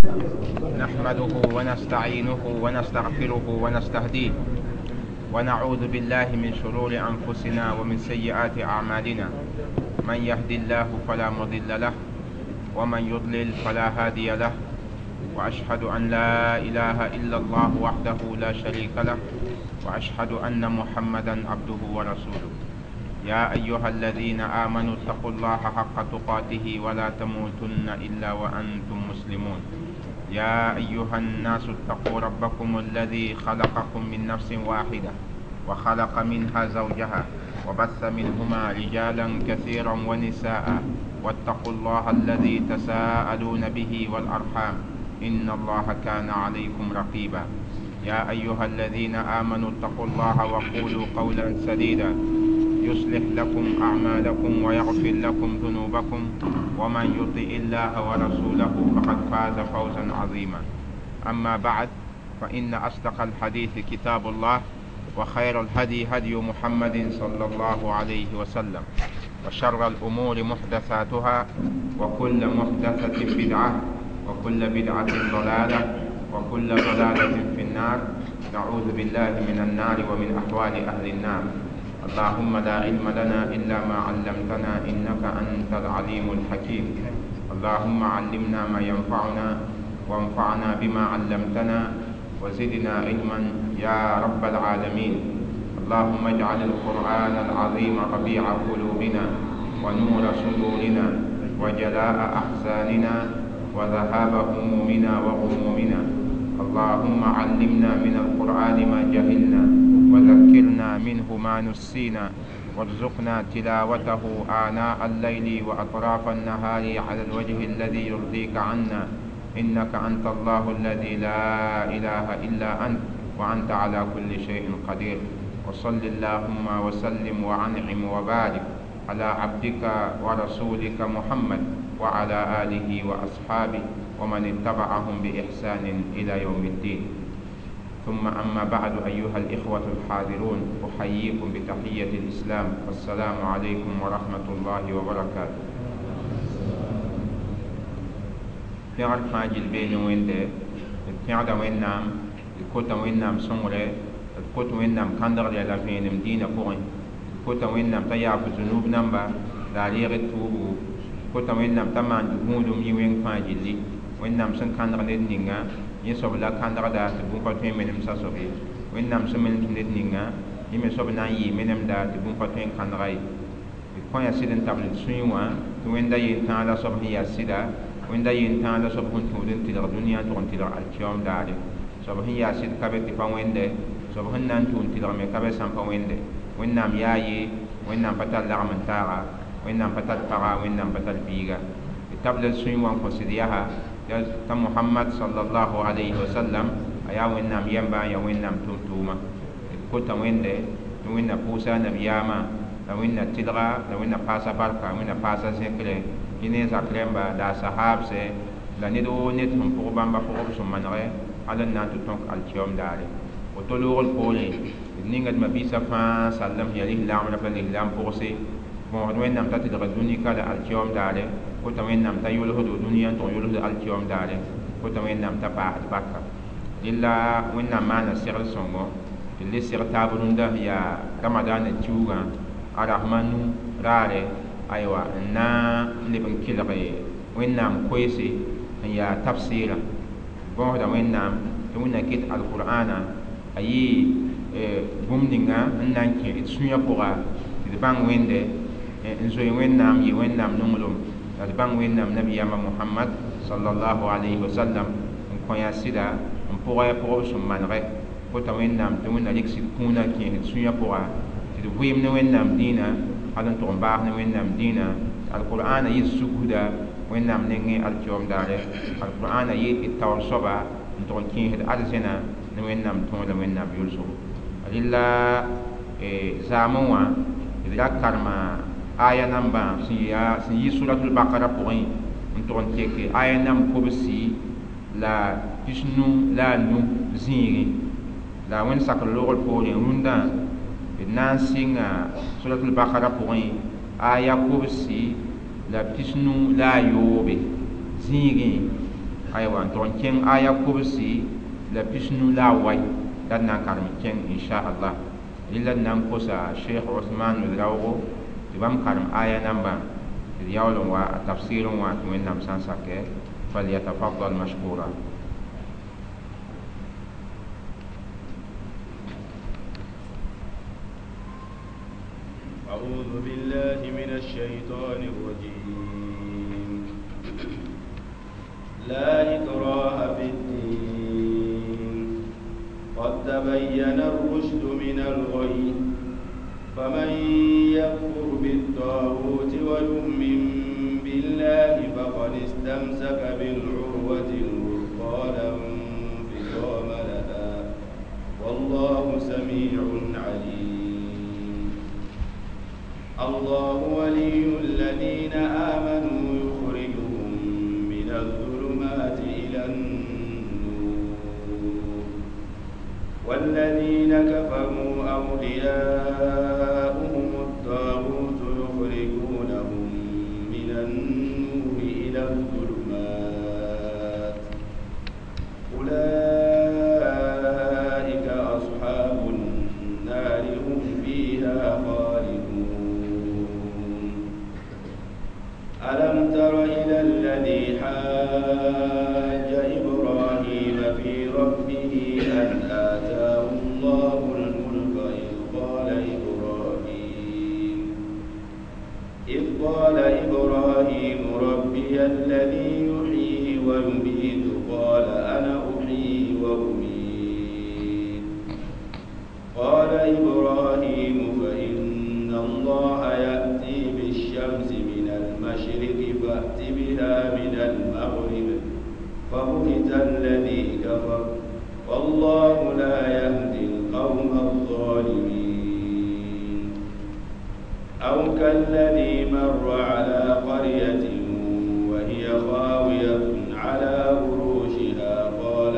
نحمده ونستعينه ونستغفره ونستهديه، ونعوذ بالله من شرور أنفسنا ومن سيئات أعمالنا. من يهدي الله فلا مضل له، ومن يضلل فلا هادي له. وأشهد أن لا إله إلا الله وحده لا شريك له، وأشهد أن محمدا عبده ورسوله. يا أيها الذين آمنوا اتقوا الله حق تقاته ولا تموتن إلا وأنتم مسلمون. يا أيها الناس اتقوا ربكم الذي خلقكم من نفس واحدة وخلق منها زوجها وبث منهما رجالا كثيرا ونساء، واتقوا الله الذي تساءلون به والأرحام إن الله كان عليكم رقيبا. يا أيها الذين آمنوا اتقوا الله وقولوا قولا سديدا يصلح لكم أعمالكم ويغفر لكم ذنوبكم، ومن يطع الله ورسوله فقد فاز فوزا عظيما. أما بعد، فإن أصدق الحديث كتاب الله، وخير الهدي هدي محمد صلى الله عليه وسلم، وشر الأمور محدثاتها، وكل محدثة بدعة، وكل بدعة ضلالة، وكل ضلالة في النار. نعوذ بالله من النار ومن أحوال أهل النار. اللهم لا علم لنا إلا ما علمتنا إنك أنت العليم الحكيم. اللهم علمنا ما ينفعنا، وانفعنا بما علمتنا، وزدنا علما يا رب العالمين. اللهم اجعل القرآن العظيم ربيع قلوبنا، ونور صدورنا، وجلاء أحزاننا، وذهاب همومنا وغمومنا. اللهم علمنا من القرآن ما جهلنا، وذكرنا منه ما نسينا، وارزقنا تلاوته آناء الليل وأطراف النهار على الوجه الذي يرضيك عنا، إنك أنت الله الذي لا إله إلا أنت، وأنت على كل شيء قدير. وصل اللهم وسلم وأنعم وبارك على عبدك ورسولك محمد وعلى آله وأصحابه ومن اتبعهم بإحسان إلى يوم الدين. ثم أما بعد، أيها الإخوة الحاضرون، أحييكم بتحية الإسلام، والسلام عليكم ورحمة الله وبركاته. Pẽgr fãa gill bee ne Wẽnde, d pẽgda Wẽnnaam, d kota Wẽnnaam sõngre, d kot Wẽnnaam kãndgre la vẽenem dĩinã pʋgẽ, d kota Wẽnnaam t'a yaaf zunub namba la a reeg d tuubu, d kota Wẽnnaam t'a maan gũudum yɩ wẽng fãa gilli. Wẽnnaam sẽn kãndg ned ninga, yẽ soab la kãndgda tɩ bũmb pa tõe n menem sasob ye. Wẽnnaam sẽn menemd ned ninga, yẽ me soab na n yɩɩ menemda tɩ bũmb pa tõe n kãndga ye. D kõ yaa sɩd n tabl d sũyẽ wã tɩ Wẽnda yentãag la soab sẽn yaa sɩda, Wẽnda yentãag la soab sẽn tũud n tɩlg dũniyã n tʋg n tɩlg alkiyoom daare. Soab sẽn yaa sɩd ka be tɩ pa wẽnde, soab sẽn na n tʋ n tɩlg me ka be sã n pa wẽnde. Wẽnnaam yaa ye, Wẽnnaam pa tar lagm n taaga, Wẽnnaam pa tar paga, Wẽnnaam pa tar biiga. D tabla d sũyẽ wã n kõ sɩd yaa t'a Mohamad sallallahu alayhi wa sallam a yaa Wẽnnaam yɛmba n yaa Wẽnnaam tʋm-tʋʋma. D kota Wẽnde tɩ Wẽnna pʋʋsa a nabiyaamã, la Wẽnna tɩlga, la Wẽnna paasa barka, Wẽnna paasa zẽkre, yẽ ne a zak rẽmba la a sahaabsɛ, la ned woo ned sẽn pʋg bãmba pʋgb sẽn manegɛ hal n na n tɩ tõk alkiyoom daare. Woto loogr poorẽ, d ninga d mabiisã fãa sallem sẽn yaa lislaam rã la lislaam pʋgse, bõosd Wẽnnaam t'a tɩlg dũni ka la alkiyoom daare, kota Wẽnnaam t'a yʋlsdo dũniyã n tʋg yʋlsd alkiyoom daare, kota Wẽnnaam t'a paasd barka. Rɩla Wẽnnaam maana segl sõngo tɩ le seg taab rũndã sẽn yaa Ramadaana kiuugã a rasma nu raare, aywa, n na n leb n kelg Wẽnnaam koeese sẽn yaa tafsɩɩrã. Bõosda Wẽnnaam tɩ Wẽnnaam ket alqur'aana a yɩ bũmb ninga n na n kẽ d sũyã pʋga tɩ d bãng Wẽnde, n zoe Wẽnnaam, yɩ Wẽnnaam nonglem, la d bãng Wẽnnaam nabiyaamã Mohamad sallallahu alayhi wa sallam n kõ yaa sɩda n pʋgɛ pʋgb sẽn manegɛ. Kota Wẽnnaam tɩ Wẽnna rɩk sɩd kũunã kẽes d sũyã pʋga tɩ d vɩɩm ne Wẽnnaam dĩinã hal n tʋg n baas ne Wẽnnaam dĩinã. Alqur'aana yɩ sugda Wẽnnaam nengẽ alkiyoom daare. Alqur'aana yɩ d taoor soaba n tʋg n kẽesd arzẽna ne Wẽnnaam tõog la Wẽnnaam yʋlsgo. Rɩla zaamẽ wã d ra karema aya nambã sẽn yi suratul bakara pʋgẽ n tʋg n teke aya namb kobsi la pisnu la a nu zĩigẽ. La Wẽnd sakr loogr poorẽ rũndã d na n sɩnga suratul bakara pʋgẽ aya kobsi la pisnu la a yoobe zĩigẽ. Aywa n tʋg n kẽng aya kobsi la pisnu la a wai la d na n karem kẽng inchallah. Rɩla d na n kosa Sheikh Ousmane Ouedraogo tɩ bãmb karem aya nambã tɩ d yaool n wa a tafsirẽ wã tɩ Wẽnnaam sã n sakɛ. Falyatafaddal mashkura. أعوذ بالله من الشيطان الرجيم. لا إكراه في الدين، قد تبين الرشد من الغي، فمن يكفر بالطاغوت ويؤمن بالله فقد استمسك بالعروة الوثقى لا انفصام لها، والله سميع عليم. الله ولي الذين آمنوا يخرجهم من الظلمات إلى النور، والذين كفروا أولياؤهم الطاغوت يخرجونهم من النور إلى الظلمات، أولئك أصحاب النار هم فيها خالدون. ألم تر إلى الذي حاج إبراهيم في ربه أن آتاه الله الملك إذ قال إبراهيم ربي الذي يحيي ويميت قال أنا أحيي وأميت، قال إبراهيم فإن الله يأتي بالشمس من المشرق فأت بها من المغرب فبهت الذي كفر، والله لا يهدي القوم الظالمين. أو كالذي مر على قرية وهي خاوية على عروشها قال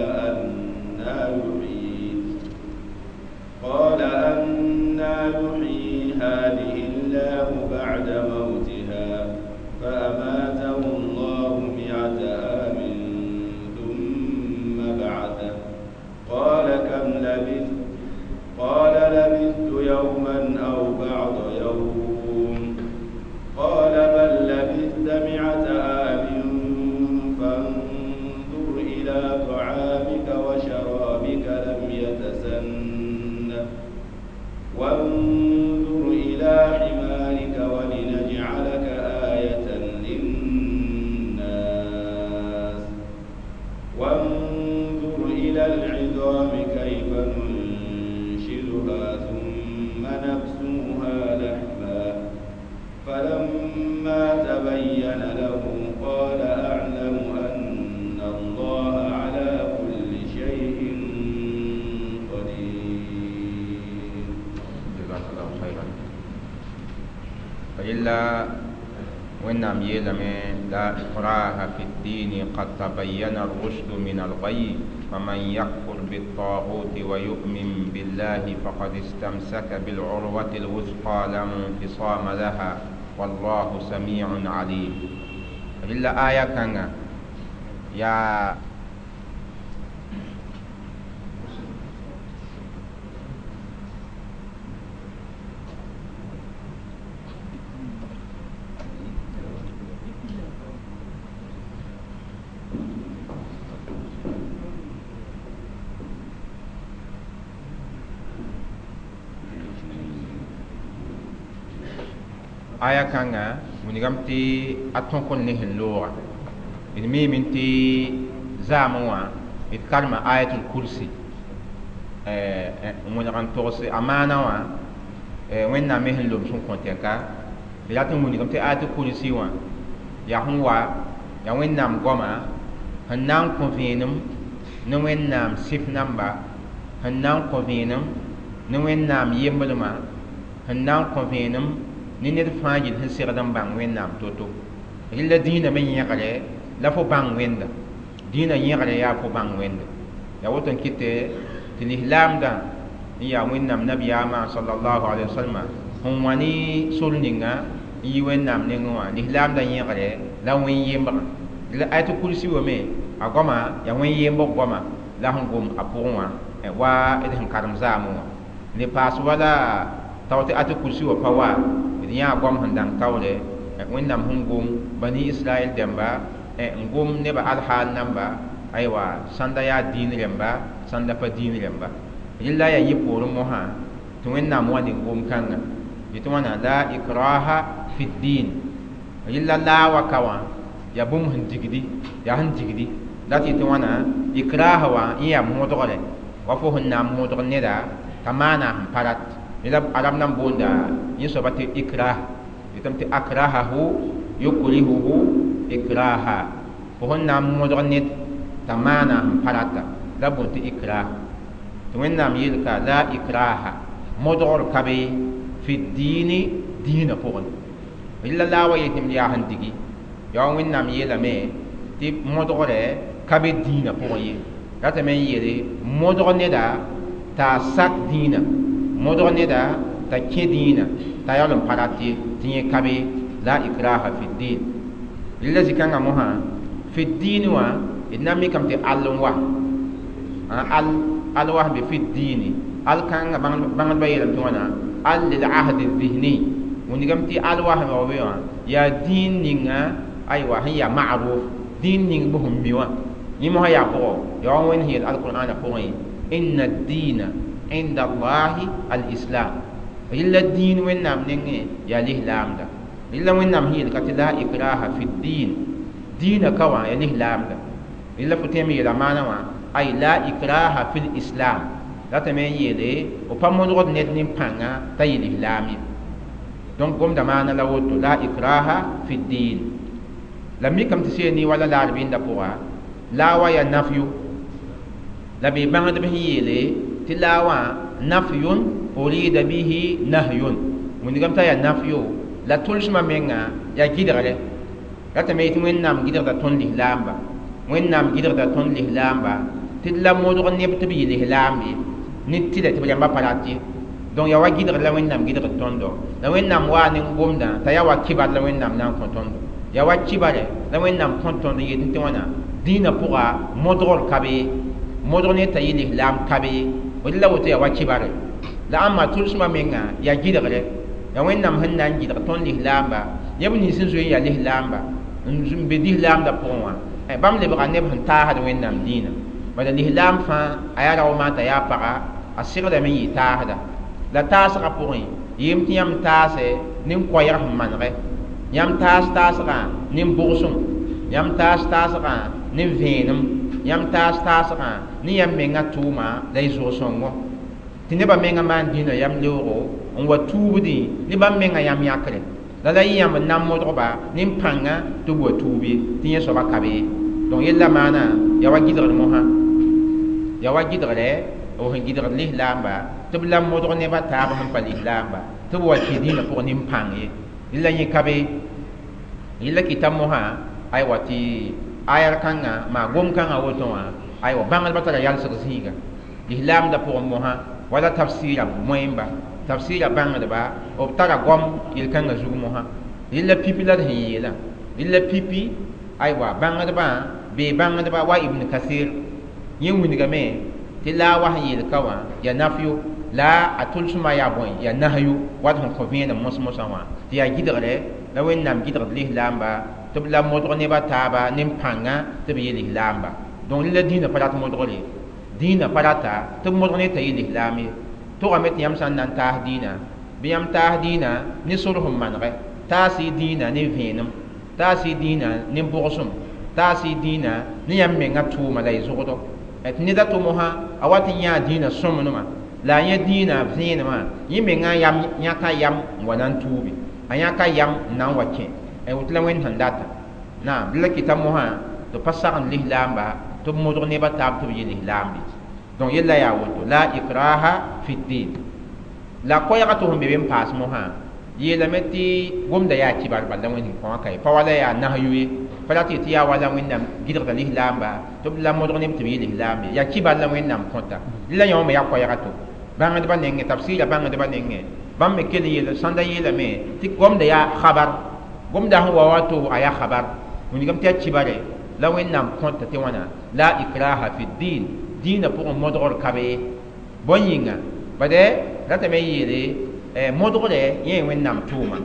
أنى يحيي هذه الله بعد موتها، فأماته الله 100 عام ثم بعثه، قال كم لبثت؟ قال لبثت يوما أو بعض يوم، قال بل لبثت 100 عام فانظر إلى طعامك وشرابك لم يتسنه، وانظر إلى حمارك ولنجعلك آية للناس، وانظر إلى العظام كيف ننشزها ثم نكسوها لحما، فلما تبين له قال أعلم أن الله على كل شيء قدير. جزاك الله خيرا. فإلا وإنام يلم لا إكراه في الدين قد تبين الرشد من الغي، فمن يكفر بالطاغوت ويؤمن بالله فقد استمسك بالعروة الوثقى لا انفصام لها، والله سميع عليم. إلا آية كان يا aya kãnga wilgame tɩ a tõk n ne sẽn looga. D miime tɩ zaamẽ wã d karema ayatul kursi n wẽneg n togs a maana wã Wẽnnaam me sẽn lom sẽn kõ tɛka. D rat n wilgame tɩ ayatul kursi wã yaa sẽn wa yaa Wẽnnaam goama sẽn na n kõ vẽenem ne Wẽnnaam sɩf namba, sẽn na n kõ vẽenem ne Wẽnnaam yembrmã, sẽn na n kõ vẽenem ne ned fãa yel sẽn segd n bãng Wẽnnaam to-to. Rɩla dĩinã me yẽgre la fo bãng Wẽnda, dĩinã yẽgre yaa fo bãng Wẽnda. Yaa woto n kɩtɛ tɩ lislaamdã n yaa Wẽnnaam nabiyaamã sallallahu alayhi wa sallam sẽn wã ne sor ninga n yi Wẽnnaam nengẽ wã, lislaamdã yẽgre la wẽn-yembrã. La ayatul kursi wa me A goama yaa wẽn yembg goama la sẽn gom a pʋgẽ wã wa d sẽn karem zaamẽ wã le paas wala tao tɩ atɩ kursi wã pa wa d yãa goam sẽn dãng taoore wẽnnaam sẽn gom bani israɛl dẽmba n gom nebã alhaal namba aywa sãnda yaa dĩin rẽmba sãnda pa dĩin rẽmba rɩla yaa yẽ poorẽ mosã tɩ wẽnnaam wa ne gom kãnga yetɩ wãna la ikraha fi ddin rɩla laa wa ka wã yaa bũmb sẽn digdi yaa sẽn digdi la tɩ yetɩ wãna ikraha wã yẽ yaa modgre wa fo sẽn na n modg neda t'a maana sẽn pa rat la arab nan boonda yẽ soaba tɩ ikrah yetame tɩ akrahahu yukrihuhu ikraha fo sẽn na n modg ned t'a maana sẽn pa rata la boond tɩ ikrah tɩ wẽnnaam yeelka la ikraha modgr ka be fi diini dĩinã pʋgẽ rɩla la wa yetɩ yaa sẽn digi yaa wẽnnaam yeelame tɩ modgre ka be dĩinã pʋgẽ ye ratame n yeele modg neda t'a sak dĩinã modg neda t'a kẽ dĩinã t'a yaool n pa rat ye tɩ yẽ ka be la ikraha fi din rɩla zĩ-kãngã mosã fi diin wã d na n mikame tɩ all n wa al al wa sẽn be fi diini al kãngã bãngdbã yeelame tɩ wãna al lil ahdi dhihni wingame tɩ al wa sẽn wa be wã yaa dĩin ninga aywa sẽn yaa ma'ruf dĩin ning b sẽn mi wã yẽ mosã yaa pʋgɔ yaa wa wẽnd sẽn yeel alqur'ana pʋgẽ inna ad-diina inda allahi al-islam rɩla dĩin wẽnnaam nengẽ yaa lislaamda rɩla wẽnnaam sẽn yeel ka tɩ la ikraha fi ddin dĩinã ka wã yaa lislaamda rɩla fo tõe n yeela maana wã ay la ikraha fi lislam ratame n yeele f pa modgd ned nin-pãnga t'a yɩ lislaam ye donc gomda maana la woto la ikraha fi ddin la mikame tɩ seeni wala la rɩbɩndã pʋga la wa yaa nafyu la bee bãngdb sẽn yeele tɩ la wã nafyun urida bihi nahyun wĩndgame t'a yaa nafyo la tʋlsmã menga yaa gɩdgre ratame yetɩ wẽnnaam gɩdgda tõnd lislaamba wẽnnaam gɩdgda tõnd lislaamba tɩ d la modg neb tɩ b yɩ lislaam ye ne tɩlɛ tɩ b rãmba pa rat ye donc yaa wa gɩdgr la wẽnnaam gɩdgd tõndo la wẽnnaam waa ne gomdã t'a yaa wa kibar la wẽnnaam na n kõ tõndo yaa wa kibare la wẽnnaam kõ tõnd n yetɩ tɩ wãna dĩinã pʋga modgr ka be modg ne t'a yɩ lislaam ka be d la woto yaa wa kibare la ãmba tʋlsmã menga yaa gɩdgre yaa wẽnnaam sẽn na n gɩdg tõnd lislaamba neb nins n zoe n yaa lislaamba n be lislaamdã pʋgẽ wã bãmb lebga neb sẽn taasd wẽnnaam dĩinã bala lislaam fãa a yaa rao maan t'a yaa paga a segdame n yɩ taasda la taasgã pʋgẽ yem tɩ yãmb taase nin-koɛɛg sẽn manegɛ yãmb taas taasgã nin-bʋgsem yãmb taas taasgã nin-vẽenem yãmb taas taasgã ne yãmb mengã tʋʋma la y zʋg-sõngo tɩ nebã mengã maan dĩinã yam leoogo n wa tuubdẽ ne bãmb mengã yam yãkre la la yẽ yãmb n na n modgba nin-pãngã tɩ b wa tuub ye tɩ yẽ soaba ka be donc yella maana yaa wa gɩdgr mosã yaa wa gɩdgre b sẽn gɩdgd lislaamba tɩ b la modg nebã taab sẽn pa lislaamba tɩ b wa kẽ dĩinã pʋgẽ nin-pãng ye rɩla yẽ ka be yella kɩta mosã aywa tɩ ayar kãngã maa gom-kãngã woto wã aywa bãngdbã tara yalsg zĩiga lislaamdã pʋgẽ mosã wala tafsɩɩra moẽmba tafsɩɩra bãngdba b tara goam yel-kãngã zug mosã rɩla pipi la d sẽn yeelã rɩla pipi aywa bãngdbã bee bãngdba wa ibn kasir yẽ wingame tɩ la wa sẽn yeel ka wã yaa nafyo la a tʋlsmã yaa bõe yaa nahyu wat sẽn kõ vẽenem mos-mosã wã tɩ yaa gɩdgre la wẽnnaam gɩdgd lislaamba tɩ b la modg nebã taaba nin-pãngã tɩ b yɩ lislaamba donc rɩla dĩinã pa rat modgre dĩinã pa rata tɩ b modg ne t'a yɩ lislaam ye togame tɩ yãmb sã n na n taas dĩinã bɩ yãmb taas dĩinã ne sor sẽn manegɛ taas y dĩinã ne vẽenem taas y dĩinã ne bʋgsem taas y dĩinã ne yãmb mengã tʋʋma la y zʋgdo tɩ neda tʋ mosã a wat n yãa dĩinã sõmnema la a yẽ dĩinã vẽenemã yẽ mengã yam yãka yam n wa na n tuubi a yãka yam n na n wa kẽ woto la wẽnd sẽn data naam la kɩta mosã tɩ pa sagend lislaamba tɩ b modg nebã taab tɩ b yɩ lislaambe donc yella yaa woto la ikraha fi ddin la koɛɛgã tɩ sẽn be be n paas mosã yeelame tɩ gomda yaa kibar bal la wẽnd sẽn kõ ka ye pa wala yaa nasyu ye pa rat tɩ yaa wala wẽnnaam gɩdgda lislaamba tɩ b la modg neb tɩ b yɩ lislaam ye yaa kibar la wẽnnaam kõta la yõ me yaa koɛɛga to bãngdbã nengẽ tafsɩɩra bãngdbã nengẽ bãmb me kell n yeel sãnda yeelame tɩ gomda yaa khabar gomda sẽn wa wato a yaa khabar wingame tɩ yaa kibare La Wẽnnaam kõta tɩ wãna la ikraha fi din, dĩinã pʋgẽ modgr ka be. Bõe yĩnga? Bad ratame n yeele modgrɛ yẽ Wẽnnaam tʋʋma.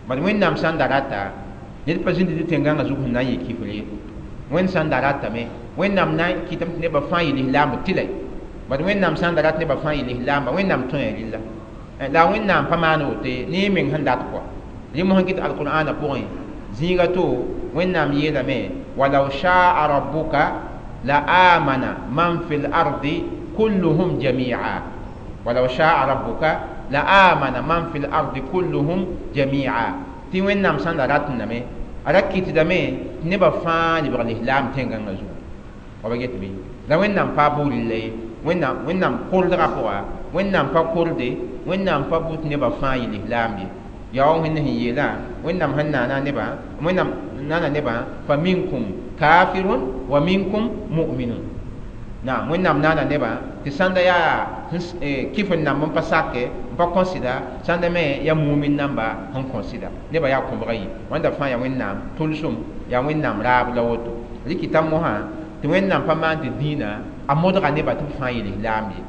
Bad Wẽnnaam sã n da rata, ned pa zĩnd tɩ tẽn-gãngã zug sẽn na n yɩ kifr ye. Wẽnd sã n da ratame, Wẽnnaam na n kɩtame tɩ nebã fãa yɩ lislaamba tɩlɛ. Bad Wẽnnaam sã n da rat nebã fãa yɩ lislaamba, Wẽnnaam tõe a rɩlla. La Wẽnnaam pa maan woto ne meng sẽn dat kɔa. Rẽ mosã kɩt alqur'ana pʋgẽ zĩiga to Wẽnnaam yeelame walaw shaa rabbuka la amana man fil ardi kulluhum jami'a. Walaw shaa rabbuka la amana man fil ardi kulluhum jami'a. Tɩ Wẽnnaam sã n da rat name, a ra kɩtdame tɩ nebã fãa lebg lislaam tẽn-gãngã zugu. Wa ba get bɩ? La Wẽnnaam pa buud la ye. Wẽnnaam koldgã pʋga, Wẽnnaam pa korde, Wẽnnaam pa bʋ tɩ nebã fãa yɩ lislaam ye. Yaa wa Wẽnd sẽn yeelã, Wẽnnaam sẽn naana nebã, Wẽnnaam nana nebã fa minkum kafirun wa minkum mu'minun. Naam, Wẽnnaam naana nebã tɩ sãnda yaa kɩf n namb n pa sake, n pa kõsɩda, sãnda me yaa mumin namba sẽn kõsɩda. Nebã yaa kõbga yi. Wãnda fãa yaa Wẽnnaam tʋlsem, yaa Wẽnnaam raab la woto. Rɩkɩta mosã tɩ Wẽnnaam pa maan tɩ dĩinã a modga nebã tɩ b fãa yɩ lislaam ye.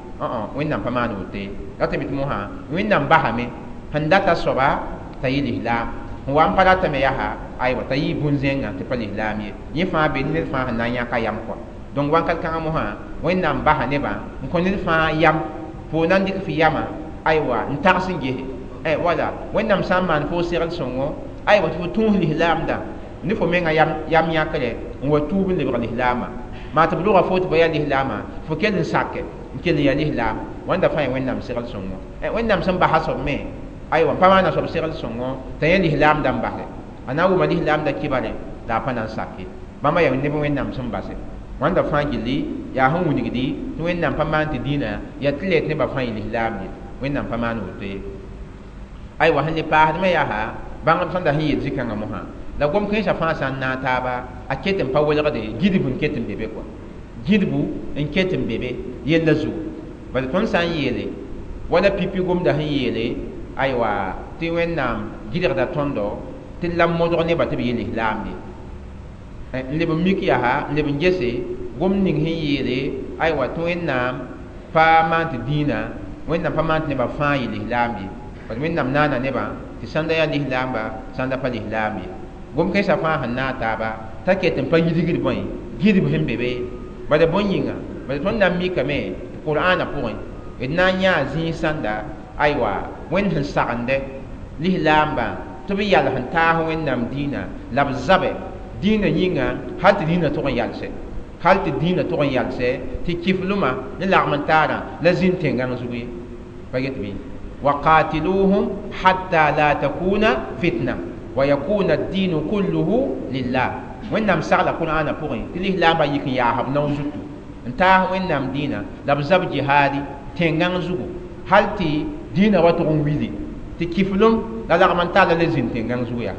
Wẽnnaam pa maan woto ye. Ratame tɩ mosã Wẽnnaam basame sẽn data soaba t'a yɩ lislaam, sẽn wa n pa ratame yaa aywa t'a yɩ bũn-zẽngã tɩ pa lislaam ye. Yẽ fãa be ned fãa sẽn na n yãka yam kɔa. Donc wãnkat kãngã mosã Wẽnnaam basa nebã n kõ ned fãa yam fo na n dɩk fɩ yamã aywa n tags n gese. Wala Wẽnnaam sã n maan fo segl sõngo aywa tɩ fo tũus lislaamdã ne fo menga yam yãkre n wa tuub n lebg lislaamã. Maa tɩ b lʋga fo tɩ ba yaa lislaamã, fo kell n sake n kell n yaa lislaam. Wãnda fãa yaa Wẽnnaam segl sõngo. Wẽnnaam sẽn basa soab me aywa n pa maana soab segl sõngo t'a yẽ lislaamdã n basɛ. A na n wʋma lislaamdã kibare la a pa na n sake. Bãmba yaa neb Wẽnnaam sẽn basɛ. Wãnda fãa gilli yaa sẽn wilgdi tɩ Wẽnnaam pa maan tɩ dĩinã yaa tɩ lɛ tɩ nebã fãa yɩ lislaam ye. Wẽnnaam pa maan woto ye. Aywa sẽn le paasdmã yaa bãngd sẽn da sẽn yeel zĩ-kãngã mosã la gom kẽensã fãa sã n naag taaba a ket n pa welgde gidb n ket n be be kɔa. Gidbu n ket n be be yella zugu. Bala tõnd sã n yeele wala pipi gomda sẽn yeele aywa tɩ Wẽnnaam gɩdgda tõndo tɩ la modg nebã tɩ b yɩ lislaam ye. N leb n mik yaa n leb n gese gom ning sẽn yeele aywa tɩ Wẽnnaam pa maan tɩ dĩinã, Wẽnnaam pa maan tɩ nebã fãa yɩ lislaam ye. Bala Wẽnnaam naana nebã tɩ sãnda yaa lislaamba, sãnda pa lislaam ye. Gom kẽensã fãa sẽn naag taaba t'a ket n pa yidgd bõe gidb sẽn be be. Bala bõe yĩnga? Bala tõnd na n mikame tɩ Qur'aanã pʋgẽ d na n yãa zĩig sãnda aywa Wẽnd sẽn sagende lislaambã tɩ b yals n taas Wẽnnaam dĩinã la b zabɛ dĩinã yĩnga hal tɩ dĩinã tʋg n yalsɛ, hal tɩ dĩinã tʋg n yalsɛ tɩ kiflmã ne lagm n taarã la zĩnd tẽn-gãng zug ye. Pa get bɩ? Waqatiluhum hatta la takuna fitna wa yakuna ad-dinu kulluhu lillah. Wẽnnaam sagla Qur'aanã pʋgẽ tɩ lislaambã yik n yaas b nao zutu n taas Wẽnnaam dĩinã la b zab jihaadi tẽn-gãng zugu hal tɩ dĩinã wa tʋg n wili tɩ kiflem la lagm n taala la zĩnd tẽn-gãng zugu yaa.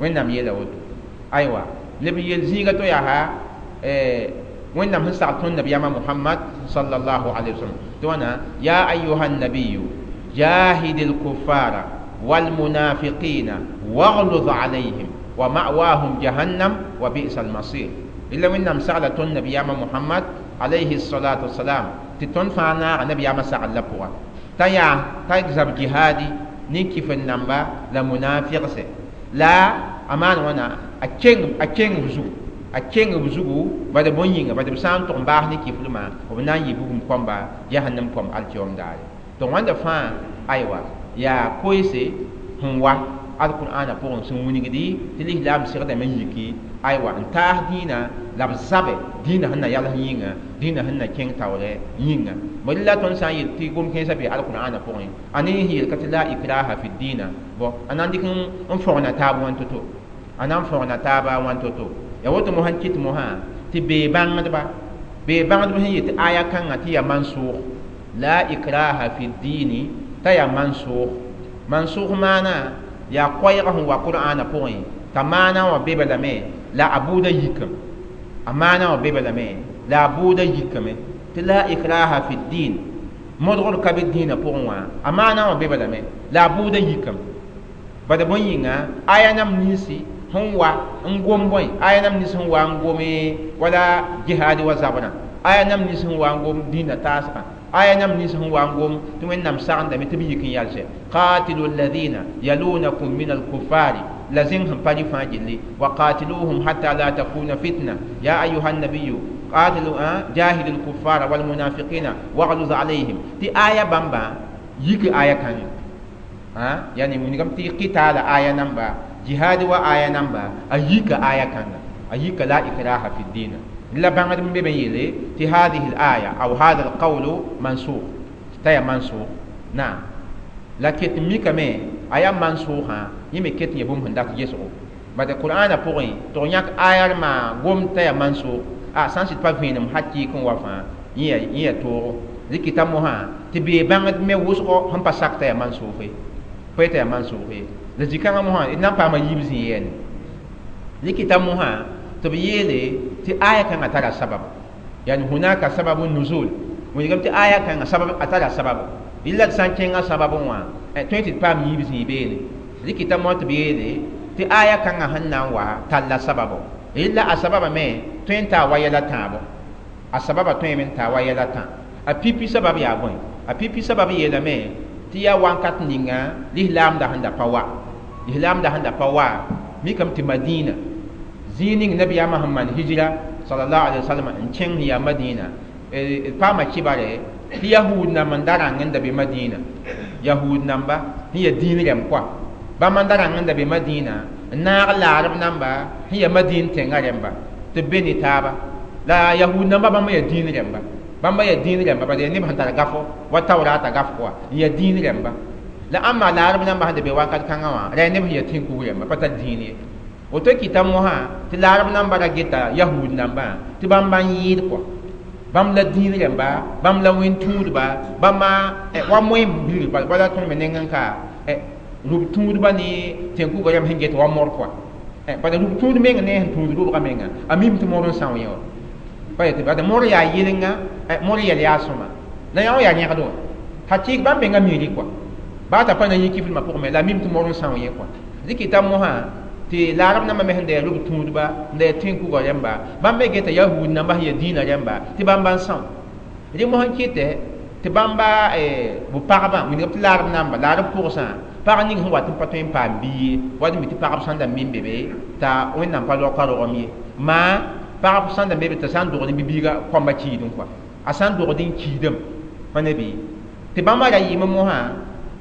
Wẽnnaam yeela woto. Aywa leb n yeel zĩiga to yaa Wẽnnaam sẽn sagl tõnd nabiyaamã Muhammad sallallahu alayhi wa sallam tɩ wãna ya ayuha nabiyu jahid al-kuffara wal-munafiqina waghluz alayhim wa ma'wahum jahannam wa bi'sa al-masir. Illa Wẽnnaam sagla tõnd nabiyaamã Muhammad alayhi salatu wasalam tɩ tõnd fãa naaga nabiyaamã sagl la pʋga t'a yaa t'a zab jihaadi ne kif n namba la munafiqse la a maan wãna a keng b zugu, a keng b zugu bad bõe yĩnga? Bad b sã n tʋg n baas ne kiflmã b na n yɩ bugum kõmba jahannam kom alkiom daare. Donc wãnda fãa aywa yaa koeese sẽn wa alqur'aanã pʋgẽ sẽn wilgdi tɩ lislaam segdame n yiki aywa n taas dĩinã la b zabɛ dĩinã sẽn na yals yĩnga, dĩinã sẽn na kẽng taoorɛ yĩnga. Bõe la tõnd sã n yel tɩ gom kẽensã bee alqur'aanã pʋgẽ a ne sẽn yel ka tɩ la ikraha fi dĩinã bõ a na n dɩk n fõgna taab wãn to-to, a na n fõgna taaba wãn to-to. Ya woto mosã n kɩt mosã tɩ bee bãngdba sẽn yet tɩ aya kãngã tɩ yaa mansʋʋg la ikraha fi dĩini t'a yaa mansʋʋg. Mansʋʋg maana yaa koɛɛg sẽn wa Qur'aanã pʋgẽ t'a maana wã be lame la a bʋʋda yikame, a maana wã be lame la a bʋʋda yikame tɩ la ikraha fi din modgr ka be dĩinã pʋgẽ wã a maana wã be lame la a bʋʋda yikame. Bad bõe yĩnga aya nam ninsi Sẽn wa n gom bõe aya nam nins sẽn wa n gome wala jihaad wa zabrã aya nam nins sẽn wa n gom dĩinã taasgã aya nam nins sẽn wa n gom tɩ Wẽnnaam sagendame tɩ b yik n yalsɛ qatilu alladhina yalunakum min alkuffari la zẽng sẽn pa rɩ fãa gilli wa qatiluhum hatta la takuna fitna ya ayuha nabiyu qatilu jahidu alkuffara walmunafiqina wagluz alayhim tɩ aya bãmba yik aya kãngã yani wilgame tɩ qitaala aya namba jihad wa aya namba a yika aya kãnga a yika la ikraha fi dina la bãngd n be me yeele tɩ hadihi l aya aw hada al qawlu mansukh t'a yaa mansukh naam la ket n mikame a yaa mansʋʋsã yẽ me ket n yaa bũmb sẽn dat gesgo bad qur'ana pʋgẽ tɩ f yãk aya d maa gom t'a yaa mansʋʋk a sã n sɩd pa vẽenem hakɩɩk n wa fãa yẽ yaa toogo rɩkɩta mosã tɩ bee bãngd me wʋsgo sẽn pa sak t'a yaa mansʋʋk ye pa yetã yaa mansʋʋk ye la zĩ-kãngã mosã d na n paama yiib zĩ yɛɛne rɩkɩta mosã tɩ b yeele tɩ aya kãngã tara sabab yani hunaka sababu nuzul wilgame tɩ aya kãngã sabab a tara sabab yella d sã n kẽngã sababẽ wã tõe tɩ d paam yiib zĩig beene rɩkɩta mosã tɩ b yeele tɩ aya kãngã sẽn na n wa talla sababo yella a sababa me tõe n taa wa yɛla tãabo a sababa tõeme n taa wa yɛla tã a pipi sabab yaa bõe a pipi sabab yeelame tɩ yaa wãnkat ninga lislaamda sẽn da pa wa lislaamda sẽn da pa wa mikame tɩ Madina zĩig ning nabiyaamã sẽn maan hijra sallallahu alaihi wasallam n kẽng sẽn yaa Madina d paama kibare tɩ yahud namba n da rãng n da be Madina yahud namba sẽn yaa dĩin rɛm koa bãmb n da rãng n da be Madina n naag laarb namba sẽn yaa Madin tẽngã rẽmba tɩ b be ne taaba la yahud namba bãmb yaa dĩin rẽmba bãmba yaa dĩin rẽmba bala yaa neb sẽn tar gafo wa taoorata gaf koa n yaa dĩin rẽmba la ãmba laarb namba sẽn da be wakat kãngã wã ra yaa neb sẽn yaa tẽn-kug rẽmba pa tar dĩin ye woto kɩta mosã tɩ laarb namba ra geta yahud nambã tɩ bãmba n yɩɩd koa bãmb la dĩin rẽmba bãmb la wẽn-tũudba bãmba wa moẽ bilg wala tõnd me neng n ka rub tũudba ne tẽn-kugã rẽmb sẽn get wa mor koa bala rub tũud meng ne sẽn tũud rʋbgã menga a mim tɩ mor n são yẽ wã pa yetɩ bala mor yaa yɩlenga mor yɛl yaa sõma la yã wã yaa yẽgd wã hakɩɩk bãmb menga miiri koa baa t'a pa na yĩ kiflmã pʋgẽ me la a mim tɩ mor n são yẽ koa rɩkɩta mosã tɩ laarb nambã me sẽn da yaa rub tũudba n da yaa tẽn-kugã rẽmba bãmb me geta yahud namba sẽn yaa dĩinã rẽmba tɩ bãmba n são rẽ mosã n kɩtɛ tɩ bãmba b pagba wilgame tɩ laarb namba laarb pʋgsã pag ning sẽn wat n pa tõe n paam bia ye wat n mi tɩ pagb sãn da min be be t'a Wẽnnaam pa raoka rogem ye maa pagb sãn da be be t'a sã n dogd n bi-biiga kõmba kiidẽ koa a sã n dogd n kiidem pa ne bɩ tɩ bãmba ra yɩɩme mosã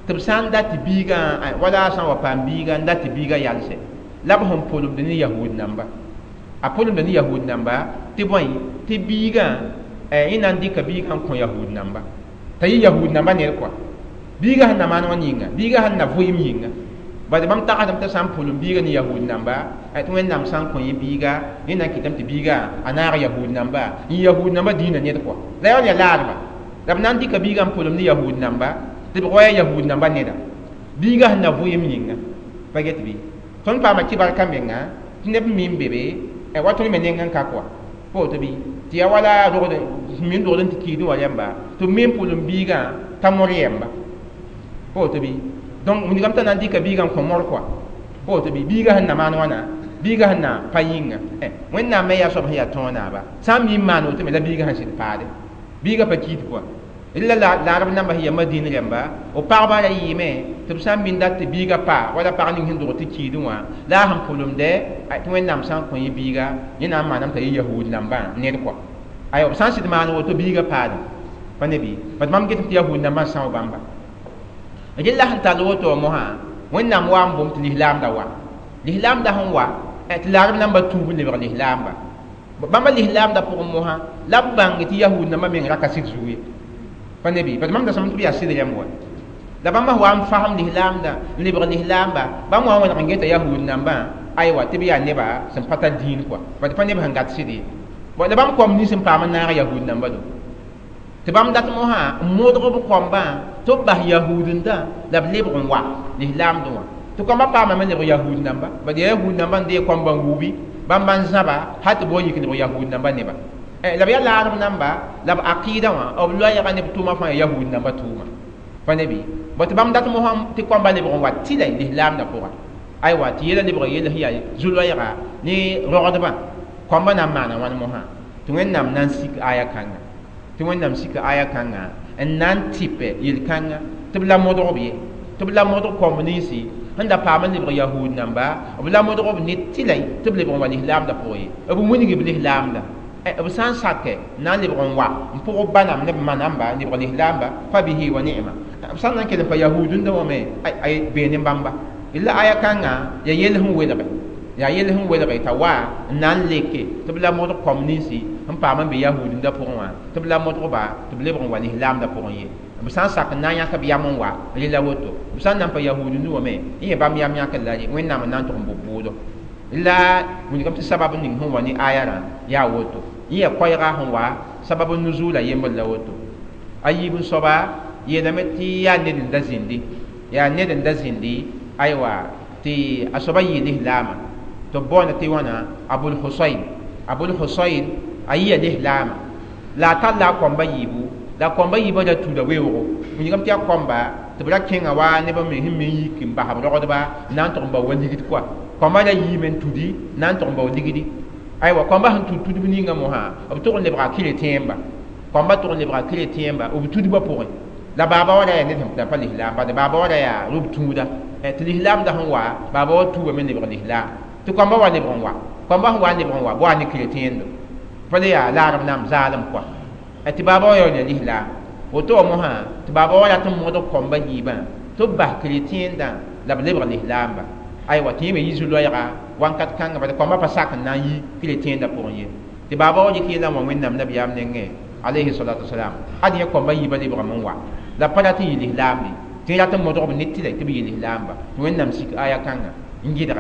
tɩ b sã n dat tɩ biigã wala a sã n wa paam biiga n dat tɩ biiga yalsɛ la b sẽn pʋlemd ne yahud namba a pʋlemd ne yahud namba tɩ bõe tɩ biigã yẽ na n dɩka biigã n kõ yahud namba t'a yɩ yahud namba ned koa biiga sẽn na maan wã yĩnga biiga sẽn na vʋɩɩm yĩnga bad bãmb tagsdame t'a sã n pʋlem biiga ne yahud namba tɩ Wẽnnaam sã n kõ yẽ biiga yẽ na n kɩtame tɩ biiga a naag yahud namba n yahud namba dĩinã ned koa la yaa yaa laarba la b na n dɩka biigã n pʋlem ne yahud namba tɩ b wa yaa yahud namba neda biiga sẽn na vʋɩɩm yĩnga pa get bɩ tõnd paama kɩbar ka menga tɩ neb mi n be be wa tõnd me neng n ka koa pa woto bɩ tɩ yaa wala rogd min rogd n tɩ kiidẽ wã rẽmba tɩ b me n pʋlem biigã t'a mor yɛmba pa woto bɩ donc wilgame t'a na n dɩka biigã n kõ mor koa pa woto bɩ biigã sẽn na maan wãna biigã sẽn na pa yĩnga Wẽnnaam me yaa soab sẽn yaa tõog naaba sã n mi n maan woto me la biigã sẽn sɩd paade biigã pa kiid koa la laarb namba sẽn yaa Madin rẽmba b pagba ra yɩɩme tɩ b sã n min dat tɩ biigã pa wala pag ning sẽn dog tɩ kiidẽ wã la a sẽn pʋlemdɛ tɩ Wẽnnaam sã n kõ yẽ biiga yẽ na n maaname t'a yɩ yahud nambã ned koa aywa b sã n sɩd maan woto biigã paadẽ pa ne bɩ bad mam getame tɩ yahud nambã n são bãmba rella sẽn tall woto wã mosã Wẽnnaam wa n bom tɩ lislaamda wa lislaamda sẽn wa tɩ laarb namba tuub n lebg lislaamba bãmba lislaamda pʋgẽ mosã la b bãng tɩ yahud nambã meng ra ka sɩd zug ye pa ne bɩ bad mam da sõm tɩ b yaa sɩd rẽmb wa la bãmba wa n fasem lislaamda n lebg lislaamba bãmb wa n wẽneg n geta yahud nambã aywa tɩ b yaa neba sẽn pa tar dĩin koa bad pa neb sẽn gat sɩd ye la bãmb koam nins n paam n naag yahud namba do tɩ bãmb dat mosã n modg b koambã tɩ b bas yahudndã la b lebg n wa lislaamdẽ wã tɩ koambã paamame lebg yahud namba bad yaa yahud namba n dee koambã n wubi bãmba n zãba hal tɩ b wa yik lebg yahud namba neba la b yaa laarb namba la b aqɩɩdã wã b loɛɛga ne b tʋʋmã fãa yaa yahud namba tʋʋma pa ne bɩ bõ tɩ bãmb dat mosã tɩ koambã lebg n wa tɩla lislaamdã pʋga Aywa tɩ yɛla lebg yell sẽn yaa zu-loɛɛga ne rogdbã kõmba na n maana wãn mosã tɩ Wẽnnaam na n sik aya kãnga tɩ Wẽnnaam sika aya kãnga n na n tɩpɛ yel-kãnga tɩ b la modg b ye tɩ b la modg kõmb ninsi sẽn da paam n lebg yahud namba b la modg b ne tɩlay tɩ b lebg n wa lislaamdã pʋgẽ ye b wilg b lislaamda b sã n sakɛ na n lebg n wa n pʋg b ba nam ne b ma namba n lebg lislaamba fa bihi wa ni'ma b sã n na n kell n pa yahudũndã wã me ay bee ne bãmba la aya kãngã ya yell sẽn welge yaa yell sẽn welge t'a wa n na n leke tɩ b la modg kõm ninsi sẽn paam n be yahudũndã pʋgẽ wã tɩ b la modgba tɩ b lebg n wa lislaamdã pʋgẽ ye b sã n sak n na n yãk b yam n wa rela woto b sã n na n pa yahudũndã wã me n yẽ bãmb yam yãkr la Wẽnnaam n na n tʋg n bo bʋʋdo la wilgame tɩ sabab ning sẽn wa ne aya rã yaa woto yẽ yaa koɛɛga sẽn wa sabab nuzuula yembr la woto a yiib n soaba yeelame tɩ yaa ned n da zĩndi yaa ned n da zĩndi aywa tɩ a soaba yɩ lislaama tɩ b baoonda tɩ wãna Abul Husayn Abul Husayn a yɩa lislaama la a talla a kõmba yiibu la kõmba yiibã ra tuuda weoogo wilgame tɩ yaa kõmba tɩ b ra kẽnga wa neb me sẽn me yik n bas b rogdba n na n tʋg n bao wa ligd kɔa kõmba ra yiime n tudi na n tʋg n bao ligdi aywa kõmba sẽn tud tudb ninga mosã b tʋg n lebga keretẽemba kõmba tʋg n lebga keretẽemba b tudbã pʋgẽ la baaba wa ra yaa ned sẽn pa lislaam bad baaba wa ra yaa rʋb tũuda tɩ lislaamda sẽn wa baaba wa tuubame lebg lislaam tɩ kõmba wa lebg n wa kõmba sẽn wa n lebg n wa bɩ wa ne keretẽendo pa le yaa laarem nam zaalem kɔa tɩ baaba wa yaool ya lislaam woto wa mosã tɩ baaba wa rat n modg kõmba yiibã tɩ b bas keretẽendã la b lebg lislaamba aywa tɩ yẽ me yi zu-loɛɛga wãnkat kãngã bad kõmba pa sak n na n yi keretẽendã pʋgẽ ye tɩ baaba wa dɩk yellã n wa Wẽnnaam nabiyaam nengẽ alayhi salatu wasalam ad yẽ kõmba yiibã lebgame n wa la pa rat n yɩ lislaam ye tɩ rat n modg b ne tɩlɛ tɩ b yɩ lislaamba tɩ Wẽnnaam sik aya kãnga n gɩdge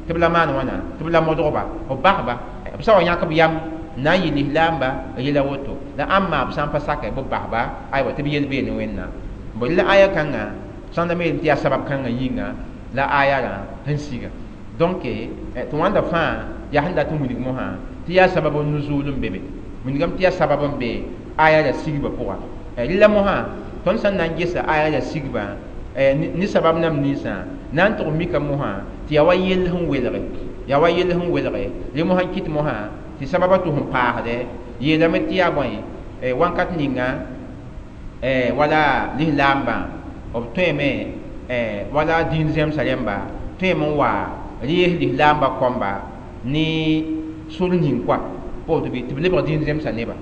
tɩ b la maan wãna tɩ b la modgba b basba b sã wa yãk b yam n na n yɩ lislaamba yela woto la ãmma b sã n pa sakɛ b basba aywa tɩ b yel bee ne Wẽnnaam bõ la aya kãnga sãn da me tɩ yaa sabab kãngã yĩnga la aya rã sẽn siga donc tɩ wãnda fãa yaa sẽn dat n wilg mosã tɩ yaa sabab n nuzuul n be be wilgame tɩ yaa sabab n be aya ra sigba pʋga rɩla mosã tõnd sẽn na n gesa aya ra sigba ne sabab nam ninsã na n tʋg mika mosã tɩ yaa wa yell sẽn welge yaa wa yell sẽn welge rẽ mosã n kɩt mosã tɩ sababã tʋ sẽn paasdɛ yeelame tɩ yaa bõe wãnkat ninga wala lislaambã b tõeme wala dĩin zẽmsã rẽmba tõeme n wa rees lislaambã kõmba ne sor ning kɔa pa woto bɩ tɩ b lebg dĩin zẽmsã neba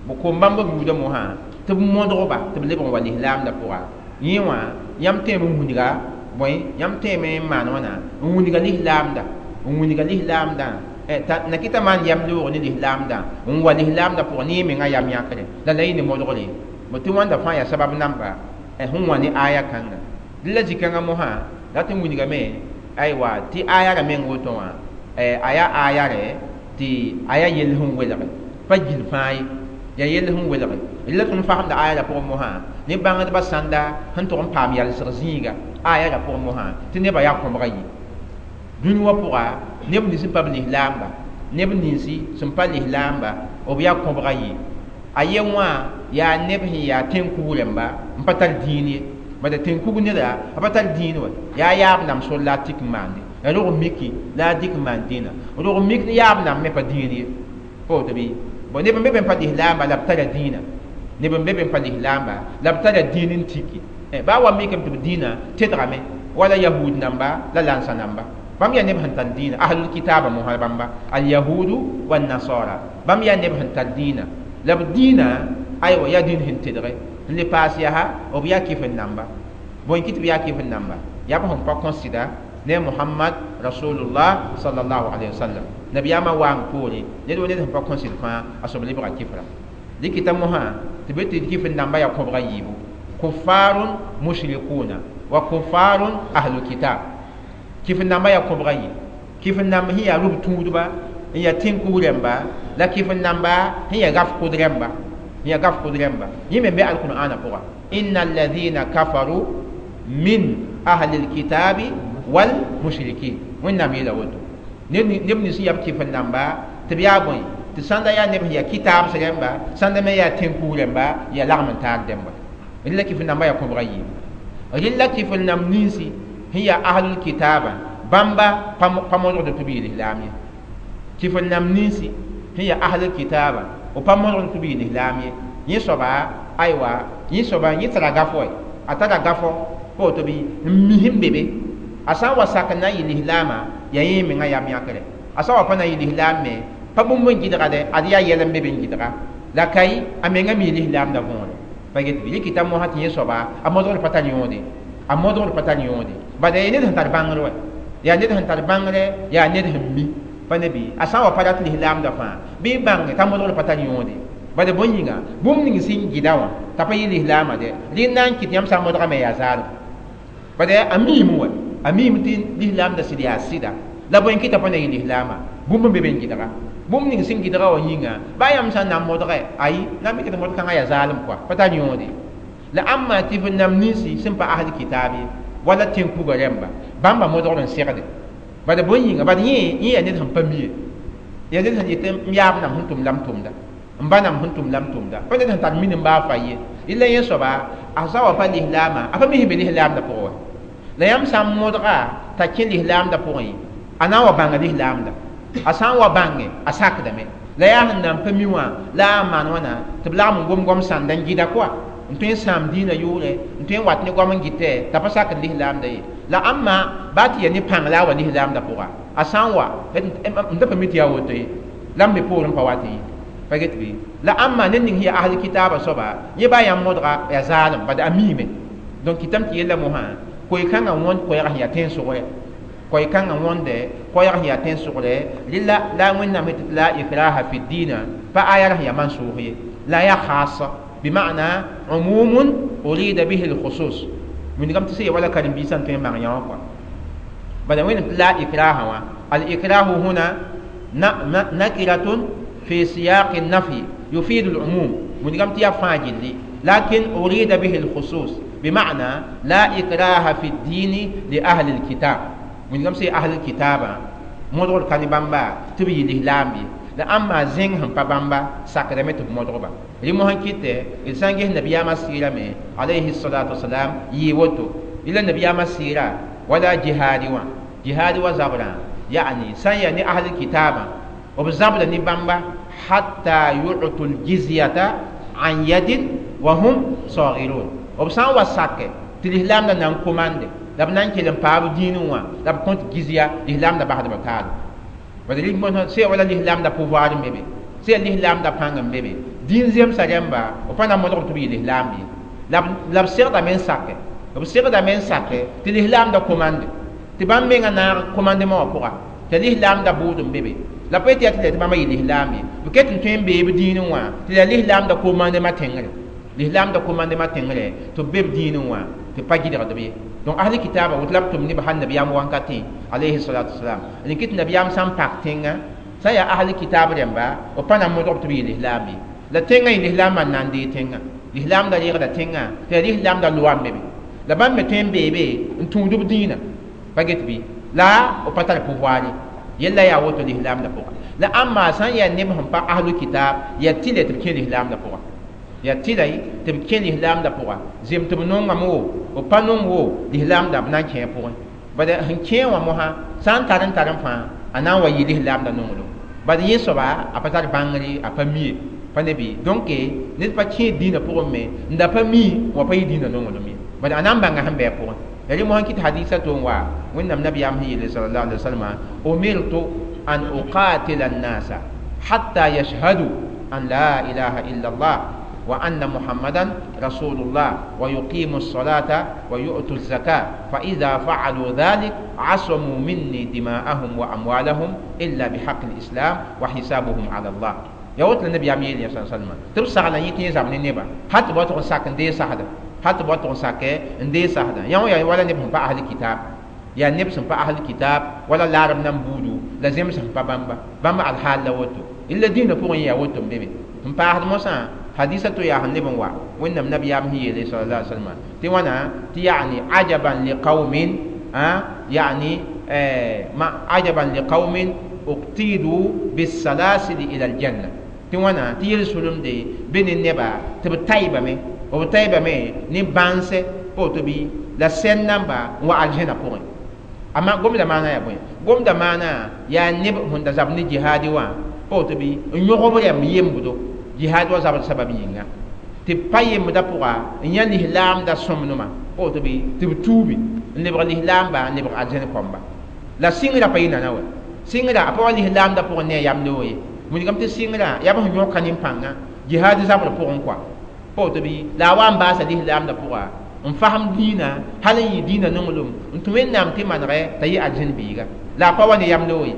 b kom bãmb b buudã mosã tɩ b modgba tɩ b lebg n wa lislaamdã pʋga yẽ wã yãmb tõeme n wilga bõe yãmb tõeme n maan wãna n wilga lislaamda n wilga lislaamdã na kɩta maan yam loog ne lislaamdã n wa lislaamdã pʋgẽ ne yẽ mengã yam yãkre la la yẽ ne modgre bõ tɩ wãnda fãa yaa sabab namba sẽn wã ne aya kãnga dẽ la zĩ-kãngã mosã rat n wilgame aywa tɩ aya ra meng woto wã a yaa aya rɛ tɩ a yaa yell sẽn welge pa gil fãa ye yaa yell sẽn welge la tõnd fagemda aya ra pʋgẽ mosã ne bãngdbã sãnda sẽn tʋg n paam yalsg zĩiga aya ra pʋgẽ mosã tɩ nebã yaa kõbga yi dũni wã pʋga neb nins sẽn pa b lislaamba neb ninsi sẽn pa lislaamba b yaa kõbga yi a ye wã yaa neb sẽn yaa tẽn-kug rẽmba n pa tar dĩin ye bala tẽn-kug neda a pa tar dĩin wa yaa yaab nam sor la a tik n maande ya rog miki la a dɩk n maan dĩinã rog mik ne yaab nam me pa dĩin ye pa woto bɩ bon neb n be be n pa lislaamba la b tara dĩinã neb n be be n pa lislaamba la b tara dĩin n tiki baa wa mikame tɩ b dĩinã tedgame wala yahud namba la lansa namba bãmb yaa neb sẽn tar dĩinã ahlul kitaba mosã bãmba alyahudu wannasara bãmb yaa neb sẽn tar dĩinã la b dĩinã aywa yaa dĩin sẽn tedge n le paas yaa b yaa kɩf n namba bõe kɩ tɩ b yaa kɩf n namba yaa b sẽn pa kõsɩda ne Muhammad rasulullah sallallahu alaihi wasallam nabiyaamã waang poore ned wa ned sẽn pa kõsɩd fãa a soab lebga kɩfra dɩkɩta mosã tɩ be tɩ kɩf n namba yaa kõbga yiibu kufarun mushrikuna wa kufarun ahlul kitab kɩf n namba yaa kõbga yi kɩf n namb sẽn yaa rʋb tũudba n yaa tẽn-kug rẽmba la kɩf n namba sẽn yaa gaf kʋd rẽmba sẽn yaa gaf kʋd rẽmba yẽ me be alqur'ana pʋga inna alladhina kafaru min ahli alkitabi wal mushrikin Wẽnnaam yeela woto neb nins sẽn yaa b kɩf n namba tɩ b yaa bõe tɩ sãnda yaa neb sẽn yaa kitaabs rẽmba sãnda me yaa tẽn-kug rẽmba yaa lagm n taar dẽmba rɩla kɩf n namba yaa kõbga yiibu rɩla kɩf n namb ninsi sẽn yaa ahlul kitaba Bãmba pa modgd tɩ b yɩ lislaam ye. Tɩ f nam ninsi sẽn yaa ahlul kitaaba, b pa modgd tɩ b yɩ lislaam ye. Yẽ soaba, aywa, yẽ soaba yẽ tara gafo, a tara gafo pa woto bɩ n mi sẽn be be. A sã n wa sak n na n yɩ lislaamã, yaa yẽ mengã yam yãkre. A sã n wa pa na n yɩ lislaam me, pa bũmb n gɩdga dɛ, ad yaa yɛl n be be n gɩdga. La kai a menga mi lislaamda võore. Pa get bɩ rɩkɩta mosã tɩ yẽ soaba a modgd pa tar yõode. A modgd pa tar yõode. Bala yaa ned sẽn tar bãngr wɛ. Yaa ned sẽn tar bãngre, yaa ned sẽn mi. Pa ne bɩ a sã n wa pa rat lislaamda fãa, bɩ bãnge t'a modgd pa tar yõode. Bala bõe yĩnga, bũmb ning sẽn gɩda wã t'a pa yɩ lislaamã dɛ, rẽnd na n kɩt yãmb sã n modgame yaa zaalem. Bala a miime wɛ, a miime tɩ lislaamda sɩd yaa sɩda. La bõe n kɩta pa na yɩ lislaamã, bũmb n be be n gɩdga. Bũmb ning sẽn gɩdga wã yĩnga, baa yãmb sã n na n modge, ayi, na n mikd modg kãngã yaa zaalem kɔa, pa tar yõode. La ãmba tɩ f nam ninsi sẽn pa asl kitaab ye, wala tẽn-kuga rẽmba, bãmba modgd n segde. Bala bõe yĩnga, bala yẽ yaa ned sẽn pa mi ye. Yaa ned sẽn yetɩ m yaab nam sẽn tʋm la m tʋmda, m ba nam sẽn tʋm la m tʋmda. Pa ned sẽn tar minim baa fa ye. Rɩla yẽ soaba, a sã wa pa lislaamã, a pa mi sẽn be lislaamdã pʋgẽ wã. La yãmb sã n modga t'a kẽ lislaamdã pʋgẽ, a na n wa bãnga lislaamda. A sã n wa bãnge, a sakdame. La yaa sẽn na n pa mi wã, la a maan wãna tɩ b lagm n gom goam sãnda n gɩda kɔa, n tõe n sãam dĩinã yʋʋrɛ, n tõe n wat ne goam n gɩtɛ, t'a pa sakd lislaamda ye. La ãmba baa tɩ yaa ne pãng la a wa lislaamdã pʋga, a sã n wa, n da pa mi tɩ yaa woto ye, la m me poorẽ pa wat ye. Pa get bɩ? La ãmba ned ning sẽn yaa asl kitaabã soaba, yẽ baa yãmb modga yaa zaalem, bad a miime. Donc kɩtame tɩ yella mosã, koe-kãngã wõnd koɛɛg sẽn yaa tẽn-sʋgrɛ. Koe-kãngã wõnde koɛɛg sẽn yaa tẽn-sʋgrɛ, rɩla la Wẽnnaam tɩ la ikraha fi diina, pa aya sẽn yaa mansʋʋs ye. La yaa khasa, bima'na umumun urida bihi al-khusus. Wĩndgame tɩ sẽn yaa wala karen-biisã n tõe n bãng yã wã kɔa. Bala Wẽnnaam tɩ la ikraha wã, al-ikrahu huna nakiratun fi siyaq an-nafi yufidu al-umum. Wĩndgame tɩ yaa fãa gilli, lakin urida bihi al-khusus, bima'na la ikraha fi ad-din li ahli al-kitab. Wĩndgame sẽn ahli al-kitaba modgd ka ne bãmba tɩ b yɩ lislaam ye. La ãmba zẽng sẽn pa bãmba sakdame tɩ b modgba. Rẽ mosã kɩtɛ d sã n ges nabiyaamã sɩɩrame alayhi salatu wasalam yɩɩ woto. Rɩla nabiyaamã sɩɩra wala jihaadi wã, jihaadi wa zabrã, ya'ni sã n yaa ne ahli kitaabã, b zabda ne bãmba hatta yu'tu l-jizyata an yadin wa hum sagirun. B sã n wa sake tɩ lislaamdã na n komande, la b na n kell n paab dĩinẽ wã, la b kõt gizya, lislaamdã basdba taal. Bala sẽn wala lislaamdã pouvoir n be be, sẽn lislaamdã pãng n be be, dĩin zemsã rẽmba b pa na n modg tɩ b yɩ lislaam ye. La b segdame n sake, b segdame n sake tɩ lislaamdã komande, tɩ bãmb mengã naag komandemã wã pʋga, tɩ lislaamdã bʋʋd n be be. La pa yetɩ yaa tɩ la tɩ bãmba yɩ lislaam ye. B ket n tõe n bee b dĩinẽ wã, tɩ la lislaamdã komandemã tẽngre, lislaamdã komandemã tẽngre tɩ b be b dĩinẽ wã, tɩ pa gɩdgd b ye. Donc ahli kitaaba woto la b tʋm neb hal nabiyaam wankatẽ alayhi salatu wasalam. Rẽ kɩt nabiyaam sã n pak tẽngã, sã n yaa ahli kitaab rẽmba, b pa na n modg tɩ b yɩ lislaam ye. La tẽngã yɩ lislaamã n na n dee tẽngã, lislaamdã reegda tẽngã, tɩ yaa lislaamdã loa n be be. La bãmb me tõe n bee be n tũud b dĩinã, pa get bɩ, la b pa tar pouvoir ye. Yella yaa woto lislaamdã pʋga. La ãmba sã n yaa neb sẽn pa ahlu kitaab, yaa tɩlɛ tɩ b kẽ lislaamdã pʋga. Yaa tɩlɛ tɩ b kẽ lislaamdã pʋga. Zem tɩ b nongame wo, b pa nong wo, lislaamdã b na n kẽ pʋgẽ. Bala sẽn kẽ wã mosã sã n tar n tar n fãa, a na n wa yɩ lislaamdã nonglem. Bala yẽ soaba a pa tar bãngre, a pa mi ye, pa ne bɩ. Donc ned pa kẽ dĩinã pʋgẽ me n da pa mi wa pa yɩ dĩinã nonglem ye. Bala a na n bãnga sẽn bɩ a pʋgẽ. Ya rẽ mosã kɩt hadisa to n wa Wẽnnaam nabiyaam sẽn yeele sallallahu alaihi wasallam, umirtu an uqatila an-nasa hatta yashhadu an la ilaha illa Allah wa anna Muhammadan rasulullah wa yuqimu as-salata wa yu'tu az-zakata fa idha fa'alu dhalik 'asamu minni dima'ahum wa amwalahum illa bihaqqi al-islam wa hisabuhum 'ala Allah. Ya wot la nabiyaam yeele sallallahu alaihi wasallam, tɩ b sagla yẽ tɩ zab ne neba hat b wa tʋg n sak n dee sagda, hat b wa tʋg n sake n dee sagda. Yã wã yaa wala neb sẽn pa ahli kitaab, yaa neb sẽn pa ahli kitaab wala laarem nan buudu la zems sẽn pa bãmba, bãmba alhaal la woto. Illa dĩinã pʋgẽ yaa woto n be be. N paasd mosã hadisa to yaa sẽn leb n wa Wẽnnaam nabiyaam sẽn yeele sallallahu alaihi wasallam tɩ wãna tɩ ya'ni ajaban liqaumin, ya'ni ma ajaban liqaumin uqtidu bisalasili ila aljanna. Tɩ wãna tɩ yel-sulumde be ne neba tɩ b taɩbame, b taɩbame ne bãnse pa woto bɩ, la sɛn namba n wa aljẽna pʋgẽ. Ama gomda maana ya bõe gomda maana yaa neb sẽn da zab ne jihaadi wã pa woto bɩ n yõg b rɛmb yembdo jihaad wa zabd sabab yĩnga tɩ b pa yembdã pʋga n yã lislaamda sõmnema pa woto bɩ tɩ b tuubi n lebg lislaamba n lebg arzẽn kõmba la sɩngrã pa yɩ nana wɛ sɩngrã a pa wa lislaamda pʋgẽ ne a yam loog ye wilgame tɩ sɩngrã yaa b sẽn yõka nin-pãngã jihaad zabr pʋgẽ kɔa pa woto bɩ la a wa n baasa lislaamda pʋga n fasem dĩinã hal n yɩ dĩinã nonglem n tũ wẽnnaam tɩ manegɛ t'a yɩ arzẽn biiga la a pa wa ne yam loog ye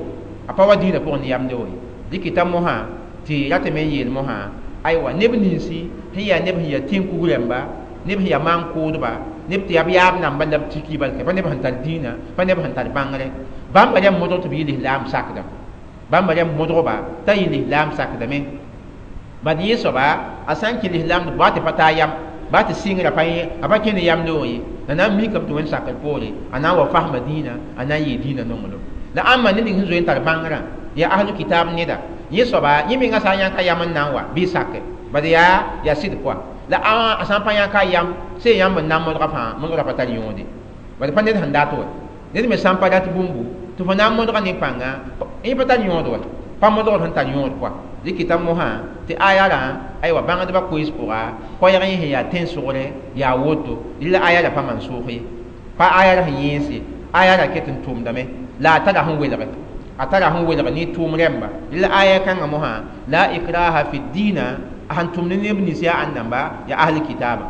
a pa wa dĩinã pʋgẽ ne yam loog ye dɩkɩta mosã tɩ ratame n yeel mosã aywa neb ninsi sẽn yaa neb sẽn yaa tẽn-kug rãmba neb sẽn yaa maan-kʋʋdba neb tɩ yaa b yaab namba la b tiki balke pa neb sẽn tar dĩinã pa neb sẽn tar bãngre bãmba rãmb modg tɩ b yɩ lislaam sakdame bãmba rãmb modgba t'a yɩ lislaam sakdame bad yẽ soaba a sã n kẽ lislaam baa tɩ pa taa yam baa tɩ sɩngrã pa a pa kẽ ne yam loog ye la na n mikame tɩ wẽnd sakr poore a na n wa fasma dĩinã a na n yɩɩ dĩinã nonglem la ãmba ned ning sẽn zoe n tar bãngrã yaa ahlu kitaab neda yẽ soaba yẽ menga sã n yãk a yam n na n wa bɩ sake bad yaa sɩd pʋa la a sã n pa yãk a yam sẽn yãmb n na n modga fãa modgrã pa tar yõode bad pa ned sẽn dat wa ned me sã n pa rat bũmbu tɩ fo na n modga nin-pãnga yẽ pa tar yõod wa pa modgd sẽn tar yõod kɔa dɩkɩta mosã tɩ aya rã aywa bãngdbã koees pʋga koɛɛg yẽ sẽn yaa tẽn-sʋgre yaa woto la aya ra pa man-sʋʋg ye pa aya ra sẽn yẽense aya ra ket n tʋʋmdame la a tara sẽn welge a tara sẽn welg ne tʋʋm rãmba la aya kãngã mosã la ikraha fi diina a sẽn tʋmd neb nins yaa ãn-namba yaa ahl kitaaba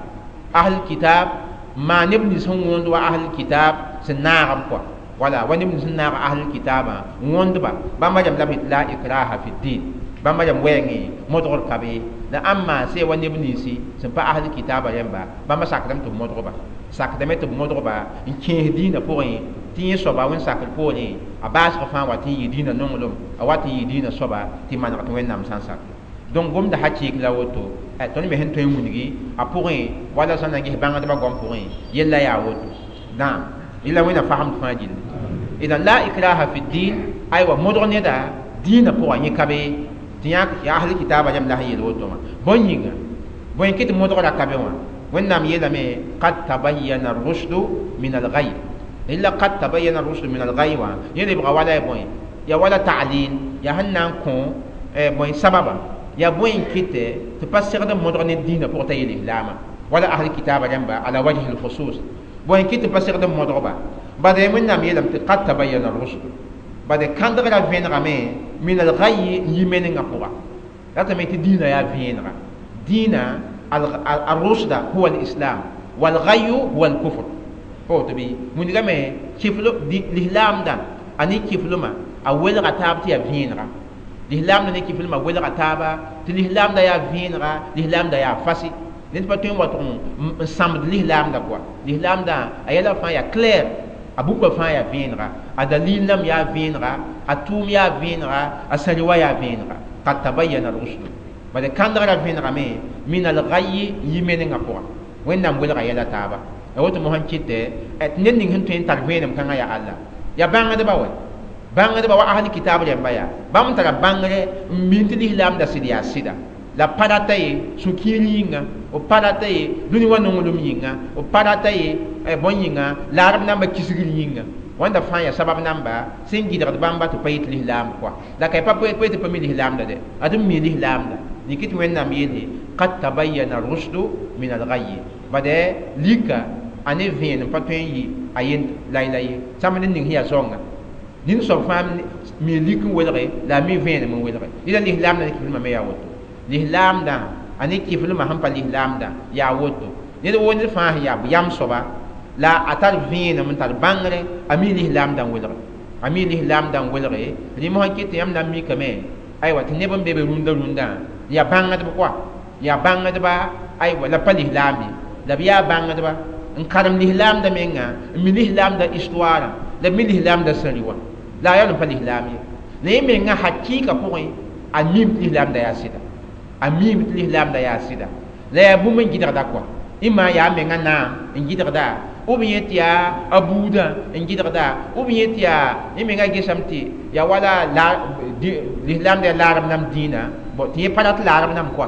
ahl kitab maa neb nins sẽn wõnd wa ahl kitab sẽn naag b kɔa wala wa neb nins sẽn naag ahl kitaabã wõndba bãmba rãmb la b la ikraha fi din bãmba rãmb wɛɛngẽ modgr ka be la ãmba sẽn wa neb ninsi sẽn pa ahl kitaabã rãmba bãmba sakdame tɩ b modgba sakdame tɩ b modgba n kẽes dĩinã pʋgẽ tɩ yẽ soaba wẽnd sakr poorẽ a baasg fãa wa tɩ n yɩ dĩinã nonglem a wa tɩ n yɩ dĩinã soaba tɩ maneg tɩ wẽnnaam sã n sakre donc gomda hakɩɩk la woto tõnd me sẽn tõe n wilgi a pʋgẽ wala sã na ges bãngdbã goam pʋgẽ yella yaa woto naam yella wẽnna fasemd fãa gilli idan la ikraha fi din aywa modg neda dĩinã pʋgã yẽ ka be tɩ yã yaa ahl kitaabã rãmb la sẽn yeel woto wã bõn yĩnga bõe kɩ tɩ modgrã ka be wã wẽnnaam yeelame qad tabayyana rushdu min algay illa qad tabayyana rushdu min algay wã yẽ lebga wala ya bõe ya wala ta'lil ya sẽn na n kõ bõe sababa ya bõe n kɩtɛ tɩ pa segd n modg ne dĩinã pʋgẽ t'a yel islaama wala ahl kitaabã rãmba ala wajhi lkhusus bõe n kɩt tɩ pa segd n modgba bad wẽnnaam yeelame tɩ qad tabayyana rushdu bad kãndgrã vẽnegame min algay n yi menengã pʋga ratame tɩ dĩinã yaa vẽenega dĩinã الرشد هو الإسلام والغي هو الكفر فوت بي من كيفلو الإسلام دا أني كيفلو ما أول غتاب تيا فينغا الإسلام دا كيفلو ما أول غتاب الإسلام دا يا فينغا الإسلام دا يا فاسي نت باتون واتون سامد الإسلام دا كوا الإسلام دا أيلا فان يا كلير أبوك فان يا فينغا أدليل نم يا فينغا أتوم يا فينغا أسروا يا فينغا قد تبين الرشد bad kãndgrã vẽnegame min algay yi menengã pʋga wẽnnaam welga yɛla taaba a woto mosã kɩtɛ tɩ ned ning sẽn tõe n tar vẽenem kãngã yaa alla yaa bãngdba wɛ bãngdba wa ahli kitaab rãmba yaa bãmb tara bãngre n min tɩ lislaamda sɩd yaa sɩda la pa rata ye sũ-kiir yĩnga b pa rata ye dũni wã nonglem yĩnga b pa rata ye bõn yĩnga laarb namba kisgr yĩnga wãnda fãa yaa sabab namba sẽn gɩdgd bãmba tɩ pa yɩ tɩ lislaam kɔa la ka pa tɩ pa mi lislaamda dɛ ad n mi lislaamda nikit wẽnnaam yeele qad tabayyana rushdu min alghayy bad lika ane vẽenem pa tõe n yɩ a yend layla ye sãmb ned ning sẽn yaa zoanga nin soab fãa mi lik n welge la a mi vẽenem n welge dɩla lislaamda ne kiflmã me yaa woto lislaamdã a ne kiflmã sẽn pa lislaamdã yaa woto ned woo ned fãa sẽn yaa yam soaba la a tar vẽenem n tar bãngre a mi lislaamdã n welge a mi lislaamdã n welge rẽ mosã kɩ tɩ yãmb na n mikame aywa tɩ neb n be be rũndã rũndã yaa bãngdb kɔa yaa bãngdba aywa la pa lislaam ye la b yaa bãngdba n karem lislaamda menga n mi lislaamda histoire la b mi lislaamda sẽri wã la a yaa n pa lislaam ye la yẽ menga hakɩɩka pʋgẽ a miim tɩ lislaamda yaa sɩda a miim tɩ lislaamda yaa sɩda la yaa bũmb n gɩdgda kɔa ɩma yaa menga naam n gɩdgda ou bien tɩ yaa a buudã n gɩdgda ou bien tɩ yaa yẽ menga gesame tɩ yaa wala lislaamda yaa laarb nam dĩinã bon tɩ yẽ pa rat laarb nam kɔa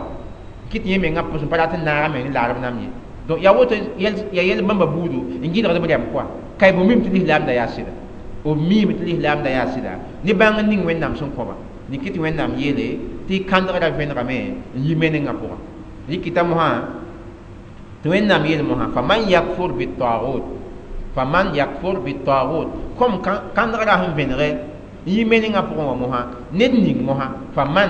kɩ tɩ yẽ menga pʋs n pa rat n naagame ne laarb nam ye donc yaa woto yaa yɛl bãmba buudu n gɩdgd b rɛm kɔa ka y bũmb tɩ lislaamda yaa sɩda b miime tɩ lislaamda yaa sɩda ne bãng n ning Wẽnnaam sẽn kõba rɩk tɩ Wẽnnaam yeele tɩ kãndgrã vẽnegame n yi menengã pʋgã rɩkɩta mosã tɩ Wẽnnaam yeel mosã faman yakfur bitagut faman yakfur bitagut kom kãndgrã sẽn vẽnege n yi menengã pʋgẽ wã mosã ned ning mosã faman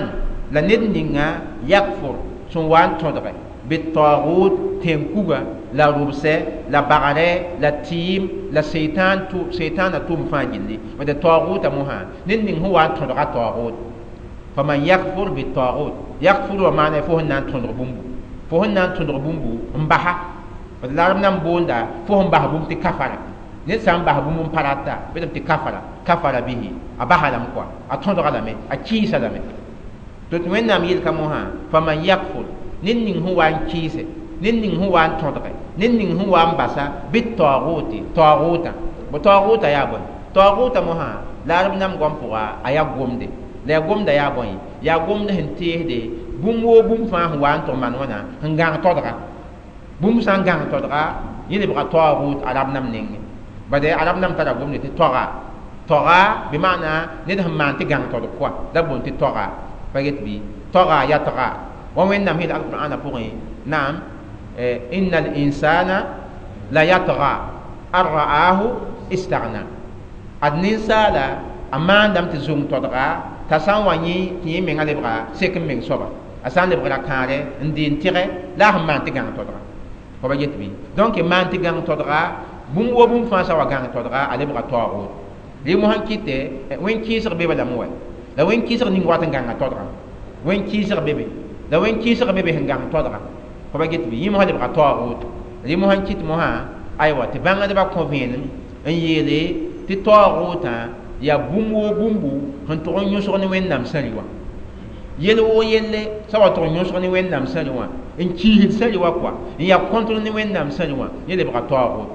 la ned ninga yakfur sẽn wa n tõdge bitagut tẽn-kuga la rʋbsɛ la bagrɛ la tɩɩm la seitan na tʋʋm fãa gilli tɩ taoogʋta mosã ned ning sẽn wa n tõdga taoogʋt faman yakfur bitagut yakfur wa maana fo sẽn na n tõdg bũmbu fo sẽn na n tõdg bũmbu n basa la arab nan boonda fo sẽn bas bũmb tɩ kafara ned sã n bas bũmb n pa rata bɩ tɩ kafara kafara bihi a basa lame kɔa a tõdga lame a kɩɩsa lame tɩ tɩ Wẽnnaam yelka mosã faman yakfur ned ning sẽn wa n kɩɩse ned ning sẽn wa n tõdge ned ning sẽn wa n basa bɩ taoogʋte taoogʋtã bo taoogʋta yaa bõe taoogʋta mosã la arab nam goam pʋga a yaa gomde la yaa gomda yaa bõe yaa gomd sẽn teesde bũmb woo bũmb fãa sẽn wa n tʋg maan wãna sẽn gãng todga bũmb sã n gãng todga yẽ lebga taoogʋt arab nam nengẽ bade arab nam tara gomde tɩ toga toga bɩ maana ned sẽn maan tɩ gãng todg kɔa la boond tɩ toga pa get bɩ toga yatga wa Wẽnnaam yeel alqur'ana pʋgẽ naam inna al-insana la yatga an ra'ahu istaghna ad ninsaala a maandame tɩ zong todga t'a sã n wa yẽ tɩ yẽ menga lebga sek n meng soaba a sã n lebgra kãare n deen tɩgɛ la a sẽn maan tɩ gãng todga fa ba get bɩ donc maan tɩ gãng todga bũmb wo bũmb fãa sã wa gãng todga a lebga taoogʋt rɩ mosã n kɩtɛ wẽn-kɩɩsg bebe lame wa la wẽn-kɩɩsg ning wat n gãnga todga wẽn-kɩɩsg bebe la wẽn-kɩɩsg bebe sẽn gãng todga fa ba get bɩ yẽ mosã lebga taoogʋt rɩ mosã n kɩt mosã aywa tɩ bãngdbã kõ vẽenem n yeele tɩ taoogʋtã yaa bũmb woo bũmbu sẽn tʋg n yõsg ne Wẽnnaam sãri wã yel woo yelle sã wa tʋg n yõsg ne Wẽnnaam sãri wã n kiisd sãri wã kɔa n yaa kõntr ne Wẽnnaam sãri wã yẽ lebga taoogʋt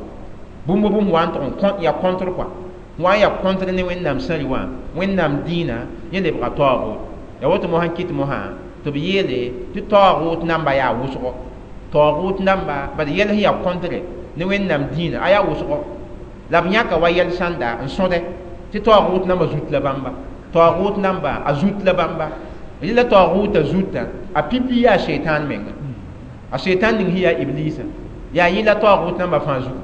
bũmb bũmb wa n tʋg n yaa kõntr kɔa wa n yaa kõntr ne Wẽnnaam sãri wã Wẽnnaam dĩinã yẽ lebga taoogʋt yaa woto mosã n kɩt mosã tɩ b yeele tɩ taoogʋt namba yaa wʋsgo taoogʋt namba bad yɛl sẽn yaa kõntre ne Wẽnnaam dĩinã a yaa wʋsgo la b yãka wa yɛl sãnda n sõde tɩ taoogʋt namba zut la bãmba taoogʋt namba a zut la bãmba rɩla taoogʋta zutã a pipi yaa seitan menga a seitan ning sẽn yaa iblisa yaa yẽ la taoogʋt namba fãa zugu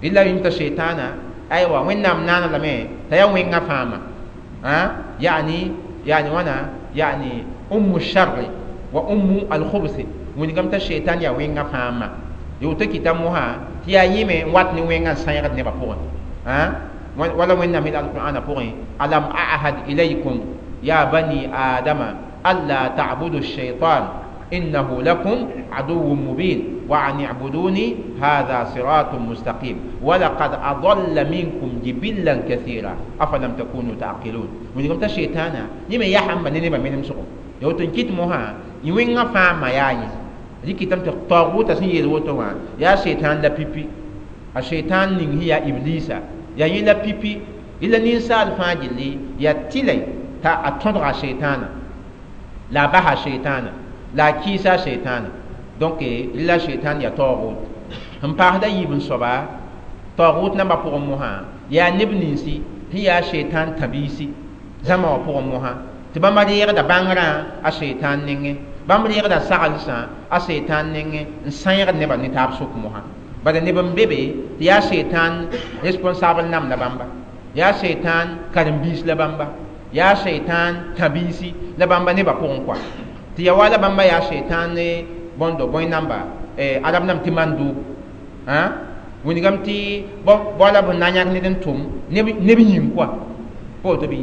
rɩla yĩm t'a seitaana aywa Wẽnnaam naana lame t'a yaa wẽngã fãama yani yani wãna yani ummu sharri wa ummu alkhubsi wĩnigame t'a seitan yaa wẽngã fãama yoto kɩta mosã tɩ yaa yẽme n wat ne wẽngã n sãyegd nebã pʋgẽ wala Wẽnnaam yeel alqur'ana pʋgẽ alam ahad ilaykum ya bani adama alla ta'budu shaitan innahu lakum aduwwun mubin wa an i'buduni hadha siratun mustaqim wa laqad adalla minkum jibillan kathira afalam takunu ta'qilun wĩnigame t'a shaitana yẽme yasãmba ne nebã menem sʋgo ya woto n kɩt mosã yẽ wẽngã fãama yaa yẽ rɩkɩtame tɩ taoogʋta sẽn yeel woto wã yaa seitan la pipi a seitan ning sẽn yaa iblisa yaa yẽ la pipi la ninsaal fãa gilli yaa tɩlɛ t'a a tõdga seitaana la a basa seitaana la a kɩɩsa seitaana donc la seitan yaa taoogʋt sẽn paasda yiib n soaba taoogʋt nambã pʋgẽ mosã yaa neb ninsi sẽn yaa seitan tãbiisi zãma wã pʋgẽ mosã tɩ bãmba reegda bãngrã a seitan nengẽ bãmb reegda saglsã a seitan nengẽ n sãyegd nebã ne taab sʋk mosã bala neb n be be tɩ yaa seitan responsable nam la bãmba yaa seitan karen-biis la bãmba yaa seitan tãbiisi la bãmba nebã pʋgẽ kɔa tɩ ya wa la bãmba yaa seitan ne bõndo bõe namba arab nam tɩ mandub wĩnigame tɩ bao la b na n yãk ned n tʋm neb yĩng kɔa pa woto bɩ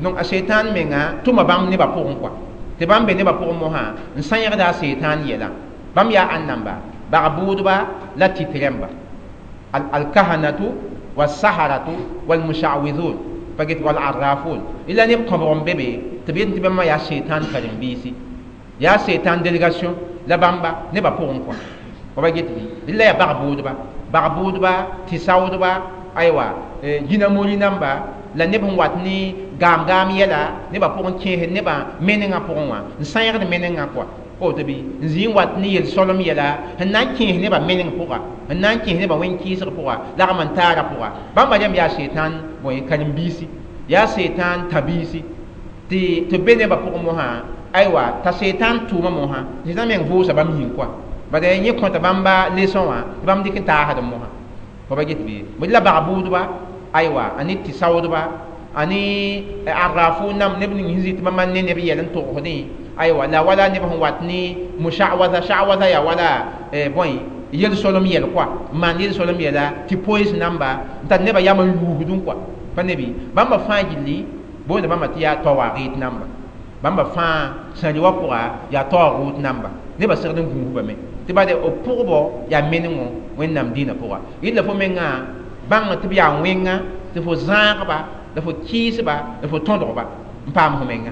donc a seitan menga tʋma bãmb nebã pʋgẽ kɔa tɩ bãmb be nebã pʋgẽ mosã n sãyegda a seitan yɛla bãmb yaa ãn namba bag-bʋʋdba la tɩt rẽmba alkahanatu wasaharatu walmushawidun pa get walarrafun ila neb kõbg n be be tɩ b yet tɩ bãmba yaa seitan karen-biisi yaa seitan délégation la bãmba nebã pʋgẽ kɔa fa ba get bɩ la yaa bag-bʋʋdba bag-bʋʋdba tɩ saoodba aywa jĩna-mori namba la neb sẽn wat ne gaam-gaam yɛla nebã pʋgẽ kẽesd nebã menengã pʋgẽ wã n sãyegd menengã kɔa. Woto bɩ n zĩ n wat ne yel-solem yɛla sẽn na n kẽes nebã meneng pʋga, sẽn na n kẽes nebã wẽn-kɩɩsg pʋga, lagm n taara pʋga. Bãmba rẽmb yaa setan bõe karen-biisi, yaa setan tã-biisi tɩ b be nebã pʋgẽ mosã. Aywa, t'a setan tʋʋma mosã, setan meng vʋʋsa bãmb yĩng koa, bad yẽ kõta bãmba leçon wã tɩ bãmb dɩk n taasd mosã. Fo pa get bɩ bõe la bag-bʋʋdba, aywa, a ne tɩ-saoodba, a ne arrafo nam neb ning sẽn zĩ tɩ bãmba ne neb yɛl n togsdẽ. Aywa, la wala neb sẽn wat ne mushawaza, shawaza yaa wala bõe yel-solem yɛl koa, n maan yel-solem yɛla tɩ poees namba n tar nebã yam n yuusdẽ koa. Pa nebi bãmba fãa gilli boonda bãmba tɩ yaa tawaagɩt namba. Bãmba fãa sãri wã pʋga yaa taoogʋʋt namba, nebã segd n gũusbame tɩ bade b pʋgbɔ yaa menengõ Wẽnnaam dĩinã pʋga. Rɩla fo mengã bãng tɩ b yaa wẽnga tɩ fo zãagba la fo kɩɩsba la fo tõdgba n paam fo menga.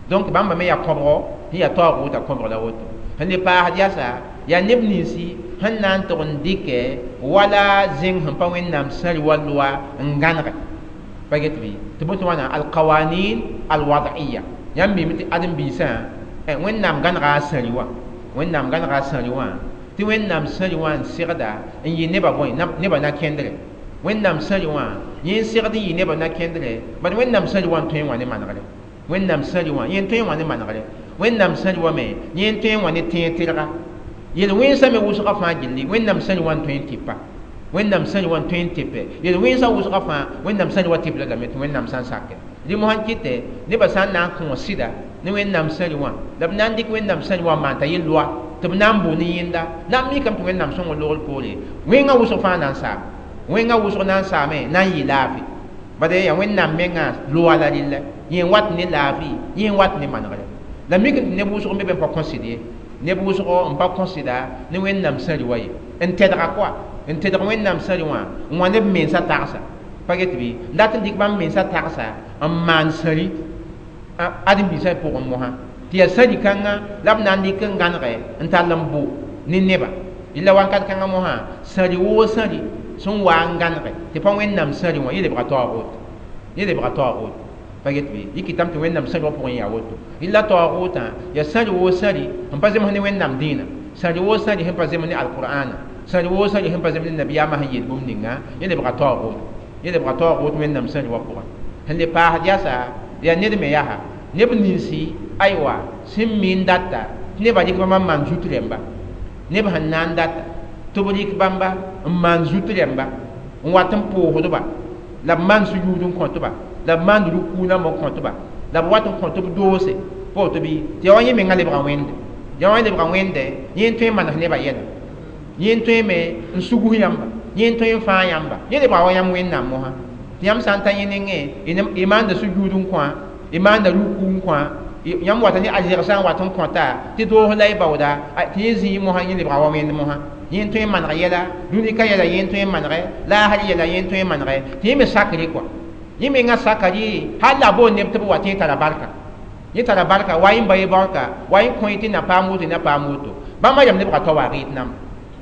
Donc bãmba me yaa kõbgo sẽn yaa taoogʋʋtã kõbg la woto. Sẽn le paasd yasa yaa neb ninsi sẽn na n tʋg n dɩkɛ wala zẽng sẽn pa Wẽnnaam sãri wa loa n gãnege. Pa get bɩ tɩ bõe tɩ wãna alqawanin alwad'iya. Yãmb mime tɩ ãdem-biisã Wẽnnaam gãnega a sãri wã, Wẽnnaam gãnega a sãri wã tɩ Wẽnnaam sãri wã n segda n yɩ nebã bõe nebã na kẽndre. Wẽnnaam sãri wã yẽ n segd n yɩ nebã na kẽndre, bad Wẽnnaam sãri wã n tõe n wã ne manegre. Wẽnnaam sãri wã yẽ n tõe n wã ne manegre. Wẽnnaam sãri wã me yẽ n tõe n wã ne tẽeg tɩrga. Yel-wẽnsã me wʋsgã fãa gilli Wẽnnaam sãri wã n tõe n tɩpa. Wẽnnaam sãri wã n tõe n tɩpɛ. Yel-wẽnsã wʋsgã fãa Wẽnnaam sãri wã tɩp lame tɩ Wẽnnaam sã n sakɛ. Rẽ mosã n kɩtɛ nebã sã n na n kõ sɩda ne Wẽnnaam sãri wã la b na n dɩk Wẽnnaam sãri wã n maan t'a yel loa tɩ b na n bʋ ne yẽnda na n mikame tɩ Wẽnnaam sõng logr poore. Wẽngã wʋsg fãa na n saam, wẽngã wʋsg na n saame na n yɩ laafɩ. Bad yaa Wẽnnaam mengã loa la rɩlla, yẽ n wat ne laafɩ, yẽ n wat ne manegre. La mik tɩ neb wʋsg n be be n pa kõsd ye, neb wʋsg n pa kõsda ne Wẽnnaam sãri wã ye, n tɛdga koa, n tɛdg Wẽnnaam sãri wã n wã neb mensã tagsa. Pa get bɩ n dat n dɩk bãmb mensã tagsa n maan sãri ãdem-biisã pʋgẽ mosã tɩ yaa sãri kãngã la b na n dɩk n gãnege n tall n bʋ ne neba. Rɩla wakat kãngã mosã sãri woo sãri sẽn wa n gãnege tɩ pa Wẽnnaam sãri wã yẽ lebga taoogʋʋt, yẽ lebga taoogʋʋt. Pa get bɩ yɩ kɩtame tɩ Wẽnnaam sãri wã pʋgẽ yaa woto. Rɩla taoogʋʋtã yaa sãri woo sãri sẽn pa zems ne Wẽnnaam dĩinã, sãri woo sãri sẽn pa zems ne alqur'ana, sãri woo sãri sẽn pa zems ne nabiyaamã sẽn yel bũmb ninga, yẽ lebga taoogʋʋt, yẽ lebga taoogʋʋt Wẽnnaam sãri wã pʋgẽ. Sẽn le paasd yasa yaa ned me yaa neb ninsi aywa sẽn mi n data tɩ nebã rɩk bãmba n maan zut rẽmba. Neb sẽn na n data tɩ b rɩk bãmba n maan zut rẽmba n wat n pʋʋsdba la b maan sujuud n kõtba la b maan rukuu namba n kõtba la b wat n kõt b doose. Pa woto bɩ tɩ yaa wa yẽ mengã lebga wẽnde, yaa wa lebga wẽnde yẽ n tõe n manes nebã yɛla, yẽ n tõe me n sugs yãmba, yẽ n tõe n fãag yãmba, yẽ lebga wa yãmb Wẽnnaam mosã. Tɩ yãmb sã n ta yẽ nengẽ y maanda sujuud n kõ, y maanda rukuu n kõ, yãmb wata ne arzɛg sã n wat n kõta tɩ doos la y baooda tɩ yẽ zĩ mosã yẽ lebga wa wẽnd mosã. Yẽ n tõe n maneg yɛla, dũni ka yɛla yẽ n tõe n manege, laasr yɛla yẽ n tõe n manege, tɩ yẽ me sakre koa. Yẽ mengã saka rɩ hal la a boond neb tɩ b wa tɩ yẽ tara barka, yẽ tara barka wa yẽ ba ye barka wa yẽ kõ tɩ na paam woto, na paam woto. Bãmba yam lebga tawaagɩt namba.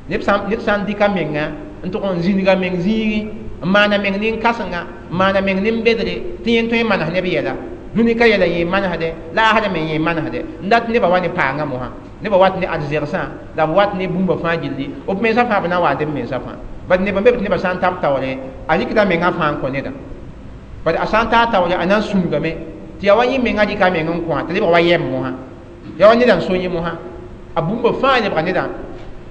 Ned sã n dɩka menga n tʋg n zĩniga meng zĩigẽ n maana meng nin-kãsenga, n maana meng nin-bedre tɩ yẽ n tõe n manes neb yɛla, dũni ka yɛla yẽ manesdɛ, laasrã me yẽ manesdɛ, n dat nebã wa ne paangã mosã, nebã wat ne arzɛgsã la b wat ne bũmba fãa gilli, b mensã fãa b na n wa n b mensã fãa. Bad neb n be tɩ nebã sã n tab taoore a rɩkda mengã fãa n kõ neda, bad a sã n taa taoore a na n sũngame tɩ yaa wa yẽ mengã rɩka meng n kõ tɩ lebga wa yɛm mosã, yaa wa neda n so yẽ mosã, a bũmba fãa lebga neda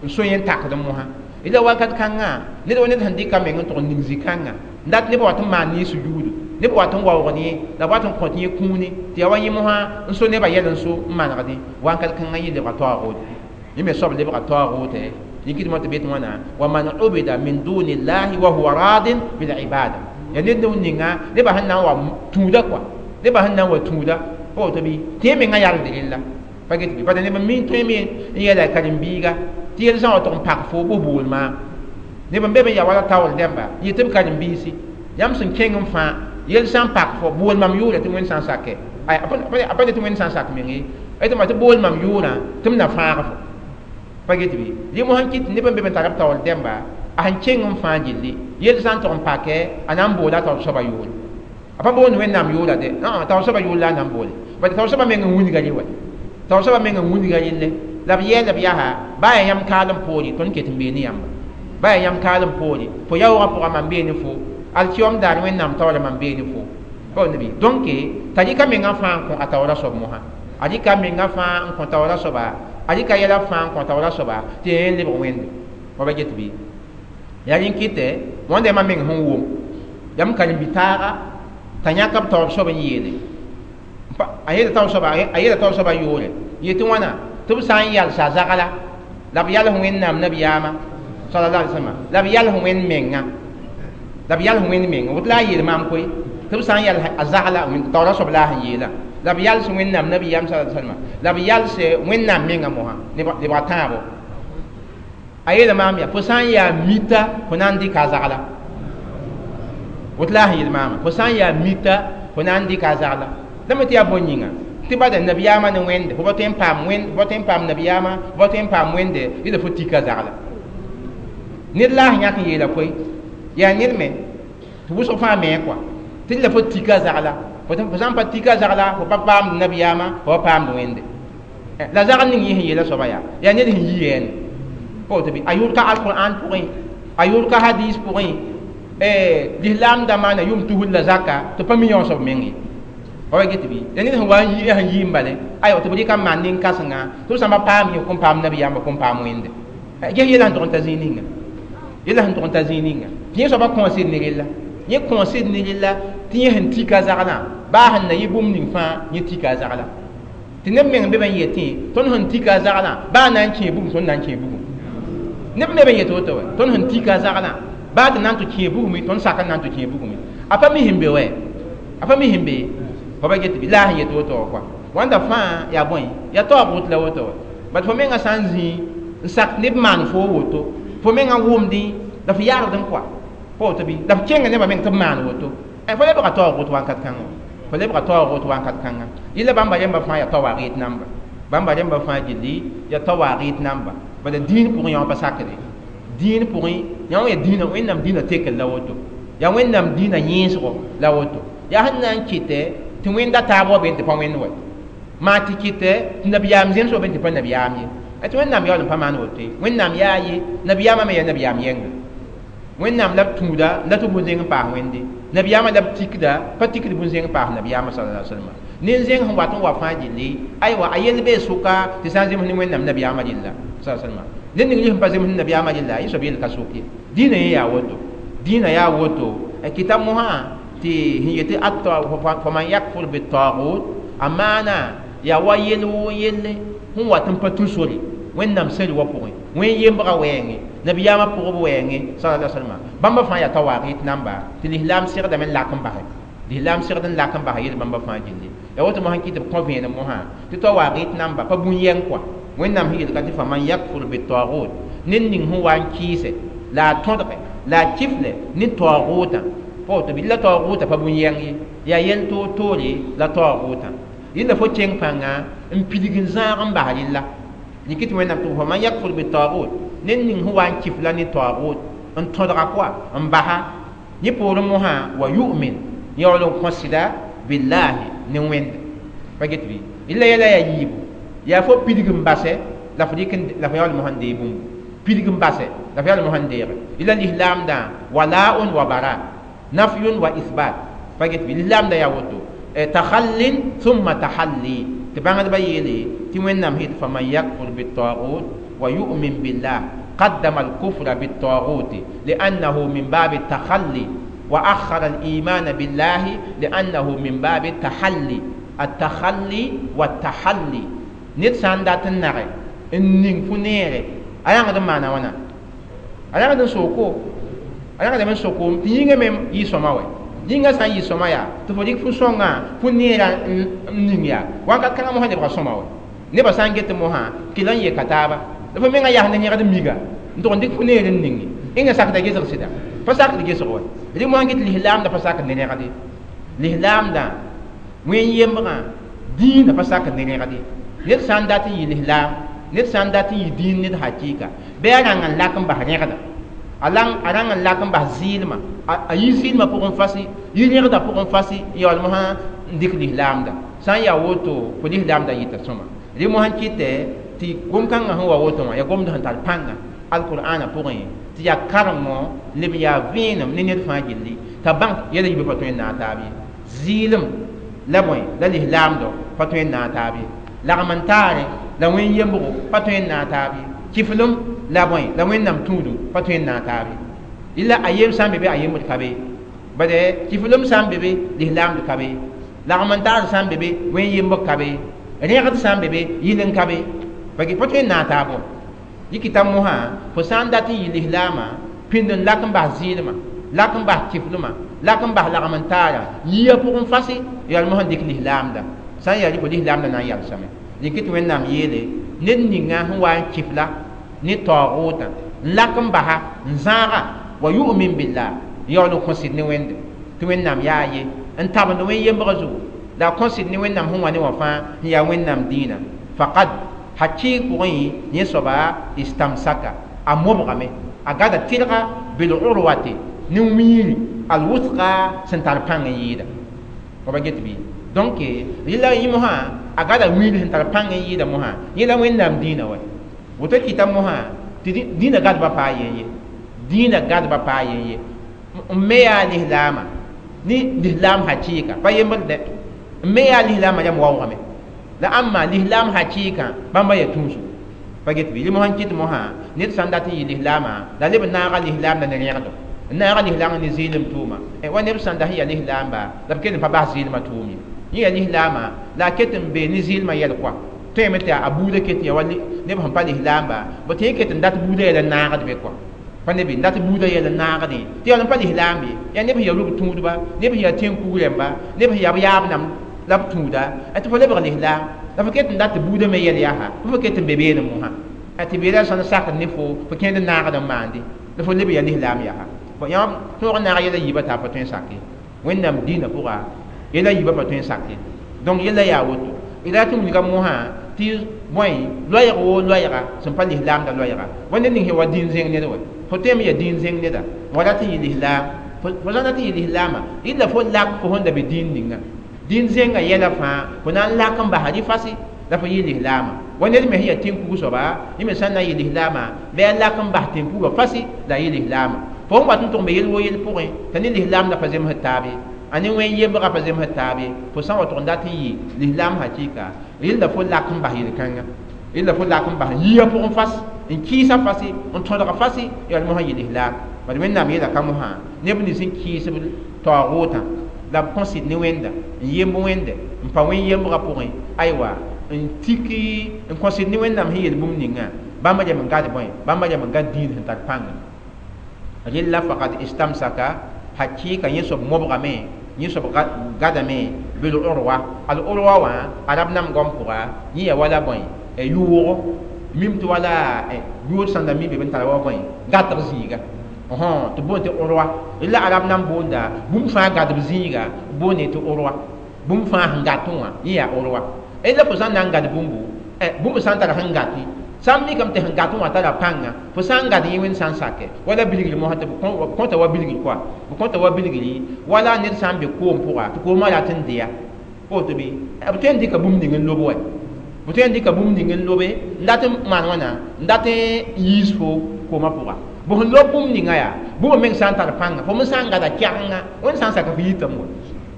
n so yẽ n takd mosã. Rɩla wakat kãngã ned wa ned sẽn dɩka meng n tʋg n ning zĩ-kãngã n dat nebã wat n maan ne sujuudu, neb wat n waoog ne la b wat n kõt yẽ kũuni tɩ yaa wa yẽ mosã n so nebã yɛl n so n manegdẽ. Wakat kãngã yẽ lebga taoogʋʋt, yẽ me soab lebga taoogʋʋtɛ. Yẽ kɩtmã tɩ be tɩ wãna wa man ubida min duni llahi wa huwa radin bil ibada. Yaa ned ninga nebã sẽn na n wa tũuda koa, nebã sẽn na n wa tũuda pa woto bɩ tɩ yẽ mengã yalgd rella. Pa get bɩ bad neb n mi n tõe me n yɛla karen-biiga tɩ yel sã n wa tʋg n pak fo bʋ bool maam. Neb n be be n yaa wala taoor dẽmba yɩ tɩ b karen-biisi yãmb sẽn kẽng n fãa yel sã n pak fo bool mam yʋʋra tɩ Wẽnd sã n sakɛ, a pa ne tɩ Wẽnd sã n sak meng ye, tɩ ma tɩ bool mam yʋʋrã tɩ m na fãag fo. Pa get bɩ rẽ mosã n kɩt tɩ neb n be be n tar b taoor dẽmba a sẽn kẽng n fãa gilli yel sã n tʋg n pakɛ a na n boola a taoor soabã yʋʋre. A pa boond Wẽnnaam yʋʋra dɛ, taoor soabã yʋʋr la a na n boole, bad taoor soabã meng n wilga rẽ wa, taoor soabã meng n wilga relle. La b yɛɛla b yaa baa yaa yãmb kaalem poore tõnd ket n bee ne yãmba baa yaa yãmb kaalem poore fo yaoogã pʋgã mam bee ne fo alkiyom daar wẽnnaam taoora mam bee ne fo pa nabi donc t'a rɩka mengã fãa n kõ a taoora soab mosã a rɩka mengã fãa n kõ taoora soaba a rɩka yɛla fãa n kõ taoora soaba tɩ yẽ lebg wẽnde wa ba get bɩ yaa rẽn kɩtɛ wãnda yãmba meng sẽn wʋm yam karen-bi-taaga t'a yãk b taoor soab n yeele a yeela taoor soabã yoore yetɩ wãna tɩ b sã n yalsa zagla la b yals wẽnnaam nabiyaamã sallallahu alaihi wasallam la b yals wẽnd menga la b yals wẽnd menga woto la a yeel maam koe tɩ b sã n yals a zagla taoora soab la a sẽn yeela la b yals wẽnnaam nabiyaam sallallahu alaihi wasallam la b yals wẽnnaam menga mosã lebga tãabo a yeela maam yaa fo sã n yaa mita fo na n dɩka a zagla woto la a sẽn yeel maama fo sã n yaa mita fo na n dɩka a zagla la me tɩ yaa bõe yĩnga tɩ bada nabiyaamã ne wẽnde fo pa tõe n paam wẽnd fo pa tõe n paam nabiyaamã fo pa tõe n paam wẽnde yɩla fo tika zagla ned la a sẽn yãk n yeela koe yaa ned me tɩ wʋsg fãa me kɔa tɩ la fo tika zagla fo sã n pa tika zagla fo pa paamd nabiyaamã fo pa paamd wẽnde la zagl ning yẽ sẽn yeela soaba yaa yaa ned sẽn yi yɛɛne pa woto bɩ a yʋʋd ka alqur'an pʋgẽ a yʋʋd ka hadis pʋgẽ lislaam da maana yʋm tusr la zaka tɩ pa mi yõ soab meng ye wa get bɩ ya ned sẽn wa n yi sẽn yi n bale aywa tɩ b rɩka n maan nin-kãsenga tɩ b sã pa paam yẽ kõn paam nabiyaambã kõn paam wẽnde ges yɛla sẽn tʋg n ta zĩig ninga yɛla sẽn tʋg n ta zĩig ninga tɩ yẽ soabã kõosd ne rella yẽ kõosd ne rella tɩ yẽ sẽn tika zaglã baa sẽn na yɩ bũmb ning fãa yẽ tika a zagla tɩ neb meng be b n yetẽ tõnd sẽn tika a zaglã baa na n kẽe bugum tõnd na n kẽe bugum neb me b n yet woto wa tõnd sẽn tika a zaglã baa tɩ na n tɩ kẽe bugum tõnd sak n na n tɩ kẽe bugum a pa mi sẽn be wɛ a pa mi sẽn be fo ba get bɩ la a sẽn yet woto wa kɔa wãnda fãa yaa bõe yaa taoog wot la woto wa bat fo mengã sã n zĩ n sak neb maan fo woto fo mengã wʋmdẽ la fo yaagd n kɔa pa woto bɩ la f kẽnga nebã meng tɩ b maan woto fo lebga taoog wot wãnkat kãngã fo lebga taoog wot wãnkat kãngã yɩla bãmba rẽmba fãa yaa tawaagɩt namba bãmba rẽmba fãa gilli yaa tawaagɩt namba bala dĩin pʋgẽ yã pa sakde dĩin pʋgẽ yã wã yaa dĩinã wẽnnaam dĩinã tekr la woto yaa wẽnnaam dĩinã yẽesgo la woto yaa sẽn na n kɩtɛ tɩ wẽnda taab wa be tɩ pa wẽnd wa maa tɩ kɩtɛ tɩ nabiyaam zems wa be tɩ pa nabiyaam ye tɩ wẽnnaam yaool n pa maan woto ye wẽnnaam yaa ye nabiyaamã me yaa nabiyaam yɛnga wẽnnaam la b tũuda la tɩ bũn-zẽng n paas wẽnde nabiyaamã la b tikda pa tikd bũn-zẽng n paas nabiyaamã sallallahu alaihi wasallam nin-zẽng sẽn wat n wa fãa gilli aywa a yell bee sʋka tɩ sã n zems ne wẽnnaam nabiyaamã rella sallallahu alaihi wasallam ned ning sẽn pa zems ne nabiyaamã rella yẽ soab yell ka sok ye dĩinã yẽ yaa woto dĩinã yaa woto kɩta mosã tɩ sẽn yetɩ faman yakfur bitagut a maana yaa wa yell woo yelle sẽn wat n pa tũ sore wẽnnaam sẽri wa pʋgẽ wẽn yembga wɛɛngẽ nabiyaamã pʋgb wɛɛngẽ sallallahu alaihi wasallam bãmba fãa yaa tawaagɩt namba tɩ lislaam segdame n lak n basɛ lislaam segd n lak n basa yel bãmba fãa gilli yaa woto mosã kɩ tɩ b kõ vẽenem mosã tɩ tawaagɩt namba pa bũn-yɛng kɔa wẽnnaam sẽn yelka tɩ faman yakfur bitagut ned ning sẽn wa n kɩɩsɛ la a tõdge la a kifle ne taoogʋtã pa woto bɩ la taoogʋtã pa bũn-yɛng ye yaa yel toor-toore la taoogʋtã yẽnda fo kẽng pãnga n pidg n zãag n bas rella yikɩ tɩ wẽnnaam tɩ faman yakfur bitagut ned ning sẽn wa n kifla ne taoogʋt n tõdga kɔa n basa yẽ poorẽ mosã wa yu'min yaool n kõ sɩda billahi ne wẽnde pa get bɩ yella yɛla yaa yiibu yaa fo pidg n basɛ la fo dɩk la fo yaool mosã n deeg bũmbu pidg n basɛ la fo yaool mosã n deege yella lislaamdã walaun wa bara nafyun wa isbat pa get bɩ lislaamdã yaa woto takhallin thumma tahalli tɩ bãngdbã yeele tɩ wẽnnaam sẽn faman yakfur bitagut wa yu'min billah قدم الكفر بالطاغوت لأنه من باب التخلي وأخر الإيمان بالله لأنه من باب التحلي التخلي والتحلي نيت سان دات النغي النين فنيري أيان غدن معنا وانا أيان غدن سوكو أيان غدن سوكو تينغ ميم يسوما وي yĩngã sã n yɩ sõma yaa tɩ fo dɩk fu sõngã fu neerã n ning yaa wãnkat kãngã mosã lebga sõma wa nebã sã n get mosã kɩla n yeka taaba la fo menga yas ne yẽgd miga n tʋg n dɩk fu neer n ninge ẽnga sakda gesg sɩda pa sakd gesg wa rɩ mosã get lislaamdã pa sakd ne rẽgde lislaamdã wẽn yembgã dĩinã pa sakd ne rẽgde ned sã n dat n yɩ lislaam ned sã n dat n yɩ dĩin ned hakɩɩka bɩ a rãng n lak n bas rẽgda a rãng n lak n bas zɩɩlmã a yi zɩɩlmã pʋgẽ fasi yi rẽgdã pʋgẽ fasi n yaool mosã n dɩk lislaamda sã n yaa woto fo lislaamda yɩta sõma rɩ mosã n kɩtɛ tɩ Tɩ gom-kãngã sẽn wa woto wã yaa gomd sẽn tar pãnga alqur'ana pʋgẽ tɩ yaa karengõ leb yaa vẽenem ne ned fãa gilli t'a bãng yɛla yiibã pa tõe n naag taab ye zɩɩlem la bõe la lislaamdɔ pa tõe n naag taab ye lagm n taare la wẽn yembgo pa tõe n naag taab ye kiflem la bõe la wẽnnaam tũudum pa tõe n naag taab ye illa a yem sã n be be a yembd ka be bade kiflem sã n be be lislaamd ka be lagm n taar sã n be be wẽn yembg ka be rẽgd sã n be be yɩl n ka be pa tõe n naag taab wã yikita mosã fo sã n dat n yɩ lislaamã pĩnd n lak n bas zɩɩlmã lak n bas kiflmã lak n bas lagm n taara yia pʋgẽ fase yaa mosã n dɩk lislaamda sã n yaa rɩ fo lislaamda na n yalsame rɩk tɩ wẽnnaam yeele ned ninga sẽn wa n kifla ne taoogotã n lak n basa n zãaga wa yu'min billah yaool n kõsd ne wẽnde tɩ wẽnnaam yaa ye n tabend wẽn yembgã zugu la a kõsd ne wẽnnaam sẽn wa ne wã fãa n yaa wẽnnaam dĩinã faqad hakɩɩg pʋgẽ yẽ soaba istamsaka a mobgame a gada tɩlga bil urwati ne wiiri alwusqa sẽn tar pãng n yɩɩda fa ba get bɩ donc rɩla yẽ mosã a gada wiiri sẽn tar pãng n yɩɩda mosã yẽ la wẽnnaam dĩinã wa woto kɩta mosã tɩ dĩinã gadba paa yen ye dĩinã gadba paa yen ye n me yaa lislaamã ne lislaam hakɩɩka pa yembr dɛ n me yaa lislaamã yam waoogame la ãmba lislaam hakɩɩkã bãmba yaa tũusu pa get bɩ rɩ mosã n kɩt mosã ned sã n dat n yɩ lislaamã la leb n naaga lislaamda ne rẽgdo n naaga lislaam ne zɩɩlem tʋʋma wa neb sã n da sẽn yaa lislaamba la b kell n pa bas zɩɩlmã tʋʋm ye yẽ yaa lislaamã la a ket n be ne zɩɩlmã yɛl koa tõeme tɩ a buudã ket ya wa neb sẽn pa lislaamba b tɩ yẽ ket n dat buudã yɛl n naagd be koa pa neb n dat buudã yɛl n naagdẽ tɩ yaa n pa lislaam ye yaa neb sẽn yaa rug tũudba neb sẽn yaa tẽn-kug rẽmba neb sẽn yaa b yaab nam la b tũuda tɩ fo lebg lislaam la fo ket n dat tɩ buudã me yɛl yaa fo ket n be beene mosã tɩ beeda sãn sakd ne fo fo kẽnd n naagd n maande la fo leb yaa lislaam yaa fo yãmb tõog n naag yɛla yiibã t'a pa tõe n sake wẽnnaam dĩinã pʋga yɛla yiibã pa tõe n sake donc yɛla yaa woto d raa tɩ wilga mosã tɩ bõe loɛɛg woo loɛɛga sẽn pa lislaamda loɛɛga wa ned ning sẽn wa dĩin zẽng ned wa fo tõeme yaa dĩin zẽng neda wa rat n yɩ lislaam fo sã n dat n yɩ lislaamã rɩla fo lak fo sẽn da be dĩin ninga dĩin zẽngã yɛla fãa fo na n lak n basa rɩ fase la fo yɩ lislaamã wa ned me sẽn yaa tẽn-kug soaba yẽ me sã n na n yɩ lislaamã bɩ a lak n bas tẽn-kugã fase la a yɩ lislaamã fo n wat n tʋg me yel wo yel pʋgẽ t'a ne lislaamda pa zemsd taab ye a ne wẽn yembgã pa zemsd taab ye fo sã n wa tʋg n dat n yɩ lislaam hakɩɩka rɩla fo lak n bas yel-kãnga rɩla fo lak n bas yia pʋgẽ fas n kɩɩsa fase n tõdg fase yaa mosã yɩ lislaam bad wẽnnaam yeela ka mosã neb nins n kɩɩsb taoogotã la b kõsd ne wẽnda n yemb wẽnde n pa wẽn yembgã pʋgẽ aywa n tiki n kõsd ne wẽnnaam sẽn yel bũmb ninga bãmba yam n gad bõe bãmba yam n gad dĩin sẽn tar pãnga rɩla faqad istamsaka hakɩɩka yẽ soab mobgame yẽ soab gadame bil urwa al urwa wã arab nam gom pʋga yẽ yaa wala bõe yʋʋgo mim tɩ wala yʋʋd sãn da mi be b n tara wa bõe gatg zĩiga tɩ boond tɩ urwa la arab nam boonda bũmb fãa gadb zĩiga boonde tɩ urwa bũmb fãa sẽn gat wã yẽ yaa urwa la fo sã n na n gad bũmbu bũmb sã n tara sẽn gati sã n mikame tɩ sẽn gat wã tara pãnga fo sã n gad yẽ wẽnd sã n sake wala bilgr mosã tɩ b kõta wa bilgr koa b kõta wa bilgri wala ned sã n be koom pʋga tɩ koomã rat n deya woto bɩ b tõe n dɩka bũmb ning n lob wa b tõe n dɩka bũmb ning n lobe n dat n maan wãna n dat n yiis fo koomã pʋga bõ sẽn lob bũmb ninga yaa bũmb meng sã n tar pãnga fo me sã n gada kɛgenga wẽnd sã n sak f yitame wa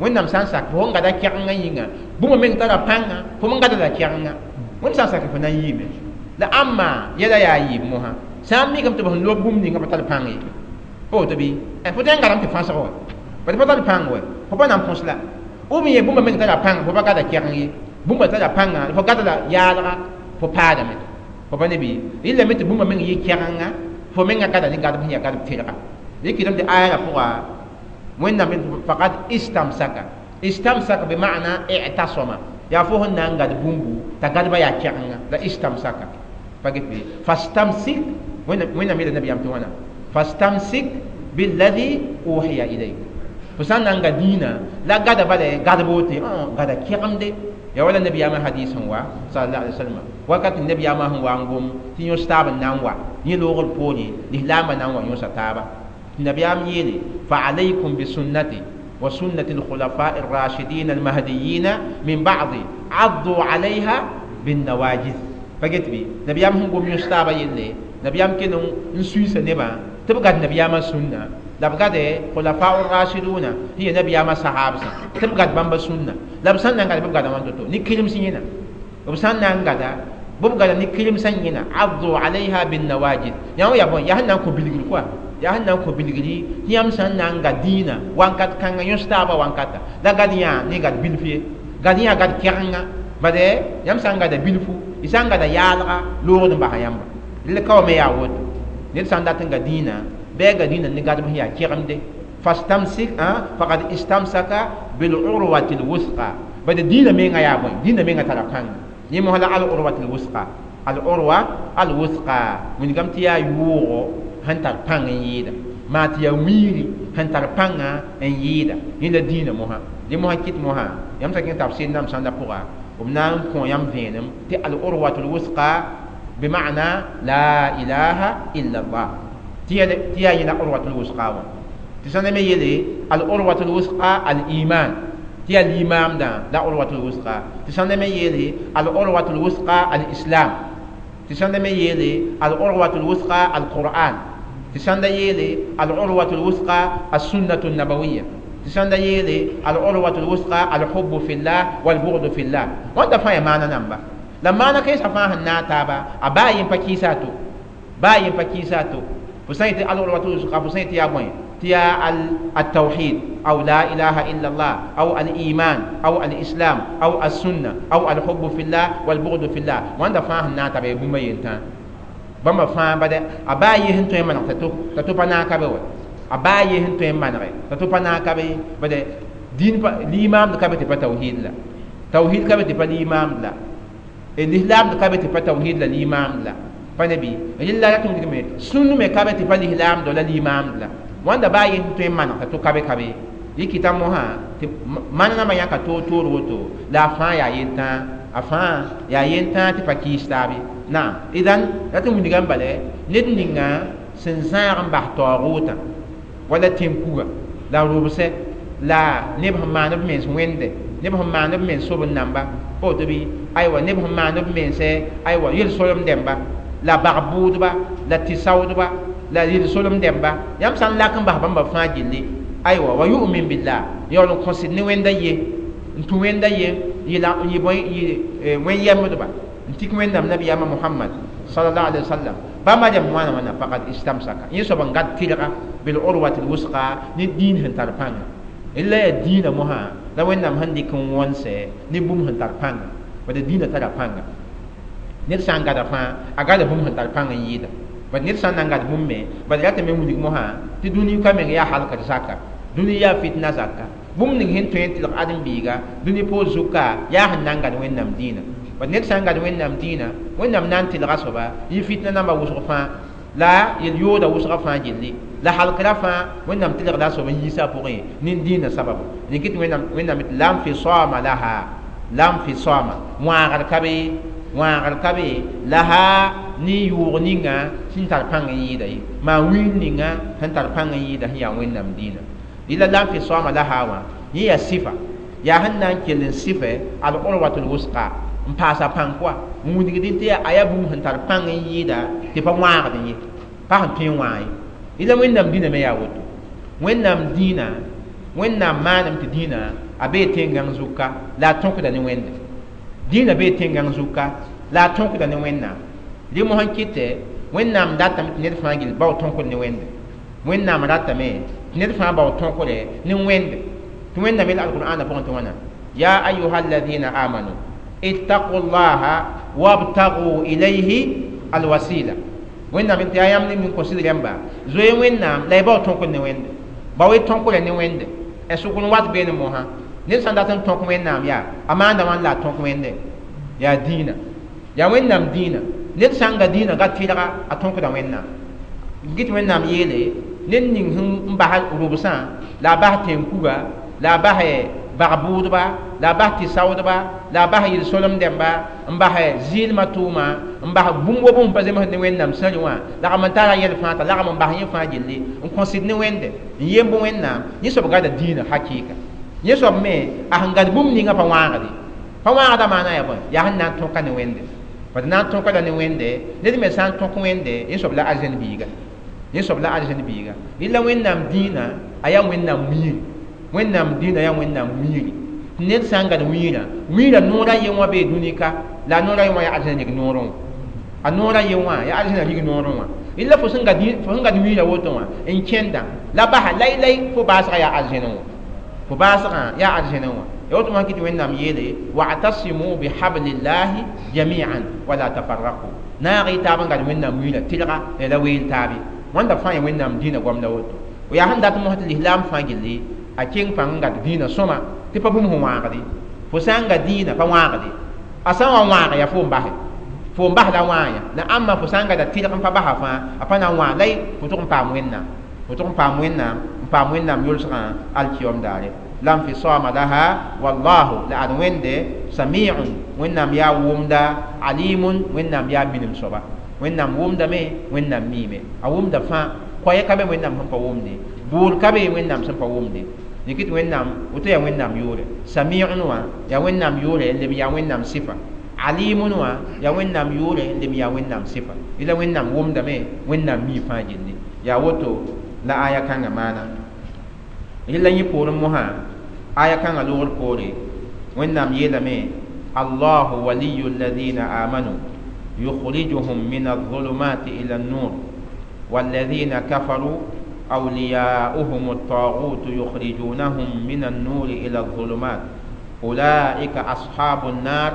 wẽnnaam sã n sak fo sẽn gada kɛgenga yĩnga bũmb meng tara pãnga fo me gada la kɛgenga wẽnd sã n sak fo na n yiime la ãmba yɛla yaa yɩɩb mosã sã n mikame tɩ b sẽn lob bũmb ninga pa tar pãng ye pa woto bɩ fo tõe n gadame tɩ fãsg wa bad pa tar pãng wa fo pa na n põs la ou bien bũmba meng tara pãnga fo pa gada kɛgeng ye bũmba tara pãnga fo gada la yaalga fo paadame fo pa ne bɩ rɩlame tɩ bũmba meng yɩ kɛgenga fo menga gada ne gadb sẽn yaa gadb tɩrga rɩkɩdame tɩ aya la pʋga wẽnnaam faqad istamsaka istamsaka be maana i'tasama yaa fo sẽn na n gad bũmbu t'a gadba yaa kɛgenga la istamsaka pa get bɩ fastamsik wẽnnaam yeela nabiyaam tɩ wãna fastamsik billadhi uhiya ilayk fo sã n na n ga dĩinã la gada bala gadb wote gada kɛgemde ya wala nabiyaamã hadis sẽn wa sallallahu alaihi wasallam wakat nabiyaamã sẽn wa n gom tɩ yõs taab n na n wa yẽ loogr poore lislaambã na n wa yõsa taaba tɩ nabiyaam yeele fa alaykum bi sunnati wa sunnati alkhulafa الراشدين المهديين من بعد عضوا عليها بالنواجذ. Pa get bɩ nabiyaam sẽn gom yõs taabã yelle, nabiyaam kell n suiisa nebã tɩ b gad nabiyaamã sũnna, la b gade khulafa rashiduna sẽn yaa nabiyaamã sahabsã, tɩ b gad bãmba sũnna. La b sãn na n gada, bɩ b gada wãn to-to ne kirms yẽna. B sãn na n gada, bɩ b gada ne kirmsã yẽna. Addu alayha bin nawajid, yã wã yaa bõe? Yaa sẽn na n kõ bilgr koa, yaa sẽn na n kõ bilgri tɩ yãmb sãn na n ga dĩinã wankat kãnga yõs taabã wankata la gad yã ne gad bilf ye, gad yã gad kɛgenga. Bade yãmb sã n gada bilfu, y sã n gada yaalga loogd n basa yãmba. Rel ka wa me yaa woto, ned sã n dat n ga dĩinã, bɩ a ga dĩinã ne gadb sẽn yaa kegemde. Fastamsik faqad istamsaka bil urwati lwusqa. Bade dĩinã menga yaa bõe? Dĩinã menga tara pãnga. Yẽ mosã la al urwati lwusqa, al urwa al wusqa wilgame tɩ yaa yʋʋgo sẽn tar pãng n yɩɩda, maa tɩ yaa wiiri sẽn tar pãnga n yɩɩda. Yẽ la dĩinã mosã. Dẽ mosã kɩt mosã yãmb sã kẽng tafsir nam sãnda pʋga, b na n kõ yãmb vẽenem tɩ al urwatu lwusqa bima'na la ilaha illa allah, tɩ yaa yẽ la urwatu lwusqa wã. Tɩ sãn me yeele al urwatu lwusqa al iman, tɩ yaa limaamdã la urwatu lwusqa. Tɩ sãn me yeele al urwatu lwusqa al islam, tɩ sãn me yeele al urwatu lwusqa al qur'an, tɩ sãn da yeele al urwatu lwusqa as sunnatu nabawiya, tɩ sãn da yeele al urwatu lwusqa al hubbu fillah wal bughdu fillah. Wãnda fãa yaa maana namba la maana kãensã fãa sẽn naag taaba, a baa yen pa kɩɩsa a to, baa yen pa kɩɩsa a to. Fo sã n yetɩ al urwatu lwusqa, fo sã n yetɩ yaa bõe? Tɩ yaa التوحيد أو لا إله إلا الله أو الإيمان أو الإسلام أو السنة أو الحب في الله والبغض في الله. wãnda fãa sẽn naag taaba yaa bũmb a yentã. Bãmba fãa bade a baa yɩ sẽn tõe n maneg t'a to pa naag ka be wa, a baa yɩ sẽn tõe n manege t'a to pa naag ka be. Bade dĩin limaamd ka be tɩ pa tawhiid la, tawhiid ka be tɩ pa limaamd la, lislaamd ka be tɩ pa tawhiid la limaamd la, pa ne bɩ rɩlla rat n wilgme sũnd me ka be tɩ pa lislaamd la limaamd la. Wãnda baa yẽ tõe n maneg t'a to ka be ka be. Yɩ kɩta mosã tɩ maneg nambã yãka toor-toor woto, la a fãa yaa yentã, a fãa yaa yentã tɩ pa kɩɩs taab ye. Naam, idan rat n wilgame bala ned ninga sẽn zãag n bas taoogʋʋtã wala tẽn-kuga la rʋbsɛ la neb sẽn maan b mens wẽnde, neb sẽn maan b mens sob n namba, pa woto bɩ? Aywa, neb sẽn maan b mense aywa yel-solem dẽmba la bag-bʋʋdba la tɩ-saoodba la yel-solem dẽmba, yãmb sã n lak n bas bãmba fãa gilli, aywa wa yu'min billah, yaool n kõsd ne wẽnda ye, n tũ wẽnda ye, yɩ bõe, yɩ wẽn-yɛmbdba n tik wẽnnaam nabiyaamã Muhammad sallallahu alaihi wasallam. Bãmba rẽmb wãna wãna faqad istamsaka, yẽ soab n gad tɩrga bil urwati lwusqa ne dĩin sẽn tar pãnga. La yaa dĩinã mosã la wẽnnaam sẽn dɩk n wõnse ne bũmb sẽn tar pãnga. Bad dĩinã tara pãnga. Ned sã n gada fãa, a gada bũmb sẽn tar pãng n yɩɩda. Bad ned sã n na n gad bũmb me, bad ratame n wilg mosã tɩ dũni ka meng yaa halkd zaka, dũni yaa fitna zaka. Bũmb ning sẽn tõe n tɩlg ãdem-biiga dũni poor zuka yaa sẽn na n gad wẽnnaam dĩinã. Bad ned sã n gad wẽnnaam dĩinã, wẽnnaam na n tɩlga soaba yɩ fitna namba wʋsg fãa la yel-yooda wʋsga fãa gilli la halkra fãa wẽnnaam tɩlgda soab n yiisa a pʋgẽ nin dĩinã sababu. Rẽ kɩt wẽnnaam la n fisama laha, la n fisama wãagr ka be, wãagr ka be laha ne yʋʋg ninga sẽn tar pãng n yɩɩda ye, maa wiin ninga sẽn tar pãng n yɩɩda sẽn yaa wẽnnaam dĩinã. Rɩla la n fisama laha wã yẽ yaa sɩfa, yaa sẽn na n kell n sɩfɛ al urwatu lwusqa n paasa pãng koa n wilgdẽ tɩ a yaa bũmb sẽn tar pãng n yɩɩda tɩ pa wãagd ye, pa sẽn tõe n wãag ye. Rɩla wẽnnaam dĩinã me yaa woto. Wẽnnaam dĩinã, wẽnnaam maanem tɩ dĩinã a bee tẽn-gãng zuka la a tõkda ne wẽnde. Dĩinã bee tẽn-gãng zuka la a tõkda ne wẽnnaam. Rẽ mosã n kɩtɛ wẽnnaam datame tɩ ned fãa gill bao tõkd ne wẽnde. Wẽnnaam ratame tɩ ned fãa bao tõkre ne wẽnde. Tɩ wẽnnaam yel alqur'aanã pʋgẽ tɩ wãna: ya ayuha alladhina amanu ittaqu llaha wabtagu ilayhi alwasila. Wẽnnaam tɩ yaa yãmb ning kõ sɩd rẽmba zoe wẽnnaam la y bao tõkd ne wẽnde, bao y tõkra ne wẽnde. Sʋk n wat beene mosã ned sã n dat n tõk wẽnnaam yaa a maanda wãn la a tõk wẽnde yaa dĩinã, yaa wẽnnaam dĩinã. Ned sã n ga dĩinã ga tɩrga a tõkda wẽnnaam. Gɩt wẽnnaam yeele ned ning sẽn n bas rʋbsã la a bas tẽn-kuga la a bas bag-bʋʋdba la a bas tɩ-saoodba la a bas yel-solem dẽmba n bas zɩɩlmã tʋʋma n bas bũmb wa bũmb pa zems ne wẽnnaam sãrẽ wã lagm n tara yɛl fãa t'a lagm n bas yẽ fãa gilli n kõsd ne wẽnde n yemb wẽnnaam. Yẽ soab gada dĩinã hakɩɩka. Yẽ soab me a sẽn gad bũmb ninga pa wãagde, pa wãagda maana yaa bõe? Yaa sẽn na n tõka ne wẽnde. Bad na n tõka la ne wẽnde ned me sã n tõk wẽnde yẽ soab la arzẽn biiga yẽ soab la arzẽn biiga rɩla wẽnnaam dĩinã a yaa wẽnnaam wiiri wẽnnaam dĩinã yaa wẽnnaam wiiri tɩ ned sã n gad wiirã wiirã noora ye wã bee dũni ka la a noora ye wã yaa arzẽn rig noorẽ wã a noora ye wã yaa arzẽna rig noorẽ wã rɩla fo sẽn gad wiirã woto wã n kẽnda la basa lai-lai fo baasgã yaa arzẽnẽ wã fo baasgã yaa arzẽnẽ wã ya woto wã kɩ tɩ wẽnnaam yeele wa'tasimu bihablillahi jami'an wala tafarraqu naag y taab n gad wẽnnaam wiirã tɩlga la weel taabe wãnda fãa ya wẽnnaam dĩinã goamda woto yaa sẽn dat mosã tɩ lislaam fãa gilli a keng pãng n gad dĩinã sõma tɩ pa bũmb sẽn wãagde fo sã n ga dĩinã pa wãagde a sã n wa wãag yaa fo n base fo n bas la wãa la ãmba fo sã n gada tɩlg n pa basa fãa a pa na n wãag la fo tʋg n paam wẽnnaam fo tʋg n paam wẽnnaam n paam wẽnnaam yʋlsgã alkiyom daare la nfisama laha wallahu la ad wẽnde samiun wẽnnaam yaa wʋmda alimun wẽnnaam yaa minim soaba wẽnnaam wʋmdame wẽnnaam miime a wʋmda fãa koɛɛ ka be wẽnnaam sẽn pa wʋmde bʋʋr ka be wẽnnaam sẽn pa wʋmde yẽkɩ tɩ wẽnnaam woto yaa wẽnnaam yʋʋre samiun wã yaa wẽnnaam yʋʋre n leb yaa wẽnnaam sɩfa alimun wã yaa wẽnnaam yʋʋre n leb yaa wẽnnaam sɩfa la wẽnnaam wʋmdame wẽnnaam mii fãa gilli yaa woto la aya kãngã maana rɩla yẽ poorẽ mosã aya kãngã loogr poore wẽnnaam yeelame allahu waliyu alladina amanu yukhrijuhum min alظulumati ila النور والذين كفروا أولياؤهم الطاغوت يخرجونهم من النور إلى الظلمات أولئك أصحاب النار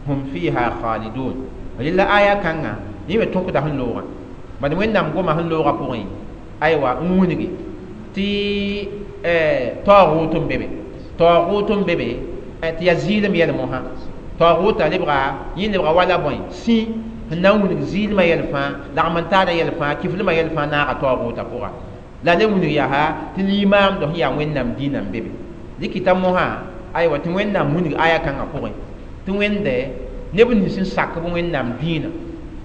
هم فيها خالدون لله آية كان يمي تونك ده اللغة بعد وين نام قوم اللغة بوين أيوة أمونيجي تي طاغوت بيبي طاغوت بيبي تي يزيل ميل موها طاغوت اللي بغا ين بغا ولا بوين سي na wũnig zɩɩlmã yɛl fãa lagm n taada yɛl fãa kiflmã yɛl fãa naaga taoogʋʋta pʋga la le wũnig yaa tɩ limaamd sẽn yaa wẽnnaam dĩinã n be be dɩkɩta mosã aywa tɩ wẽnnaam wũnig aya kãngã pʋgẽ tɩ wẽnde neb nins n sak b wẽnnaam dĩinã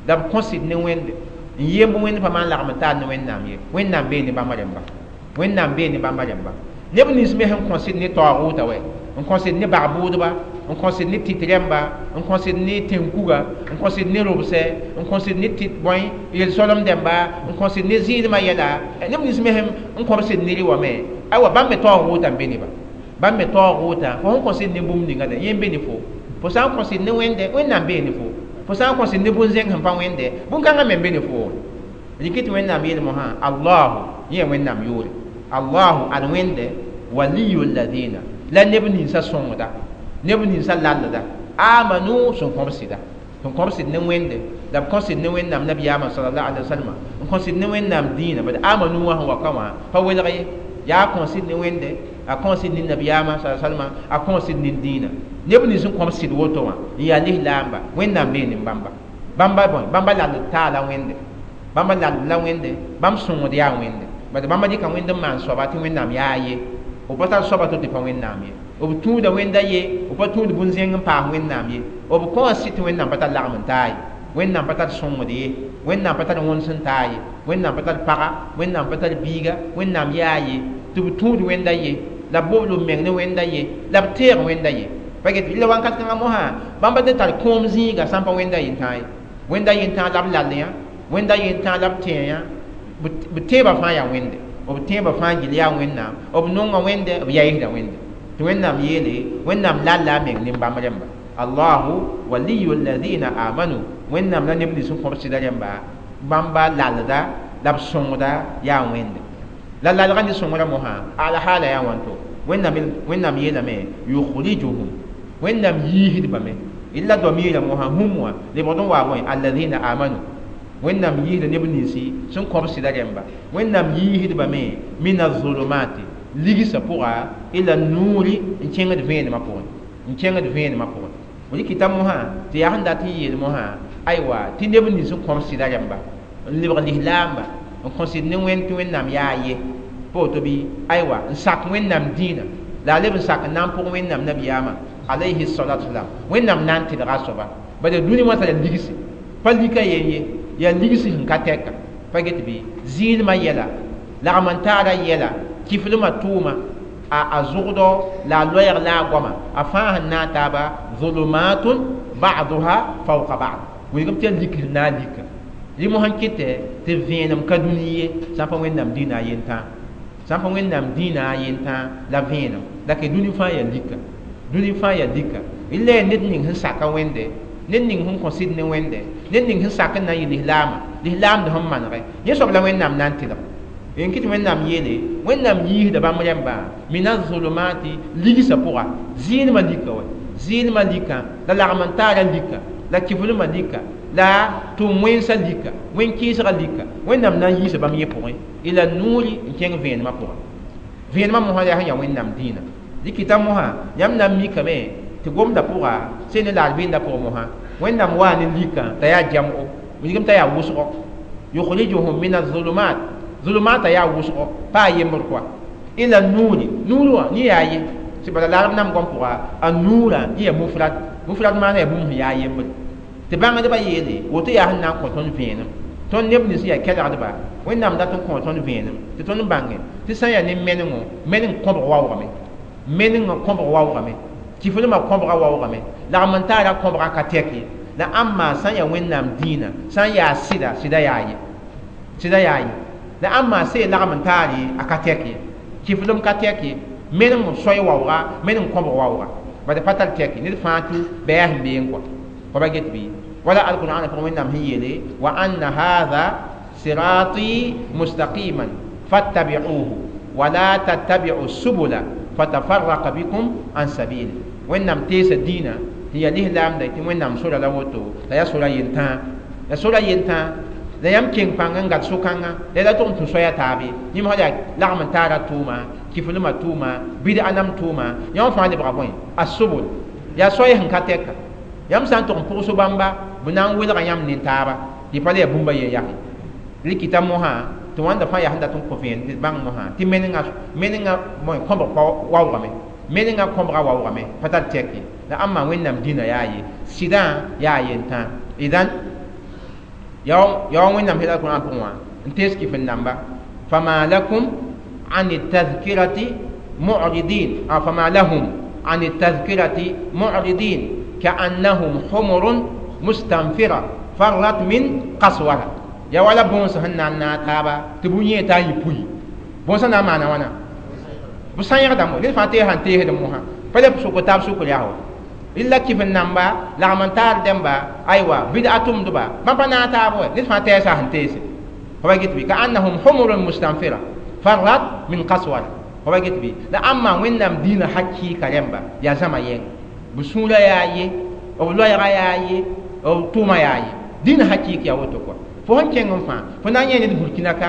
la b kõsd ne wẽnde n yemb wẽnd pa maan lagm n taar ne wẽnnaam ye wẽnnaam bee ne bãmba rẽmba wẽnnaam bee ne bãmba rẽmba neb nins me sẽn kõsd ne taoogʋʋta wɛ n kõsd ne bag-bʋʋdba n kõsd ne tɩt rẽmba n kõsd ne tẽn-kuga n kõsd ne robsɛ n kõsd ne tɩt bõe yel-soalem dẽmba n kõsd ne zɩɩdmã yɛla neb nins me sẽn n kõbsd ne rɩ wã me aywa bãmb me taoog-wʋʋta n be neba bãmb me taoog-wʋʋta fo sẽn kõsd ne bũmb ninga yẽ n be ne fo fo sã n kõsd ne wẽnde wẽnnaam bee ne fo fo sã n kõsd ne bũn-zẽng sẽn pa wẽnde bũn-kãngã me n be ne fo rɩkɩ tɩ wẽnnaam yeel mosã allahu yẽ yaa wẽnnaam yʋʋre allahu ad wẽnde waliyu ladina la neb ninsã sõngda neb ninsã lallda amanu sẽn kõb sɩda sẽn kõb sɩd ne wẽnde la b kõsd ne wẽnnaam nabiyaamã salallahu alaihi wasalama n kõsd ne wẽnnaam dĩinã bad amanu wã sẽn wa ka wã pa welg ye yaa kõsd ne wẽnde a kõsd ne nabiyaamã sa salama a kõsd ne dĩinã neb nins sẽn kõb sɩd woto wã n yaa lislaamba wẽnnaam bee ne bãmba bãmba bõe bãmba lald taala wẽnde bãmba lald la wẽnde bãmb sõngd yaa wẽnde bad bãmba dɩka wẽnd n maan soaba tɩ wẽnnaam yaa ye b pa tar soaba to tɩ pa wẽnnaam ye b tũuda wẽnda ye b pa tũud bũn-zẽng n paas wẽnnaam ye b kõ sɩ tɩ wẽnnaam pa tar lagm n taa ye wẽnnaam pa tar sõngd ye wẽnnaam pa tar wõns n taa ye wẽnnaam pa tar paga wẽnnaam pa tar biiga wẽnnaam yaa ye tɩ b tũud wẽnda ye la b bobl b meng ne wẽnda ye la b teeg wẽnda ye pa get la wãnkat kãngã mosã bãmba tɩ tar kõom zĩiga sã n pa wẽnda yentãag ye wẽnda yentãag la b lall yã wẽnda yentãag la b tẽe yã b teebã fãa yaa wẽnde b tẽebã fãa gil yaa wẽnnaam b nonga wẽnde b yaɩsda wẽnde tɩ wẽnnaam yeele wẽnnaam lalla a meng nin-bãmb rẽmba allahu waliyu alladina amanu wẽnnaam la neb nins n kõb sɩda rẽmba bãmba lalda la b sõngda yaa wẽnde la lalgã ne sõngrã mosã alhaala yaa wãnto wẽnnaam yeelame yukhrijuhum wẽnnaam yiisdbame illa domiirã mosã hũm wã lebgd n waa bõe alladina amanu wẽnnaam yiisda neb ninsi sẽn kõb sɩda rẽmba wẽnnaam yiisdbame min azulumati ligsã pʋga ila nuuri n kẽngd vẽenemã pʋgẽ n kẽngd vẽenemã pʋgẽ rɩkɩta mosã tɩ yaa sẽn dat n yeel mosã aywa tɩ neb nins n kõb sɩda rẽmba n lebg lislaamba n kõsd ne wẽnd tɩ wẽnnaam yaa ye pa woto bɩ aywa n sak wẽnnaam dĩinã la a leb n sak n na n pʋg wẽnnaam nabiyaamã alayhi salatu wasalam wẽnnaam na n tɩlga a soaba bala dũni wã tara ligsi pa lika yen ye yaa ligsi sẽn ka tɛka pa get bɩ zɩɩlmã yɛla lagm n taara yɛla kiflmã tʋʋma a zʋgdɔ la a loɛɛg la a goama a fãa sẽn naag taaba zulumatun ba'duha fawqa ba'd Wilgem tɩ yaa lik sẽn na n lika rɩ mosã n kɩtɛ tɩ vẽenem ka dũni ye sã n pa Wẽnnaam dĩinã a yentã sã n pa Wẽnnaam dĩinã a yentã la vẽenem la ke dũni fãa yaa lika dũni fãa yaa lika la yaa ned ning sẽn saka Wẽnde ned ning sẽn kõ sɩd ne Wẽnde ned ning sẽn sak n na n yɩ lislaamã lislaamd sẽn manegɛ yẽ soab la Wẽnnaam na n tɩlg n kɩt Wẽnnaam yeele Wẽnnaam yiisda bãmb rẽmbã mina zulumati ligsã pʋga zɩɩlmã lika wa zɩɩlmã lika la lagm n taara lika la kiflmã lika la tʋm wẽnsã lika wẽn-kɩɩsgã lika Wẽnnaam na n yiisa bãmb yẽ pʋgẽ ila nuuri n kẽng vẽenemã pʋga vẽenemã mosã yaa sẽn yaa Wẽnnaam dĩinã dɩkɩta mosã yãmb na n mikame tɩ gomdã pʋga sẽn ne la arbɩndã pʋgẽ mosã Wẽnnaam waa ne likã t'a yaa jam'o wilgem t'a yaa wʋsgo yukhrijuhum min azulumat zulumata yaa wʋsgo pa a yembr kɔa ila nuuri nuur wã yẽ yaa ye tɩ bala la arab nam gom pʋga a nuurã yẽ yaa mufrad mufrad maana yaa bũmb sẽn yaa yembr tɩ bãngdbã yeele woto yaa sẽn na n kõ tõnd vẽenem tõnd neb nins yaa kelgdba Wẽnnaam dat n kõ tõnd vẽenem tɩ tõnd bãnge tɩ sã n yaa ne menengo meneng kõbg waoogame menengã kõbg waoogame kiflmã kõbga waoogame lagm n taara kõbga ka tɛk ye la ãmma sã n yaa Wẽnnaam dĩinã sã n yaa sɩda sɩda yaa ye sɩda yaa ye la ãmma see lagm n taar ye a ka tɛk ye kiflem ka tɛk ye meneng soay waooga meneng kõbg waooga bad pa tar tɛk ned fãa tũ bɛɛ sẽn beeng kɔa fa ba get bɩ wala alqur'an pʋgẽ Wẽnnaam sẽn yeele wa anna hadha sirati mustaqiman fattabi'uhu wala tattabi'u subula fatafarraqa bikum an sabili Wẽnnaam teesa dĩinã tɩ yaa lislaamda tɩ Wẽnnaam sora la woto la yaa sora yentãa la sora yentãa la yãmb keng pãng n gat so-kãngã la la tʋg n tũ soaya taabe yẽm sã yaa lagm n taara tʋʋma kiflmã tʋʋma bɩd-a nam tʋʋma yãmb fãa lebga bõe a sobol yaa soay sẽn ka tɛka yãmb sã n tʋg n pʋgs bãmba b na n welga yãmb nin-taaba tɩ pa le yaa bũmba yen yake rɩkɩta mosã tɩ wãnda fãa yaa sẽn dat n kõ vẽen tɩ bãng mosã tɩ menengã bõe kõbg pa waoogame menengã kõbga waoogame pa tar tɛk ye la ãmba Wẽnnaam dĩnã yaa ye sɩdã yaa yentã idan yaa Wẽnnaam sẽn Alqur'an pʋgẽ wã n tees kɩf n namba fama lakum an tadhkirati mu'ridin fama lahum an tadhkirati mu'ridin ka'annahum humurun mustanfira farrat min qaswara ya wala bõns sẽn na n naag taaba tɩ bʋ yẽ t'a yɩ pui bõnsã na n maana wãna b sã-yẽgdame ned fãa tees sãn teesd mosã pa le sʋk taab sʋkr yaa wa illa kif n namba lagm n taar dẽmba aywa bɩd-a tʋmdba bãmb pa naag taab wa ned fãa tɛɛsa sẽn teese fa ba get bɩ ka annahum humurun mustanfira farrat min qaswara fa ba get bɩ la ãmma Wẽnnaam dĩinã hakɩɩka rẽmba yaa zãma yɛng b sũurã yaa ye b loɛɛga yaa ye b tʋʋma yaa ye dĩinã hakɩɩk yaa woto kɔa fo sẽn kẽng n fãa fo na n yẽ ned Burkina ka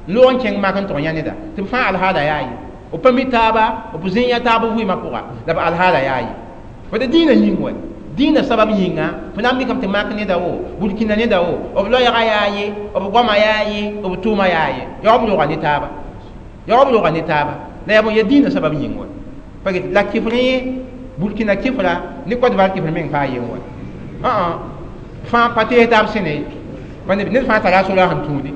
n loog n kẽng mak n tʋg yã neda tɩ b fãa alhaala yaa ye b pa mi taaba b zĩ yã taab vɩɩmã pʋga la b alhaala yaa ye fo tɩ dĩinã yĩng wa dĩinã sabab yĩnga fo na n mikame tɩ mak neda wo Burkina neda wo b loɛɛga yaa ye b goama yaa ye b tʋʋma yaa ye yaa b roga ne taaba yaa b roga ne taaba la yaa bõe yaa dĩinã sabab yĩng wa pa get la kifr yẽ Burkina kifra ne Côte d'Ivoire kifr meng paa yen wa fãa pa tees taab sẽne ned fãa tara a sora sẽn tũudi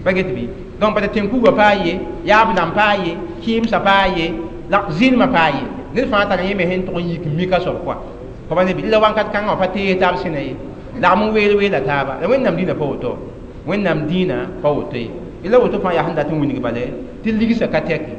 pa get bɩ donc bala tẽn-kugã paa ye yaab dãmb paa ye kɩɩmsã paa ye la zɩlmã paa ye ned fãa tara yẽ me sẽn tʋg n yik n mika soab kɔa fa ba ne bɩ la wãnkat kãngã wã pa tees taab sẽna ye lagm n weel weela taaba la Wẽnnaam dĩinã pa woto Wẽnnaam dĩinã pa woto ye la woto fãa yaa sẽn dat n wilg bale tɩ ligsã ka tɛke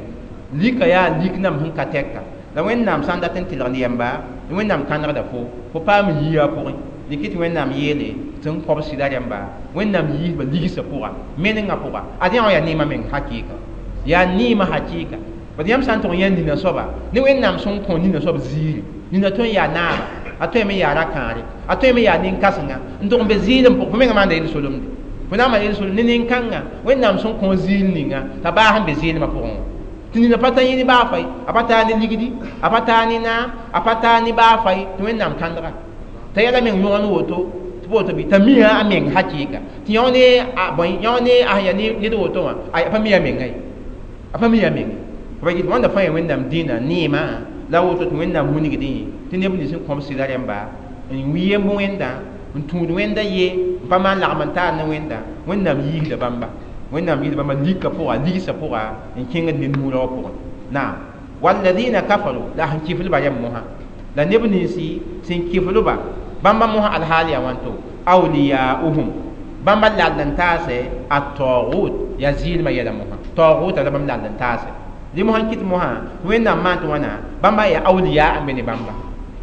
lika yaa lik nam sẽn ka tɛka la Wẽnnaam sã n dat n tɩlgd yɛmba Wẽnnaam kãnegda fo fo paam yia a pʋgẽ dɩk tɩ Wẽnnaam yeele tɩ n kõb sɩda rẽmba Wẽnnaam yiisba ligsã pʋga menengã pʋga ad yã wã yaa neemã meng hakɩɩka yaa neemã hakɩɩka bad yãmb sã n tʋg n yã nina soaba ne Wẽnnaam sẽn kõ nina soab ziiri nina tõe n yaa naaba a tõeme n yaa ra-kãare a tõeme yaa nin-kãsenga n tʋg n be ziir n pʋg fo mengã maanda yel-solemde fo na n maan yel-solem ne nin-kãngã Wẽnnaam sẽn kõ ziir ninga t'a baas n be zɩɩlmã pʋgẽ wã tɩ nina pa tar yẽ ne baa fay a pa taa ne ligdi a pa taa ne naam a pa taa ne baa fay tɩ Wẽnnaam kãndga t'a yɛla meng yõgen woto tɩ woto bɩ t'a mia a meng hakɩɩka tɩ yão ne a bõe yão ne a sẽn yaa ned woto wã a pa mi a menga ye a pa mi a menga fa yet wãnda fãa yaa Wẽnnaam dĩinã neemã la woto tɩ Wẽnnaam wilgdẽ tɩ neb nins n kõb sɩda rẽmba n wi yemb Wẽnda n tũud Wẽnda ye n pa maan lagm n taar ne Wẽnda Wẽnnaam yiisda bãmba Wẽnnaam yiisda bãmba lika pʋga ligsã pʋga n kẽngd ne nuurã wã pʋgẽ naam walladina kafaru la sẽn kiflba rẽmb mosã la neb ninsi sẽn kiflba bãmba mosã alhaal yaa wãnto Awliyauhum bãmba lall n taase at-taghut ya zɩɩlmã yɛla mosã taghutã la bãmb lall n taase dɩ mosã n kɩt mosã tɩ Wẽnnaam maan tɩ wãna bãmba yaa awliya n be ne bãmba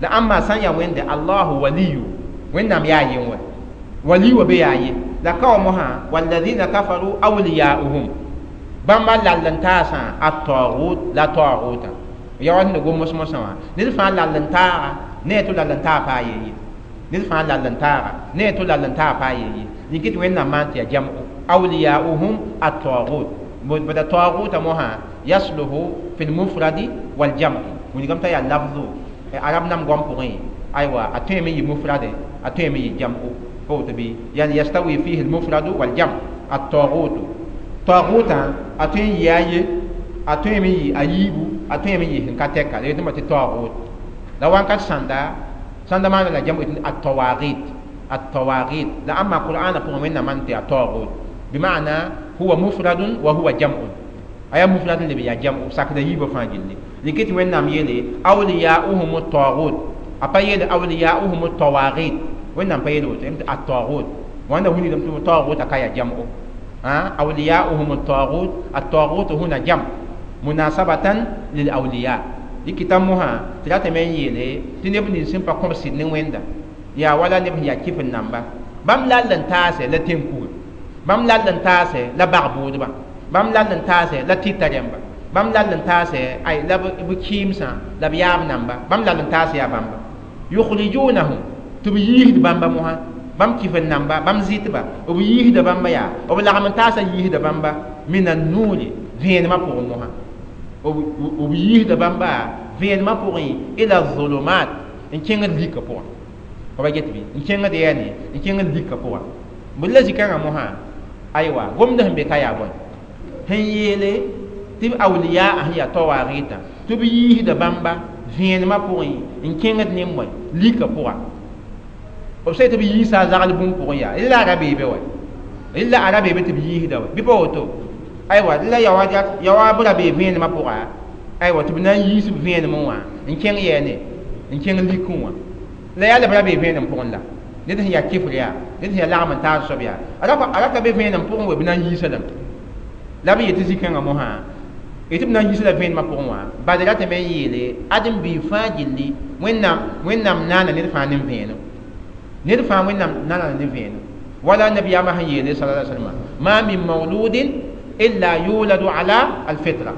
la ãmba sã n yaa Wẽnde Allahu waliyu Wẽnnaam yaa yen wɛ wali wa be yaa ye la ka wa mosã walladina kafaru awliyauhum bãmba lall n taasã at-taghut la taghutã ya wa sẽn gom mos-mosã wã ned fãa lall n taaga ne tɩ lall n taa paa ye ned fãa lall n taaga ne tɩ lall n taa paa ye yĩn tɩ Wẽnnaam maan tɩ yaa jam'u awliyauhum at-taghut bada taghuta mosã yasluhu fi lmufradi waljam'i wilgame t'a yaa lafzu arab nam goam pʋgẽ aywa a tõeme yɩ mufrade a tõeme yɩ jam'u pa woto bɩ yani yastawi fihi lmufradu waljam at-taghut taghutã a tõe n yɩ a ye a tõeme yɩ a yiibu a tõeme yɩ sẽn ka tɛka la yetɩ tɩ taghut la wãnkat sãnda sãnda maana la jam'u at-tawaghit at-tawaghit la ãmba qur'ana pʋgẽ Wẽnnaam maan tɩ at-taghut bima'na huwa mufradun wa huwa jam'un aya mufradun leb yaa jam'u sakda yiibã fãa gilli dɩk tɩ Wẽnnaam yeele awliyauhum at-taghut a pa yeele awliyauhum at-tawaghit Wẽnnaam pa yeele woto tɩ at-taghut wãnda wilgdame tɩ taghutã ka yaa jam'u awliyauhum at-taghut at-taghut huna jam munasabatan lil awliya dɩkɩta mosã tɩ ratame n yeele tɩ neb nins sẽn pa kõb sɩd ne Wẽnda yaa wala neb sẽn yaa kɩf n namba bãmb lall n taase la tẽn-kuga bãmb lall n taase la bag-bʋʋdba bãmb lall n taase la tɩta rẽmba bãmb lall n taase ay la b kɩɩmsã la b yaab namba bãmb lall n taase yaa bãmba yukhrijunahum tɩ b yiisd bãmba mosã bãmb kɩf n namba bãmb zɩtba b yiisda bãmba yaa b lagm n taasã yiisda bãmba min annuuri vẽenemã pʋgẽ mosã b yiisda bãmba vẽenemã pʋgẽ ila zulumat n kẽngd lika pʋgã pa get bɩ n kẽngd yɛɛne n kẽngd lika pʋgã bd la zikãngã mosã aywa gomd sẽn be ka yaa bõe sẽn yeele tɩ b awliya sẽn yaa tawaagɩtã tɩ b yiisda bãmba vẽenemã pʋgẽ n kẽngd ne bõe lika pʋga b sã tɩ b yiisa a zagl bũmb pʋgẽ yaa la a ra beebe wɛ la a ra beebe tɩ b yiisda wɛ bɩ pa woto aywa la yawa b ra bee vẽenemã pʋga aywa tɩ b na n yiis b vẽenemẽ wã n kẽng yɛɛne n kẽng likẽ wã la yaa la b ra bee vẽenem pʋgẽ la ned sẽn yaa kɩfr yaa ned sẽn yaa lagm n taas soab yaa a ra ka be vẽenem pʋgẽ we b na n yiisa lame la b yetɩ zĩ-kãngã mosã tɩ b na n yiisa la vẽenemã pʋgẽ wã bad ratame n yeele ãdem biig fãa gilli Wẽnnaam naana ned fãa ne vẽenem ned fãa Wẽnnaam naana ne vẽenem wala nabiyaamã sẽn yeele sala salama ma min mawludin illa yuladu ala alfitra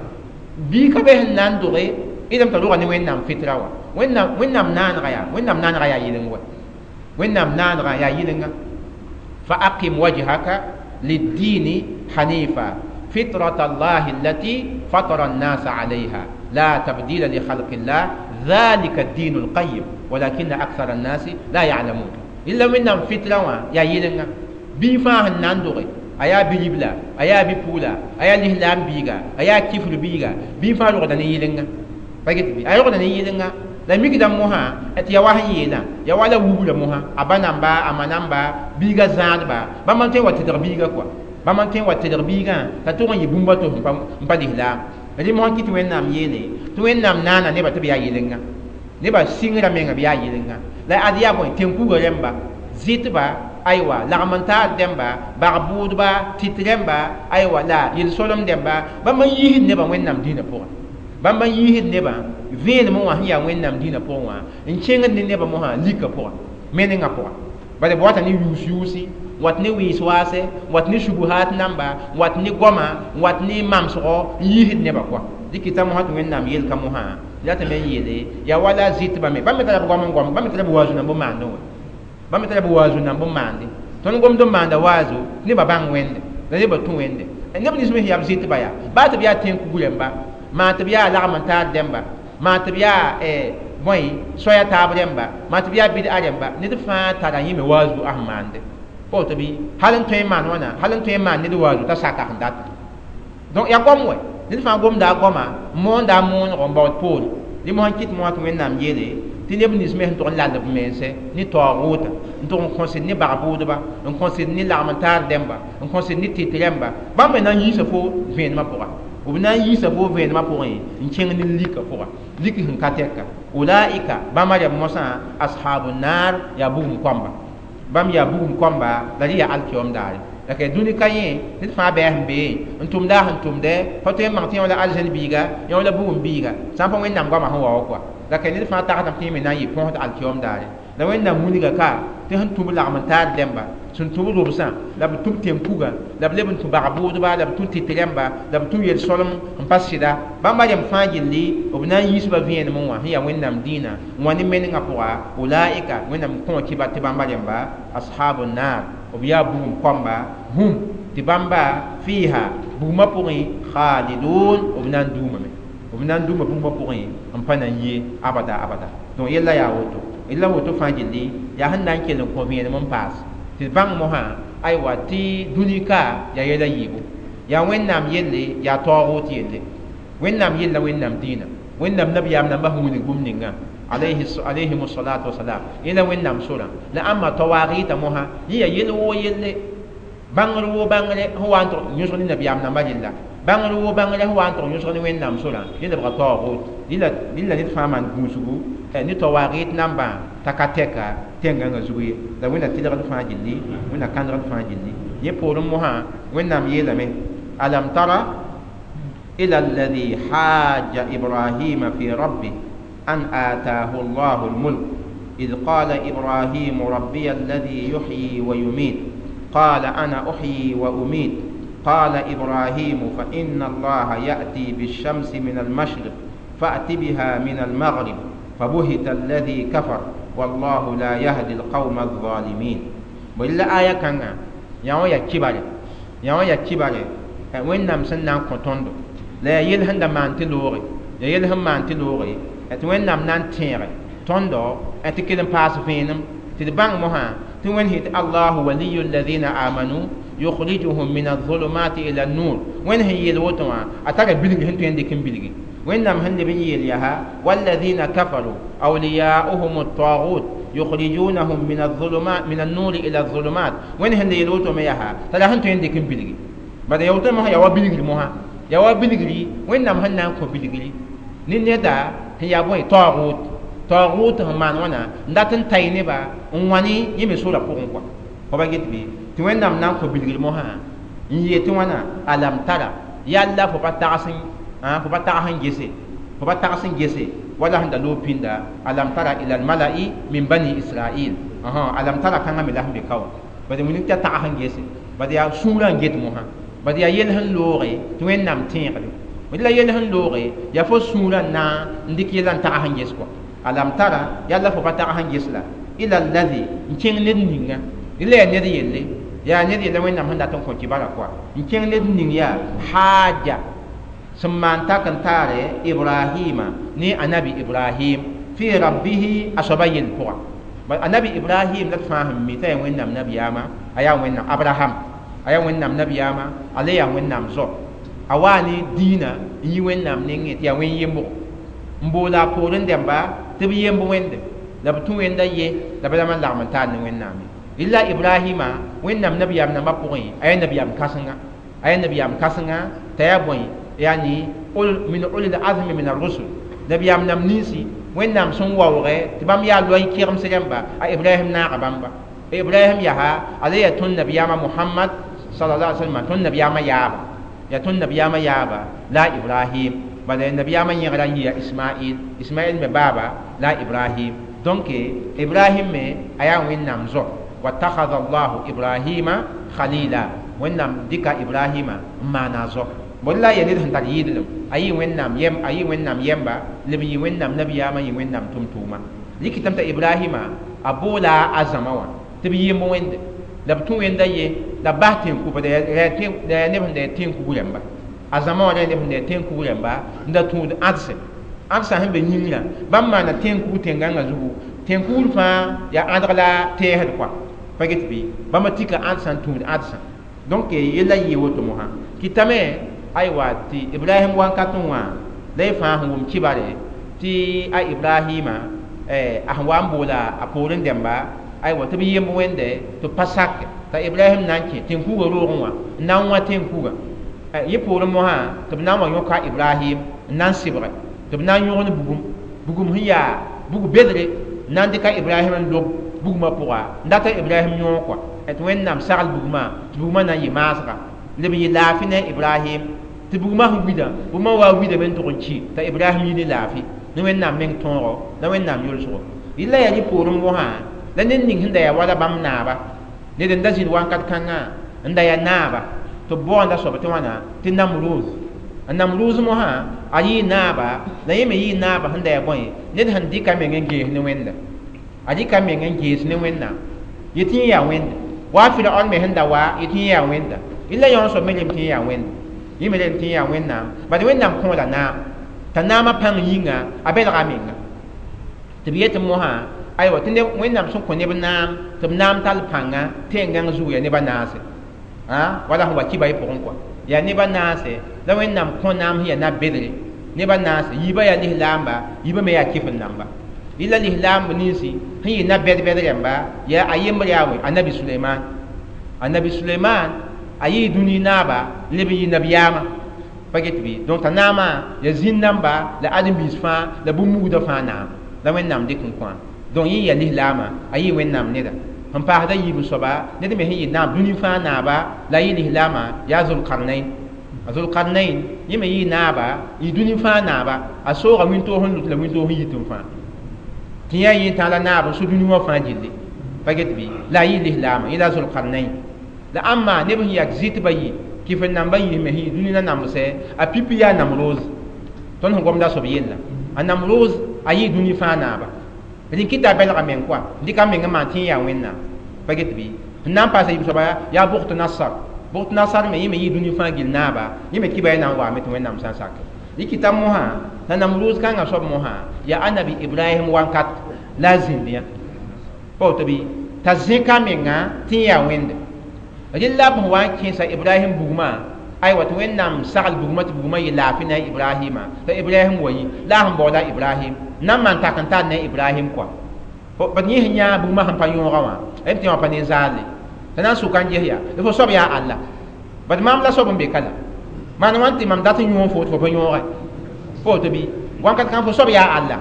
bii ka be sẽn na n doge idame t'a rʋga ne Wẽnnaam fitra wã Wẽnnaam naanega yaa Wẽnnaam naanega yaa yɩleng wɛ Wẽnnaam naanega yaa yɩlenga fa aqim wajhaka liddini hanifa فطرة الله التي فطر الناس عليها لا تبديل لخلق الله ذلك الدين القيم ولكن أكثر الناس لا يعلمون إلا من فطرة يا يلنا بيفا ناندوري أيا بيبلا أيا بيبولا أيا الإسلام بيغا أيا كفر بيغا بيفا لغدني يلنا باجت بي أيا لغدني يلنا la mikda mosã tɩ ya wa sẽn yeelã ya wala wubra mosã a ba namba a ma namba biiga zãadba bãmb n tõe n wa tɩdg biiga kɔa bãmb n tõe n wa tɩdg biigã t'a tʋg n yɩ bũmba to n pa lislaam rẽ mosã kɩ tɩ Wẽnnaam yeele tɩ Wẽnnaam naana nebã tɩ b yaa yɩlenga nebã sɩngrã menga b yaa yɩlenga la ad yaa bõe tẽn-kugã rẽmba zɩtba aywa lagm n taar dẽmba bag-bʋʋdba tɩt rẽmba aywa la yel-solem dẽmba bãmb n yiisd nebã Wẽnnaam dĩinã pʋgẽ bãmb n yiisd nebã vẽenemẽ wã sẽn yaa Wẽnnaam dĩinã pʋgẽ wã n kẽngd ne nebã mosã lika pʋgã menengã pʋgã bala b wata ne yuus-yuusi wat ne wɩɩs waase wat ne subuhaat namba wat ne goama wat ne mamsgo n yiisd nebã kɔa dɩkɩta mosã tɩ Wẽnnaam yelka mosã ratame n yeele yaa wala zɩtbã me bãmb me tara b goam n goam bãmb me tara b waazu nan bõn maandẽ wã bãmb me tara b waazu nan bõn maande tõnd gomd n maanda waazu nebã bãng Wẽnde la nebã tũ Wẽnde neb nins me sẽn yaa b zɩtba yaa baa tɩ b yaa tẽn-kug rẽmba maa tɩ b yaa lagm n taar dẽmba maa tɩ b yaa bõe soaya taab rẽmba maa tɩ b yaa bɩd-a rẽmba ned fãa tara yẽ me waazu a sẽn maande pa woto bɩ hal n tõe n maan wãna hal n tõe n maan ned waazu t'a saka sẽn data donc yaa goam wɛ ned fãa gomda a goama moonda a moonego n baood poore dɩ mosã n kɩt mosã tɩ Wẽnnaam yeele tɩ neb nins me sẽn tʋg n lall b mense ne taoogʋʋta n tʋg n kõsd ne bag-bʋʋdba n kõsd ne lagm n taar dẽmba n kõsd ne tɩt rẽmba bãmb me na n yiisa fo vẽenemã pʋga b na n yiisa fo vẽenemã pʋgẽ n kẽng ne lika pʋga lik sẽn ka tɛka ulaika bãmba rẽmb mosã ashabu naar yaa bugum koamba Bãmb yaa bugum kõmba la rẽ yaa alkiyoom daare. La ka dũni ka yẽ ned fãa bɩ a sẽn bee n tʋmda a sẽn tʋmdɛ pa tõe n bãng tɩ yẽ la aljẽn biiga yẽ la bugum biiga sã n pa Wẽnnaam goamã sẽn wa wa kɔa. La ka ned fãa tagsdame tɩ yẽ me na n yɩ põsd alkiyoom daare. La Wẽnnaam wilga ka tɩ sẽn tũ b lagm n taar dẽmba, sẽn tũ b robsã, la b tũ b tẽn-kuga, la b leb n tũ bag-bʋʋdba, la b tũ tɩt rẽmba, la b tũ yel-solem n pa sɩda. Bãmba rẽmb fãa gilli b na n yiisba vẽenem wã sẽn yaa Wẽnnaam dĩinã n wa ne menengã pʋga. Ulaika Wẽnnaam kõ kɩbar tɩ bãmba rẽmba ashabu naar, b yaa bugum kõmba, hum tɩ bãmba fiiha bugmã pʋgẽ khalidun, b na n duumame, b na n duuma bugmã pʋgẽ n pa na n yee abada abada. Donc yella yaa woto, yella woto fãa gilli yaa sẽn na n kell n kõ vẽenem n paas tɩ bãng mosã aywa tɩ dũni ka yaa yɛla yiibu, yaa Wẽnnaam yelle, yaa taoog yelle. Wẽnnaam yella Wẽnnaam dĩinã, Wẽnnaam nabiyaam nambã sẽn wilg bũmb ninga alayhim salatu wasalam, yẽla Wẽnnaam sorã. La ãmba tawaagɩta mosã yẽ yaa yel woo yelle, bãngr woo bãngre sẽn wa n tʋg yõsg ne nabiyaam nambã rella, bãngr woo bãngre sẽn wa n tʋg yõsg ne Wẽnnaam sorã, yẽ lebga taoog. Rɩla ned fãa maan gũusgu ne tawaagɩt nambã t'a ka tɛka tẽngãngã zug ye. La Wẽnna tɩlgd fãa gilli, Wẽnna kãndgd fãa gilli. Yẽ poorẽ mosã Wẽnnaam yeelame alam tara ila alladhi hajja ibrahima fi rabbih an ataahu allahu almulk إذ قال إبراهيم ربي الذي يحيي ويميت قال أنا أحيي وأميت قال إبراهيم فإن الله يأتي بالشمس من المشرق فأت بها من المغرب فبهت الذي كفر والله لا يهدي القوم الظالمين. وإلا آية كان يا يا كبار يا يا كبار وين نام سنان كوتوندو لا يلهن دمان تلوري يا يلهن مان تلوري وين نام نان تيري توندو أتكلم باس فينم تدبان مها تون هيت الله ولي الذين آمنوا يخرجهم من الظلمات إلى النور. وين هي الوتوا أتارى بلغ هنتو عندك بلغ وين نام هن بني يليها والذين كفروا أولياؤهم الطاغوت يخرجونهم من الظلمات من النور إلى الظلمات. وين هن يلوتوا ميها ترى هنتو عندك بلغ بعد يوتوا مها يوا بلغ مها يوا بلغ وين نام هن نام بلغ نيندا هي أبوي طاغوت طاغوت هم مان وانا ndatan tayne ba nwani yeme sura pʋgẽ kɔa fo ba get bɩ tɩ Wẽnnaam na n kõ bilgr mosã n yee tɩ wãna alam tara yalla fo pa tags fo pa tags n gese fo pa tags n gese wala sẽn da loog pĩnda alam tara ila almalai min bani israil alam tara kãngã me la sẽn be ka wã bad wilg t'a tags n gese bad yaa sũurã n get mosã bad yaa yel sẽn looge tɩ Wẽnnaam tẽegre la yel sẽn looge yaa fo sũurã n na n dɩk yella n tags n ges kɔa alam tara yalla fo pa tags n ges la ila alladhi n kẽng ned ninga la yaa ned yelle yaa ned yelle Wẽnnaam sẽn dat n kõ kibara kɔa n kẽng ned ning yaa haaja sẽn maan tak n taare Ibrahima ne anabi Ibrahim fi rabbihi a soaba yell pʋga. Anabi Ibrahim la d fãa sẽn mi t'a yaa Wẽnnaam nabiyaama a yaa Wẽnnaam Abraham a yaa Wẽnnaam nabiyaama a le yaa Wẽnnaam zo a waa ne dĩinã n yi Wẽnnaam nengẽ tɩ yaa wẽn-yembgo n boola a poorẽ dẽmba tɩ b yemb wẽnde la b tũ wẽnda ye la b rãmb n lagm n taar ne Wẽnnaam ye. Rɩla Ibrahima Wẽnnaam nabiyaam nambã pʋgẽ a yaa nabiyaam kãsenga a yaa nabiyaam kãsenga t'a yaa bõe yani min ulil azmi min ar-rusul nabiyaam nam ninsi Wẽnnaam sẽn waoogɛ tɩ bãmb yaa loy kɩgems rẽmba a Ibrahim naaga bãmba. Ibrahim yaa a le yaa tõnd nabiyaamã Muhammad sallallahu alaihi wasallam tõnd nabiyaamã yaaba yaa tõnd nabiyaamã yaaba la Ibrahim bala nabiyaamã yẽgra n yɩ yaa Ismail Ismail me baaba la Ibrahim. Donc Ibrahim me a yaa Wẽnnaam zo watakhadha Allahu Ibrahima khalila Wẽnnaam dɩka Ibrahima n maana zo bõe la yaa ned sẽn tar yɩɩdlem a yɩ Wẽnnaam yɛm a yɩ Wẽnnaam yɛmba leb n yɩ Wẽnnaam nabiyaamã yɩ Wẽnnaam tʋm-tʋʋma rɩkɩtame t'a Ibrahima a boola a zãma wã tɩ b yemb wẽnde la b tũ wẽnda ye la b bas tẽn-kuga la yaa neb sẽn da yaa tẽn-kug rẽmba a zãma wã la yaa neb sẽn da yaa tẽn-kug rẽmba n da tũud ãdse ãdsã sẽn be yĩngrã bãmb maana tẽn-kug tẽn-gãngã zugu tẽn-kugr fãa yaa ãdg la tɛɛsd kɔa pa get bɩ bãmba tika ãdsã n tũud ãdsã donc yella yɩ woto mosã kɩtame aywa tɩ Ibrahim wankatẽ wã la y fãa sẽn wʋm kibare tɩ a Ibrahima a sẽn wa n boola a poorẽ dẽmba aywa tɩ b yemb wẽnde tɩ b pa sake t'a Ibrahim na n kẽ tẽn-kugã roogẽ wã n na n wã tẽn-kugã yẽ poorẽ mosã tɩ b na n wa yõka Ibrahim n na n sɩbge tɩ b na n yõgen bugum bugum sẽn yaa bug bedre n na n dɩka Ibrahim n lob bugmã pʋga n data Ibrahim yõog kɔa tɩ Wẽnnaam sagl bugmã tɩ bugmã na n yɩ maasga leb n yɩ laafɩ ne Ibrahim tɩ bugmã sẽn wida bugmã wa widame n tʋg n ki t'a Ibrahim yi ne laafɩ ne Wẽnnaam meng tõogo la Wẽnnaam yolsgo yella yaa rɩ poorẽ mosã la ned ning sẽn da yaa wala bãmb naaba ned n da zĩnd wãnkat kãngã n da yaa naaba tɩ b baoonda soab tɩ wãna tɩ Namruz a Namruz mosã a yɩɩ naaba la yẽ me yɩɩ naaba sẽn da yaa bõe ned sẽn dɩka meng n gees ne Wẽnda a dɩka meng n gees ne Wẽnnaam yetɩ yẽ yaa Wẽnda wa Firaon me sẽn da wa yetɩ yẽ yaa Wẽnda yella yõ soab me lem tɩ yẽ yaa Wẽnda yẽ me lem tɩ yẽ yaa Wẽnnaam bad Wẽnnaam kõola naam t'a naamã pãng yĩnga a belga menga tɩ b yetɩ mosã aywa tɩ Wẽnnaam sẽn kõ neb naam tɩ b naam tall pãnga tẽn-gãng zug yaa neb a naase wala sẽn wa kiba y pʋgẽ kɔa yaa neb a naase la Wẽnnaam kõ naam sẽn yaa na-bedre neb a naase yiibã yaa lislaamba yiibã me yaa kɩf-n-namba yella lislaamb ninsi sẽn yɩ na-bɛd-bɛd rãmba yaa a yembr yaa wẽ anabi Suleiman anabi Suleiman a yɩɩ dũni naaba n leb n yɩ nabiyaamã pa get bɩ donc t'a naamã yaa zĩn-namba la ãdem-biis fãa la bũmb-mugdã fãa naam la Wẽnnaam dɩk n kõ donc yẽ yaa lislaamã a yɩ Wẽnnaam neda sẽn paasda yiib n soaba ned me sẽn yɩ naam dũni fãa naaba la a yɩ lislaamã yaa Zulkarnain a Zulkarnain yẽ me yɩ naaba yɩ dũni fãa naaba a sooga wĩntoog sẽn lut la wĩntoog sẽn yit n fãa tɩ yã yẽ tã la naab n so dũni wã fãa gilli pa get bɩ la a yɩ lislaamã yẽ la Zulkarnain la ãmma neb sẽn yak zɩtbã yɩ kɩf-n-nambã yisme sẽn yɩ dũni na namsɛ a pipi yaa Namroz tõnd sẽn gomda soab yella a Namroz a yɩ dũni fãa naaba rẽn kɩta a belga meng kɔa dɩka meng n maan tɩ yẽ yaa Wẽnnaam pa get bɩ n na n paasa yiib soaba yaa Bugt Nasar Bugt Nasar me yẽ me yɩ dũni fãa gill naaba yẽ me kiba yã na n waame tɩ Wẽnnaam sã n sak rɩ kɩta mosã la Namruz kãngã soab mosã yaa anabi Ibrahim wãnkat la a zĩnd yã pa woto bɩ t'a zẽka menga tɩ yẽ yaa Wẽnde rẽ la b sẽn wa n kẽesa Ibrahim bugmã aywa tɩ Wẽnnaam sagl bugmã tɩ bugmã yɩ laafɩ ne a Ibrahima t'a Ibrahim wa yĩ la a sẽn baooda Ibrahim na n maan tak n tar ne Ibrahim kɔa bad yẽ sẽn yãa bugmã sẽn pa yõoga wã m tɩ wã pa ne zaalle t'a na n sʋka n ges yaa la fo soab yaa Allah bad maam la soab n be ka la maan wãn tɩ mam dat n yõog fo tɩ fo pa yõoge fo woto bɩ wãnkat kãng fo soab yaa Allah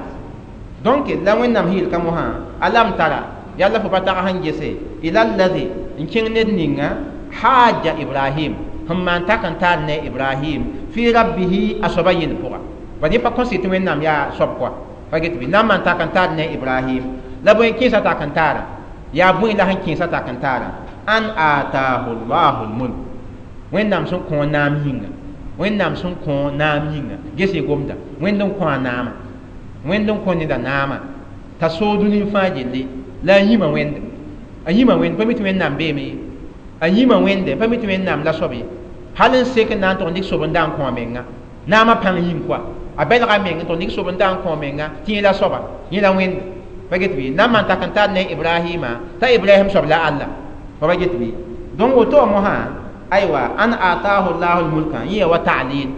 donc la Wẽnnaam sẽn yel ka mosã alam tara yalla fo pa tag sẽn gese ila allazi n kẽng ned ninga haja Ibrahim sẽn maan tak n tar ne Ibrahim fi rabbihi a soaba yel pʋga bad yẽ pa kõs tɩ Wẽnnaam yaa soab kɔa pa get bɩ na n maan tak n tar ne Ibrahim la bõe kẽesa tak n taara yaa bõe la sẽn kẽesa tak n taara an ataahu llahu lmulk Wẽnnaam sẽn kõ naam yĩnga Wẽnnaam sẽn kõ naam yĩnga ges y gomda Wẽnd n kõ a naama Wẽnd n kõ neda naama t'a soog dũni fãa gilli la a yĩma Wẽnde a yĩma Wẽnd pa mi tɩ Wẽnnaam beeme ye a yĩma Wẽnde pa mi tɩ Wẽnnaam la soab ye hal n sek n na n tʋg n dɩk sob n da n kõ a menga naamã pãng yĩng kɔa a belga meng n tʋg n dɩk sob n da n kõ a menga tɩ yẽ la soaba yẽ la Wẽnde pa get bɩ na n maan tak n tar ne Ibrahima t'a Ibrahim soab la Allah pa ba get bɩ donc woto wã mosã aywa an ataahu llahu lmulka yẽ ya wa ta'lil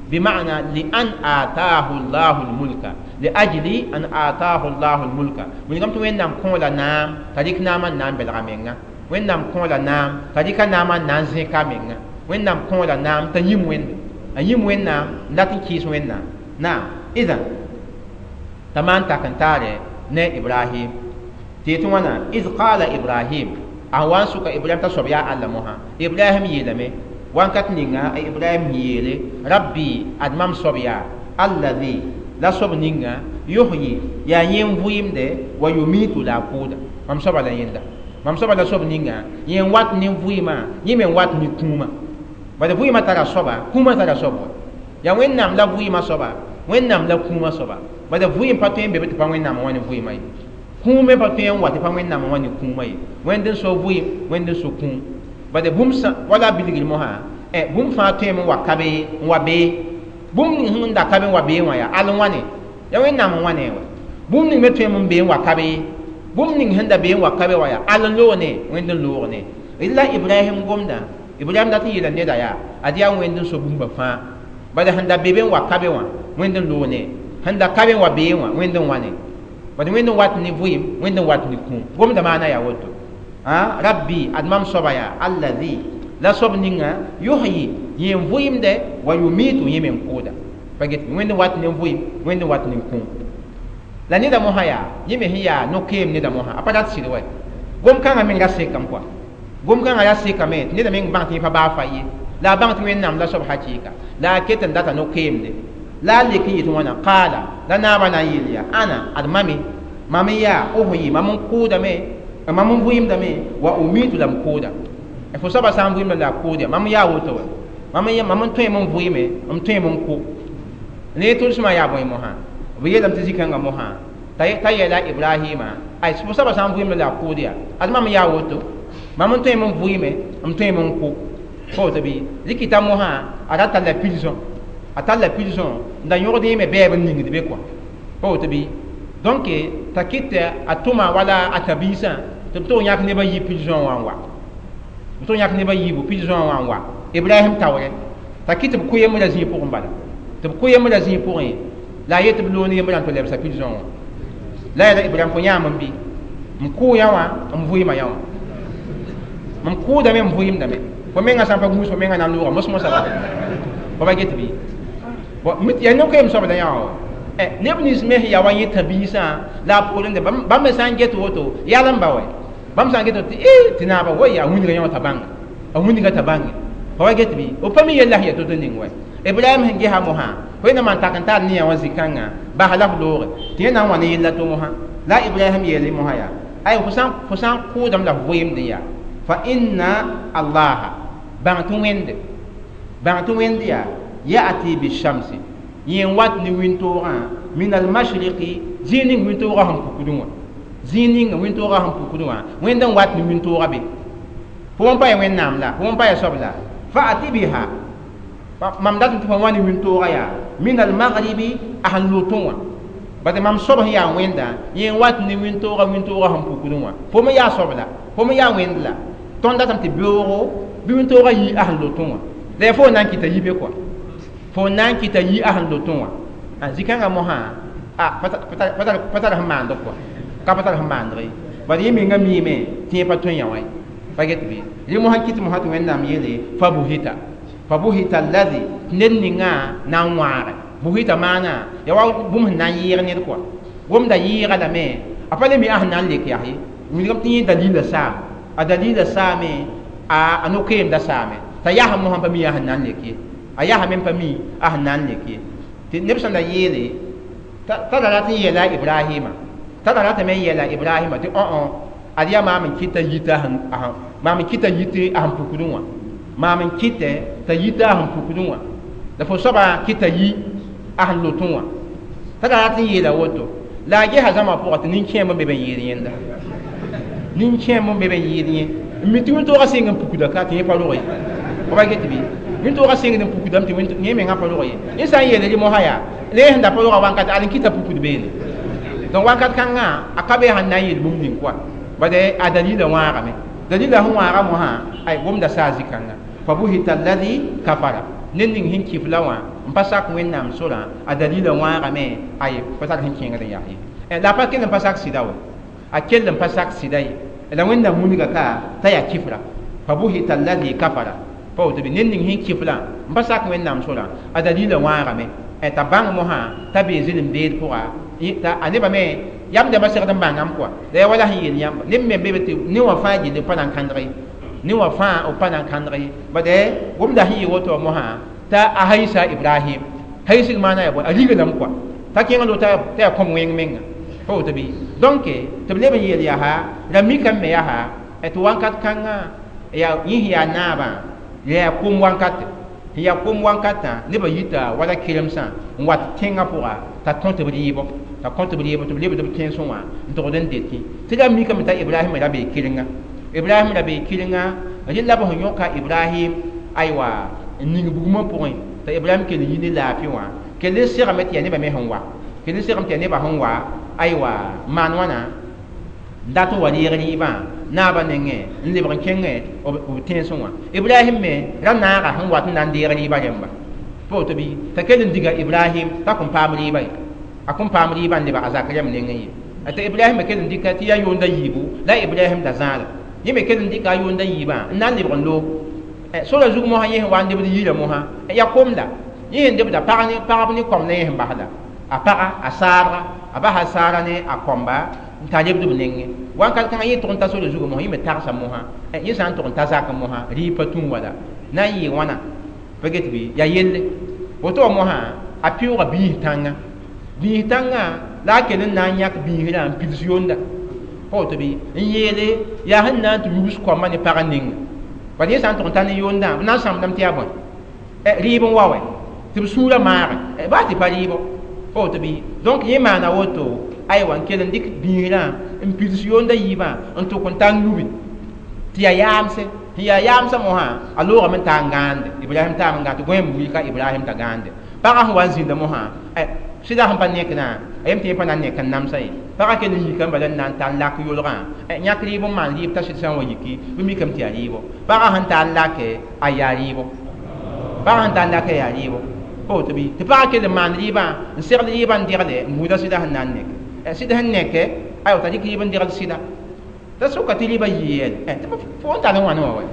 bima'na li an ataahu llahu lmulka li ajli an ataahu llahu lmulka wilgame tɩ Wẽnnaam kõola naam t'a dɩk naamã n na n belga menga Wẽnnaam kõola naam t'a dɩka naamã n na n zẽka menga Wẽnnaam kõola naam t'a yĩm Wẽnde a yĩm Wẽnnaam n dat n kɩɩs Wẽnnaam naam idan t'a maan tak n taare ne Ibrahim tɩ yetɩ wãna iz qala Ibrahim a wa n sʋka Ibrahim t'a soab yaa Allah mosã Ibrahim yeelame wãnkat ninga a Ibrahim yeele rabbi ad mam soab yaa allazi la soab ninga yuhyi yaa yẽ n vɩɩmde wa yumitu la a kʋʋda mam soaba la yẽnda mam soaba la soab ninga yẽ n wat ne vɩɩmã yẽ me n wat ne kũumã bad vɩɩmã tara soaba kũumã tara soab wa yaa Wẽnnaam la vɩɩmã soaba Wẽnnaam la kũumã soaba bad vɩɩm pa tõe n be be tɩ pa Wẽnnaam wã ne vɩɩmã ye kũum me pa tõe n wa tɩ pa Wẽnnaam wã ne kũumã ye Wẽnd n so vɩɩm Wẽnd n so kũum bad bũmb wala bilgr mosã bũmb fãa tõeme n wa ka be n wa bee bũmb ning sẽn da ka be n wa bee wã yaa al n wãne yaa Wẽnnaam n wãne wa bũmb ning me tõeme n bee n wa ka be bũmb ning sẽn da bee n wa ka be wã yaa al n loog ne Wẽnd n loog ne la Ibrahim gomdã Ibrahim dat n yeela neda yaa ad yaa Wẽnd n so bũmba fãa bala sẽn da be be n wa ka be wã Wẽnd n loog ne sẽn da ka be n wa bee wã Wẽnd n wãne bad Wẽnd n wat ne vɩɩm Wẽnd n wat ne kũum gomdã maana yaa woto rabbi ad mam soaba yaa allazi la soab ninga yuhyi yẽ n vɩɩmde wa yumitu yẽ me n kʋʋda pa get Wẽnd n wat ne vɩɩm Wẽnd n wat ne kũum la neda mosã yaa yẽ me sẽn yaa no-keem neda mosã a pa rat sɩd wɛ Gom-kãngã menga sekame kɔa gom-kãngã yaa sekame tɩ neda meng bãng tɩ yẽ pa baa fa ye la a bãng tɩ wẽnnaam la soab hakɩɩka la a ket n data no-keemde la a lek n yetɩ wãna qaala la naabã na n yeel yaa ana ad mame mam n yaa uhi mam n kʋʋdame mam n vɩɩmdame wa umitu la m kʋʋda fo soaba sã n vɩɩmda la a kʋʋd ya mam n yaa woto wa mam n tõeme n vɩɩme m tõeme n kʋ ne tʋlsmã yaa bõe mosã b yeelame tɩ zĩ-kãngã mosã t'a yeela Ibrahima ay fo soaba sã n vɩɩmda la a kʋʋd ya ad mam n yaa woto mam n tõeme n vɩɩme m tõeme n kʋ pa woto bɩ rɩkɩta mosã a ra talla prison a talla prison n da yõgd yẽme bɛɛb n ningd be kɔa pa woto bɩ donc t'a kɩt a tʋma wala a tabiisã tɩ b tog yãk nebã yi prison wã n wa b tog yãk nebã yiibu prison wã n wa Ibrahim taoore t'a kɩt b kʋ yembrã zĩig pʋgẽ bala tɩ b kʋ yembrã zĩig pʋgẽ la a yet tɩ b loog ne yembrã n tɩ lebsa prison wã la yeela Ibrahim fo yãam n bɩ m kʋʋ yã wã m vɩɩma yã wã m kʋʋdame m vɩɩmdame fo menga sã n pa gũus fo menga na n loogã mos-mosã bala fa ba get bɩ bon yaa no-keem soab la yã wã neb nins me sẽn yaa wa yẽ tabiisã la a poorẽ bãmb me sã n get woto yal n ba wɛ bãmb sã n get tɩ tɩ naaba woy a wĩndga yã wã t'a bãnga a wĩndga t'a bãnge fa wa get bɩ b pa mi yella sẽn yaa to-to ning wɛ Ibrahim sẽn gesa mosã fo na maan tak n tar ne yã wã zĩ-kãngã bas la f looge tɩ yẽ na n wa ne yella to mosã la Ibrahim yeele mosã yaa ay fo sã n kʋʋdame la f vɩɩmdẽ yaa fa inna allaha bãng tɩ wẽnd yaa ya'ti bishamsi yẽ n wat ne wĩntoogã min almashriqi zĩig ning wĩntoogã sẽn pukdẽ wã zĩig ning wĩntoogã sẽn pukdẽ wã wẽnd n wat ne wĩntoogã be fo n pa ya wẽnnaam la fo n pa ya soab la fa'ati biha mam datẽ tɩ fo wa ne wĩntoogã yaa min almaghribi a sẽn lotẽ wã bad mam soab sẽn yaa wẽnda yẽ n wat ne wĩntoogã wĩntoogã sẽn pukdẽ wã fo me yaa soab la fo me yaa wẽnd la tõnd datame tɩ beoogo bɩ wĩntoogã yi a sẽn lotẽ wã la yaa fo n na n kɩta yi be kɔa fo na n kɩta yi a sẽn lotẽ wã a zĩ-kãngã mosã a pa tar sẽn maand kɔa ka pa tar sẽn maandg ye bad yẽ menga miime tɩ yẽ pa tõe yã wã ye pa get bɩ rẽ mosã kɩt mosã tɩ wẽnnaam yeele fa buhita fa buhita alladhi ned ninga na n wãage buhita maana ya wa bũmb sẽn na n yɩɩg ned kɔa gomda yɩɩga lame a pa le mi a sẽn na n lek yaa ye wilgame tɩ yẽ dalila saam a dalila saame a no-keemda saame t'a yaa mosã pa mi a sẽn na n lek ye a yaa me pa mi a sẽn na n lek ye tɩ neb sẽn da yeele t'a ra rat n yeela Ibrahima t'a ra ratame n yeela Ibrahima tɩ õ ad yaa maam n kɩt t'a yita maam n kɩt t'a yit a sẽn pukdẽ wã maam n kɩtɛ t'a yita a sẽn pukdẽ wã la fo soaba kɩt t'a yi a sẽn lotẽ wã t'a ra rat n yeela woto la a gesa zãma pʋgã tɩ nin-kẽemb n be b n yɩɩd yẽnda nin-kẽemb n be b n yɩɩd yẽ n mi tɩ wĩntoogã sɩng n pukda ka tɩ yẽ pa rog ye fa ba get bɩ wĩntoogã sɩngd n pukdame tɩ yẽ mengã pa rog ye yẽ sã n yeele rɩ mosã yaa la yẽ sẽn da pa roga wãnkat ad n kɩta pukd beene donc wãnkat kãngã a ka be sẽn na n yeel bũmb ning kɔa bad a dalila wãagame dalila sẽn wãaga mosã ay gomda saa zĩ-kãngã fa buhita alladhi kafara ned ning sẽn kɩf la wã n pa sak wẽnnaam sorã a dalila wãagame ay pa tar sẽn kẽengd n yaa ye la a pa kell n pa sak sɩda wa a kell n pa sak sɩda ye la wẽnnaam wilga ka t'a yaa kifra fa buhita alladhi kafara pa woto bɩ ned ning sẽn kiflã n pa sak wẽnnaam sorã a dalila wãagame t'a bãng mosã t'a bee zɩlem-beed pʋga t'a a nebã me yam dãmbã segd n bãngame kɔa la yaa wala sẽn yeel yãmba neb me be tɩ ne wã fãa gilli pa na n kãndg ye ne wã fãa b pa na n kãndg ye bad gomda sẽn yɩ woto mosã t'a a haisa Ibrahim haisg maana yaa bõe a riglame kɔa t'a kẽng lo t'a yaa kõm wẽng menga pa woto bɩ donc tɩ b leb n yeel yaa ra mikame me yaa tɩ wãnkat kãngã yaa yẽ sẽn yaa naabã yaa kom wankate sẽn yaa kom wankatã nebã yita wala keremsã n wat tẽngã pʋga t'a tõt b rɩɩbɔ t'a kõt b rɩɩbɔ tɩ b lebd b tẽnsẽ wã n togd n detẽ tɩ ra mikame t'a Ibrahim ra bee kɩrenga Ibrahim ra bee kɩrenga rẽ la b sẽn yõka Ibrahim aywa n ning bugmã pʋgẽ t'a Ibrahim kell n yi ne laafɩ wã kell n segame tɩ yaa nebã me sẽn wa kell n segame tɩ yaa nebã sẽn wa aywa maan wãna n dat n wa reeg rɩɩbã naabã nengẽ n lebg n kẽngẽ b tẽnsẽ wã Ibrahim me ra naaga sẽn wat n na n deeg rɩɩbã rẽmba pa woto bɩ t'a kell n diga Ibrahim t'a kõn paam rɩɩbã ye a kõn paam rɩɩbã n lebg a zak rẽmb nengẽ ye t'a Ibrahim me kell n dɩka tɩ yaa yʋʋnda yiibu la Ibrahim da zãada yẽ me kell n dɩka a yʋʋnda yiibã n na n lebg n loog sora zug mosã yẽ sẽn wa n lebd yirã mosã yaa kom la yẽ sẽn lebda pagb ne kõm la yẽ sẽn bas la a paga a saabga a basa saara ne a kõmba n t'a lebd b nengẽ wãnkat kãngã yẽ tʋg n ta sore zugã mosã yẽ me tagsa mosã yẽ sã n tʋg n ta zakẽ mosã rɩɩb pa tũ wala na n yɩ wãna pa get bɩ yaa yelle woto wã mosã a pɩʋʋga biis tãngã la a kell n na n yãk biisrã n pids yonda pa woto bɩ n yeele yaa sẽn na n tɩ yubs koambã ne pagã ninga bad yẽ sã n tʋg n ta ne yondã b na n sãmbdame tɩ yaa bõe rɩɩb n wa wɛ tɩ b sũurã maage baa tɩ pa rɩɩbɔ pa woto bɩ donc yẽ maana woto aywa n kell n dɩk biisrã n pids yonda yiibã n tʋk n ta n yubi tɩ yaa yaamse sẽn yaa yaamsã mosã a loogame n taa n gãande Ibrahim taam n gãand tɩ gõeem wilka Ibrahim t'a gãande pagã sẽn wa n zĩnda mosã sɩda sẽn pa nekdã a yem tɩ yẽ pa na n nek n namsa ye pagã kell n yika n bala n na n tar n lak yolgã yãk rɩɩb n maan rɩɩb t'a sɩd sã n wa yiki bɩ mikame tɩ yaa rɩɩbɔ pagã sẽn tar n lake a yaa rɩɩbɔ pagã sẽn tar n lake a yaa rɩɩbɔ pa woto bɩ tɩ pagã kell n maan rɩɩbã n segl rɩɩbã n degle n buuda sɩda sẽn na n neke sɩd sẽn neke aywa t'a dɩk rɩɩb n degl sɩda t'a soka tɩ rɩɩbã yɩ yɛl tɩ fo n tar n wãne wã wɛ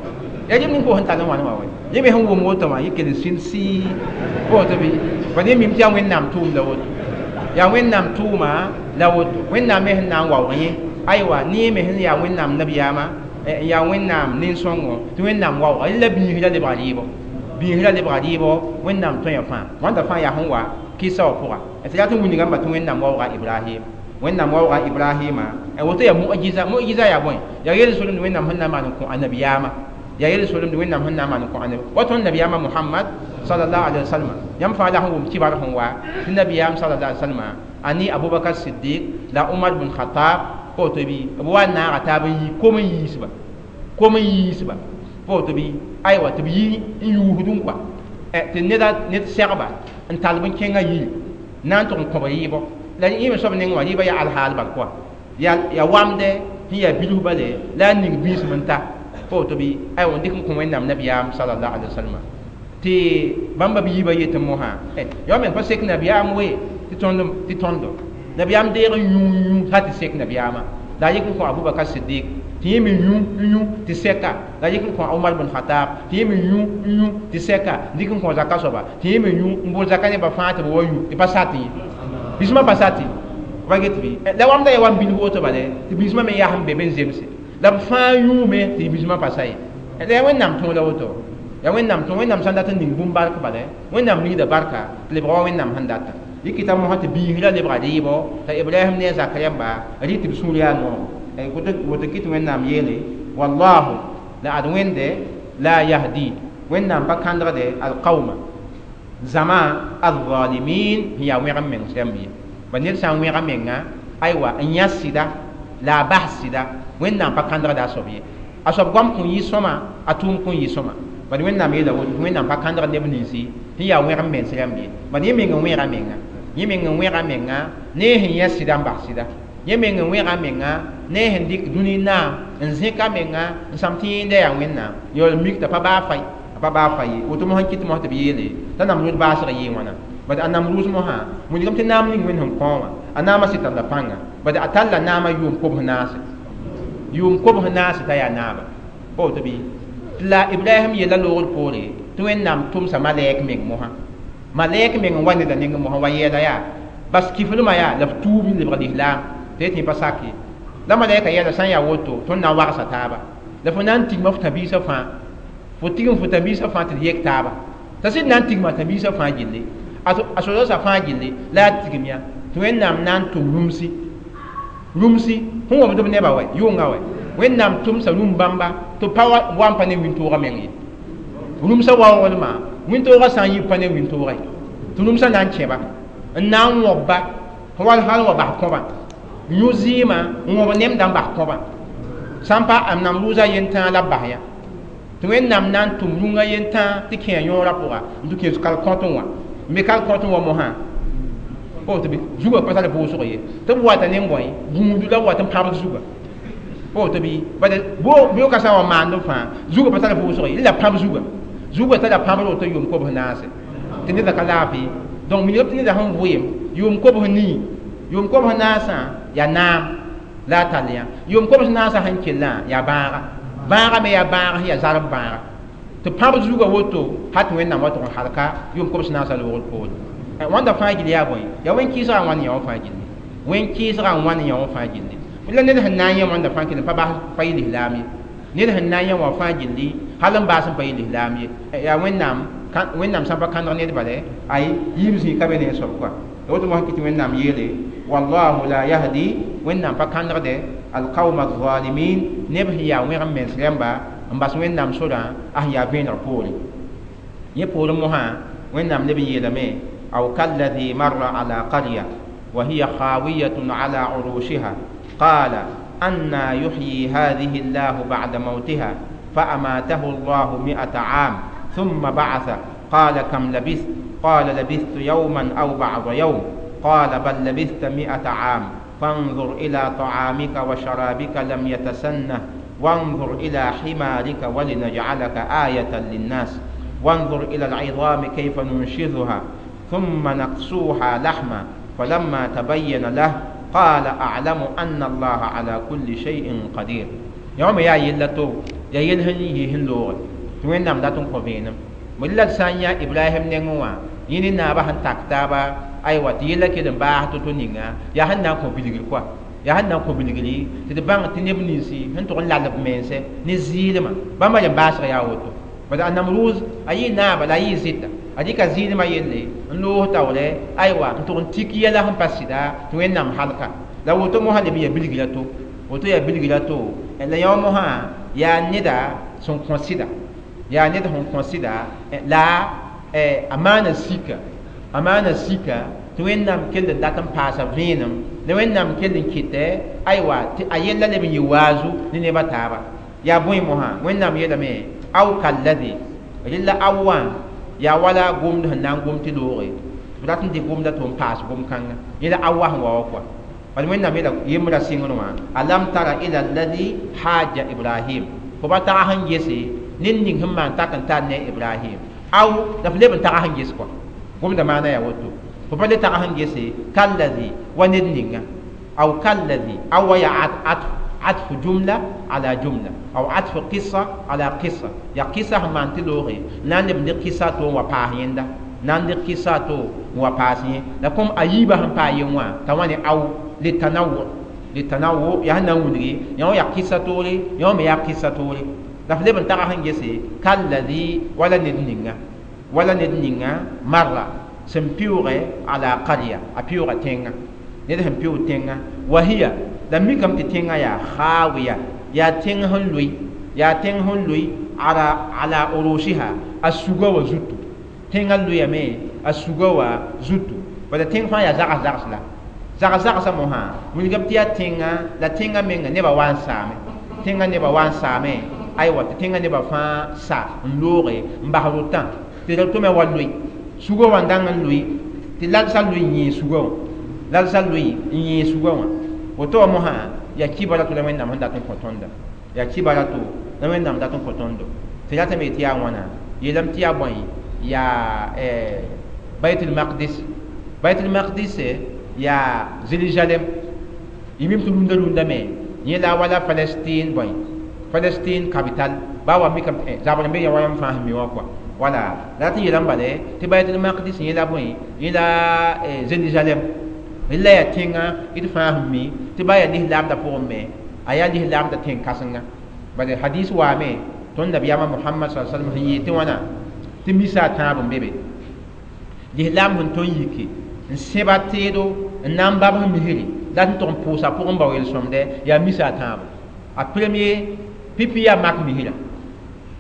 yaa rɩɩb ning fo sẽn tar n wãne wã wɛ yẽ me sẽn wʋm woto wã yẽ kell n sĩnd sɩɩ pa woto bɩ bad yẽ mim tɩ yaa Wẽnnaam tʋʋm la woto yaa Wẽnnaam tʋʋma la woto Wẽnnaam me sẽn na n waoog yẽ aywa ne me sẽn yaa Wẽnnaam nabiyaamã n yaa Wẽnnaam nin-sõngo tɩ Wẽnnaam waooga rẽ la biisrã lebga rɩɩbɔ biisrã lebga rɩɩbɔ Wẽnnaam tõe fãa wãnda fãa yaa sẽn wa kɩsa wã pʋga tɩ yaa tɩ wilgame tɩ Wẽnnaam waooga Ibrahim Wẽnnaam waooga Ibrahima woto yaa mu'jiza mu'jiza yaa bõe yaa yel-solemd Wẽnnaam sẽn na n maan n kõ a nabiyaamã yaa yel-solemd Wẽnnaam sẽn na n maan n kõ a nabi wa tõnd nabiyaamã Muhammad sallallahu alaihi wasallam yãmb fãa la sẽn wʋm kibar sẽn wa tɩ nabiyaam sallallahu alaihi wasallam ani Abubakar Siddiq la Umar bin Khattab pa woto bɩ b wa n naaga taab n yi kom n yiisba kom n yiisba pa woto bɩ aywa tɩ b yi n yuusd n kɔa tɩ ned segba n tall b n kẽngã yiri na n tʋg n kõb rɩɩbɔ la yẽ me soab nengẽ wã rɩɩbã yaa alhaal bal kɔa yaa wamdɛ sẽn yaa bilf bale la a ning biisem n ta pa woto bɩ aywa n dɩk n kõ Wẽnnaam nabiyaam sallallahu alaihi wasallam tɩ bãmba b yiibã yetɩ mosã yao meng pa sek nabiyaam we tɩ tõndo nabiyaam deeg n yũ yũ sã tɩ sek nabiyaamã la a yik n kõ Abubakar Siddiq tɩ yẽ me yũ n yũ tɩ sɛka la a yik n kõ Umar bin Khattab tɩ yẽ me yũ n yũ tɩ sɛka dɩk n kõ zaka soaba tɩ yẽ me yũ n bol zaka nebã fãa tɩ b wa yũ tɩ pa sat ye biismã pa sat ye pa get bɩ la wamda yaa wa n bilf woto bale tɩ biismã me yaa sẽn be be n zemse la b fãa yũume tɩ biismã pa sa ye la yaa Wẽnnaam tõog la woto yaa Wẽnnaam tõog Wẽnnaam sã n dat n ning bũmb bark bale Wẽnnaam ningda barka tɩ lebga wa Wẽnnaam sẽn data yikita mosã tɩ biisrã lebga rɩɩbɔ t'a Ibrahim ne a zak rãmba rɩ tɩ b sũur yaa noog woto kɩ tɩ Wẽnnaam yeele wallahu la ad Wẽnde la yahdi Wẽnnaam pa kãndgde alqauma zama alzalimin sẽn yaa wẽg n meng rãmb ye ba ned sã n wẽga menga aywa n yã sɩda la a bas sɩda Wẽnnaam pa kãndgda a soab ye a soab goam kõn yɩ sõma a tʋʋm kõn yɩ sõma bad Wẽnnaam yeela woto Wẽnnaam pa kãndgd neb ninsi sẽn yaa wẽg n mens rãmb ye bad yẽ meng n wẽga menga yẽ meng n wẽga menga ne sẽn yã sɩda n bas sɩda yẽ meng n wẽga menga ne sẽn dɩk dũni naam n zẽka menga n sãm tɩ yẽnda yaa Wẽnnaam yaool mik t'a pa baa fai a pa baa fai ye woto mosã kɩt mosã tɩ b yeele t'a Namrʋʋs baasg yɩɩ wãna bad a Namrʋʋs mosã wilgame tɩ naam ning Wẽnd sẽn kõ wã a naamã sɩd talla pãnga bad a talla naamã yʋʋm kobs naase t'a yaa naaba pa woto bɩ la Ibrahim yella loogr poore tɩ Wẽnnaam tʋmsa malɛk meng mosã malɛk meng n wa neda nengẽ mosã wa yɛɛla yaa bas kiflmã yaa la f tuub n lebg lislaam tɩ yetɩ pa sak ye la malɛka yɛla sã n yaa woto tõnd na n wagsa taaba la fo na n tigma f tãbiisã fãa fo tigm fo tãbiisã fãa tɩ d yek taaba t'a sɩd na n tigma tãbiisã fãa gilli a sodaosã fãa gilli la a tigm ya tɩ Wẽnnaam na n tʋm rũmsi rũmsi sẽn wõmd b nebã wɛ yʋnga wɛ Wẽnnaam tʋmsa rũm bãmba tɩ pa wa n pa ne wĩntoogã meng ye rũmsã waoodmã wĩntoogã sã n yi pa ne wĩntoogã ye tɩ rũmsã na n kẽba n na n wõbba wal hal wa bas kõbã yũ zɩɩmã n wõb nemdã n bas kõbã sã n pa a Namrʋʋsã yentãag la b bas yã tɩ Wẽnnaam na n tʋm rũngã yentãag tɩ kẽ a yõorã pʋga n tɩ kẽes kal-kõtẽ wã n be kal-kõtẽ wã mosã pa woto bɩ zugã pa tar vʋʋsg ye tɩ b wata ne bõe gũudu la b wat n pãbd zugã pa woto bɩ bad beoogã sã n wa maand fãa zugã pa tar vʋʋsg ye la pãb zugã zugã tara pãbr woto yʋʋm kobs naase tɩ neda ka laafɩ donc wilgame tɩ neda sẽn vʋɩɩm yʋʋm kobs nii yʋʋm kobs naasã yaa naam la a tall yã yʋʋm kobs naasã sẽn kellã yaa bãaga bãaga me yaa bãag sẽn yaa zarb bãaga tɩ pãb zugã woto ha tɩ Wẽnnaam wa tʋg n halka yʋʋm kobs naasã loogr poore wãnda fãa gill yaa bõe yaa wẽn-kɩɩsgã n wãn yã wã fãa gilli wẽn-kɩɩsgã n wãn yã wã fãa gilli La ned sẽn na n yẽ wãnda fãa kell n pa bas pa yɩ lislaam ye. Ned sẽn na n yẽ wã fãa gilli hal n baas n pa yɩ lislaam ye. Yaa Wẽnnaam, Wẽnnaam sã n pa kãndg ned bale, ay yiib zĩig ka be ne a soab kɔa. La woto mosã kɩ tɩ Wẽnnaam yeele wallahu la yahdi, Wẽnnaam pa kãndgde alqauma alzalimin, neb sẽn yaa wẽgem mens rãmba n bas Wẽnnaam sorã a sẽn yaa vẽeneg poore. Yẽ poorẽ mosã Wẽnnaam leb n yeelame aw kalladhi marra ala qarya wa hiya khawiyatun ala urushiha qala anna yuhyi hadhihi Allahu ba'da mawtiha فأماته الله 100 عام ثم بعث قال كم لبثت قال لبثت يوما أو بعض يوم قال بل لبثت 100 عام فانظر إلى طعامك وشرابك لم يتسنه وانظر إلى حمارك ولنجعلك آية للناس وانظر إلى العظام كيف ننشزها ثم نقصوها لحما فلما تبين له قال أعلم أن الله على كل شيء قدير. يوم يا يلتو يا يلهن يهن لوغ توين نام داتون كوفينم ملل سانيا إبراهيم نينوا يني نابا هن تاكتابا أيوة تيلا كده باه تتونينغا يا هن نام كوبيلغ كوا يا هن نام كوبيلغلي تدبان تنبنيسي هن تقول لا لبمنسه نزيلما بما ينباش يا وتو بدا النمروز أي نابا لا يزيد أديك زيلما يلي نلوه تاولي أيوة تقول تيكيا لهم باسيدا توين نام حلقة لو تو مهلبية بيلغلاتو woto ya bilgila to la yõ mosã yaa neda sẽn kõ sɩda, yaa ned sẽn kõ sɩda la a maana sika, a maana sika tɩ Wẽnnaam kell n dat n paasa vẽenem, la Wẽnnaam kell n kɩtɛ aywa tɩ a yella leb n yɩ waazu ne nebã taaba. Yaa bõe mosã Wẽnnaam yeelame aw kalladhi rɩla aw wã yaa wala gomd sẽn na n gom tɩ looge tɩ b rat n dɩk gomda tɩ n paas gom-kãnga yẽla aw wa sẽn wa wa kɔa. Bal Wẽnnaam yeela yembra sɩngr wã alam tara ila alladhi haja Ibrahim fo pa tag sẽn gese ned ning sẽn maan tak n tar ne Ibrahim aw la f leb n tag sẽn ges kɔa gomda maana yaa woto fo pa le tag sẽn gese kalladhi wa ned ninga aw kalladhi aw wa yaa atf jumla ala jumla aw atf qissa ala qissa ya qissa sẽn maan tɩ looge na n leb n dɩk qissa to n wa paas yẽnda na n dɩk qissa to n wa paas yẽ la kom a yiibã sẽn paa yen wã t'a wã ne aw للتنوع، للتنوع يا هنا ونري يا يا قصة توري يا ما يا قصة توري دفلي بن ترى هنجسي كالذي ولا ندنينا ولا ندنينا مرة سمبيورة على قرية أبيورة تينا ندهم بيو تينا وهي لم يكن تينا يا خاوية يا تين هنلوي يا تين هنلوي على عروشها السجوا وزتو تينا لوي مي السجوا وزتو ولا تين فا يا زعز زعز لا zags zagsã mosã wilgame tɩ yaa tẽnga la tẽngã menga nebã wa n saame tẽngã nebã wa n saame aywa tɩ tẽngã nebã fãa sa n looge n bas rotã tɩ ra tome wa loe sugã wã n dãng n loe tɩ lalsã loe n yẽe sugã wã lalsã loe n yẽe sugã wã woto wã mosã yaa kibara to la Wẽnnaam sẽn dat n kõ tõnda yaa kibara to la Wẽnnaam dat n kõ tõndo tɩ ratame tɩ yaa wãna yeelame tɩ yaa bõe yaa Baitul Maqdis, Baitul Maqdis ya Jérusalem yimim tɩ rũndã rũndã me yẽ la wala Palestine bõe Palestine capital ba wa mikame zabr n be ya wa yãmb fãa sẽn mi wã kɔa wala la tɩ yeelame bale tɩ Baitul Maqdis yẽ la bõe yẽ la Jérusalem la yaa tẽnga d fãa sẽn mi tɩ ba yaa lislaamdã pʋgẽ me a yaa lislaamdã tẽn-kãsenga bala hadis waame tõnd nabiyaamã Mohamad sa sallam sẽn yeel tɩ wãna tɩ misa a tãab n be be lislaam sẽn tõnd yiki n sẽba teedo n na n babs misri la tɩ tʋg n pʋʋsa pʋgẽ bao yel-sõmdɛ yaa misa a tãabo a premier pipi yaa mak misrã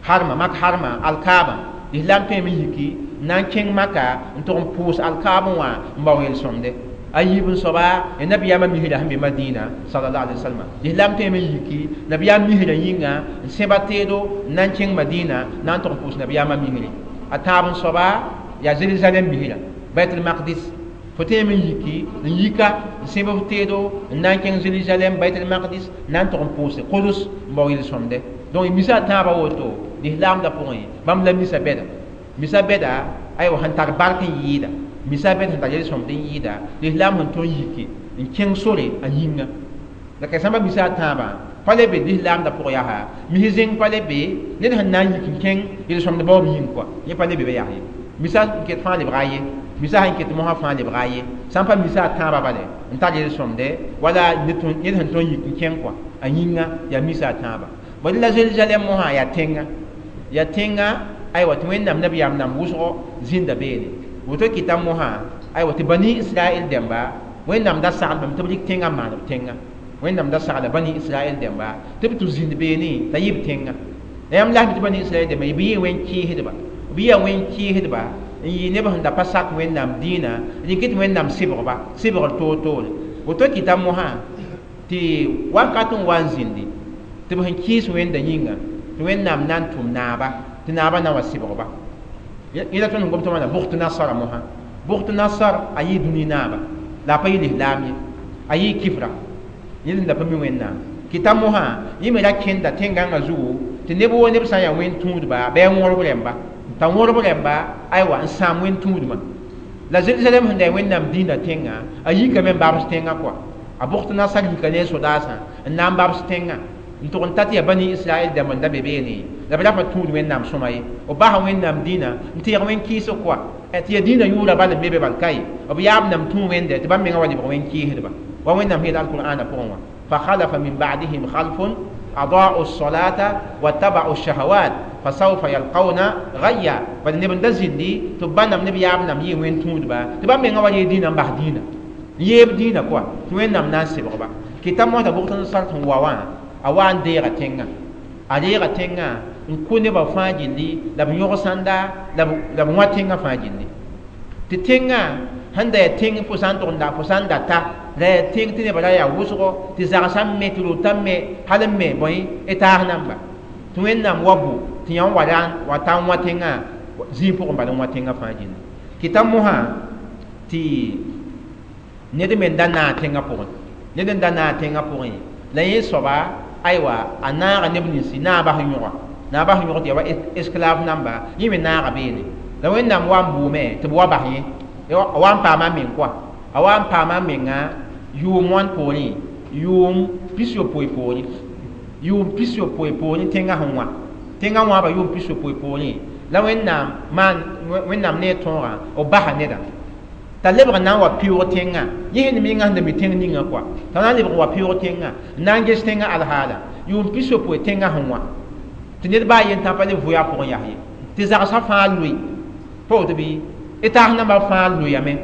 harma mak harma alkaabã lislaam tõeme n yiki n na n kẽng maka n tʋg n pʋʋs alkaabẽ wã n bao yel-sõmdɛ a yiib n soaba ya nabiyaamã misrã sẽn be Madina sallallahu alaihi wasallam lislaam tõeme n yiki nabiyaam misrã yĩnga n sẽba teedo n na n kẽng Madina na n tʋg n pʋʋs nabiyaamã misri a tãab n soaba yaa Jérusalem misrã Baitul Maqdis fo tõeme n yiki n yika n sẽb f teedo n na n kẽng Jérusalem Baitul Maqdis na n tʋg n pʋʋse Kudus n bao yel-sõmdɛ donc misa a tãabã woto lislaamdã pʋgẽ bãmb la misa bɛda misa bɛda aywa sẽn tar bark n yɩɩda misa bɛd sẽn tar yel-sõmd n yɩɩda lislaam sẽn tõnd yiki n kẽng sore a yĩnga la ka sãmba misa a tãabã pa le be lislaamdã pʋgẽ yaa mis zẽng pa le be ned sẽn na n yik n kẽng yel-sõmd baoob yĩng kɔa yẽ pa le be be yaa ye misa n ket fãa lebga ye Misa sẽn ket mosã fãa lebga ye sã n pa misa a tãabã bale n tar yel-sõmde wala ned sẽn tõe n yik n kẽng kɔa a yĩnga yaa misa a tãabã bad la Zerusalem mosã yaa tẽnga yaa tẽnga aywa tɩ Wẽnnaam nabiyaam nam wʋsgo zĩnda beene woto kɩta mosã aywa tɩ Bani Israɛl dẽmba Wẽnnaam da saglbame tɩ b rɩk tẽngã n maan b tẽnga Wẽnnaam da sagla Bani Israɛl dẽmba tɩ b tʋ zĩnd beene t'a yɩ b tẽnga la yãmb lasm tɩ Bani Israɛl dẽmba b yɩ wẽn-kɩɩsdba b yɩa wẽn-kɩɩsdba n yɩ neb sẽn da pa sak Wẽnnaam dĩinã rɩk tɩ Wẽnnaam sɩbgba sɩbgr toor-toore woto kɩta mosã tɩ wakat n wa n zĩndi tɩ b sẽn kɩɩs Wẽnda yĩnga tɩ Wẽnnaam na n tʋm naaba tɩ naaba na wa sɩbgba yẽla tõnd sẽn gom tɩ wãna Bʋgt Nasara mosã Bʋgt Nasar a yɩ dũni naaba la a pa yɩ lislaam ye a yɩ kifra yẽl sẽn da pa mi Wẽnnaam kɩta mosã yẽ me ra kẽnda tẽn-gãngã zugu tɩ neb woo neb sã n yaa wẽn-tũudba bɩ a wõrb rẽmba t'a wõrb rẽmba aywa n sãam wẽn-tũudmã la Zerusalem sẽn da yaa Wẽnnaam dĩinã tẽnga a yikame n babs tẽngã kɔa a Bʋgt Nasar yika ne a sodaasã n na n babs tẽngã n tʋg n ta tɩ yaa Bani Israɛl dãmb n da be beene la b ra pa tũud Wẽnnaam sõma ye b basa Wẽnnaam dĩinã n teeg wẽn-kɩɩsg kɔa tɩ yaa dĩinã yʋʋra bal n be be bal ka ye b yaab nam tũ Wẽnde tɩ bãmb mengã wa lebg wẽn-kɩɩsdba wa Wẽnnaam sẽn yeel alqur'ana pʋgẽ wã فخلف من بعدهم خلف أضاعوا الصلاة واتبعوا الشهوات فسوف يلقون غيا بل نبن دزندي تبان نبي ياب نم يي وين تود با تبان من غوا دينا باه دينا يب دينا كوا توين نم ناس بغبا كتاب موتا بوختن سارت واوا اوان ديغا تينغا اديغا تينغا نكوني با فاجيلي لا بنيوغ ساندا لا بنوا تينغا فاجيلي تي تينغا handa ya tẽng fo sã n tʋg n da fo sã n data la ya tẽng tɩ nebã ra yaa wʋsgo tɩ zagsã me tɩ rotã me hal n me bõe y taas namba tɩ Wẽnnaam wa bʋ tɩ yã wa ra wa ta n wã tẽngã zĩig pʋgẽ bala n wã tẽngã fãa gilli kɩta mosã tɩ ned me n da naag tẽngã pʋgẽ ned n da naag tẽngã pʋgẽ la yẽ soaba aywa a naaga neb ninsi naabã sẽn yõga naabã sẽn yõg tɩ yaa wa esclave namba yẽ me naaga beene la Wẽnnaam wa n bʋʋme tɩ b wa bas yẽ a wa n paama meng kɔa a wa n paama menga yʋʋm wãn poorẽ yʋʋm 60 poorẽ yʋʋm 60 poorẽ tẽngã sẽn wã tẽngã wãaba yʋʋm 60 poorẽ la Wẽnnaam maan Wẽnnaam ne a tõogã b basa nedã t'a lebg n na n wa pɩʋʋg tẽngã yẽ sẽn menga sẽn da mi tẽng ninga kɔa t'a na n lebg n wa pɩʋʋg tẽngã n na n ges tẽngã alhaala yʋʋm 60 tẽngã sẽn wã tɩ ned baa yen tã pa le vʋ a pʋgẽ yas ye tɩ zagsã fãa loe pa woto bɩ y taas nambã fãa loyame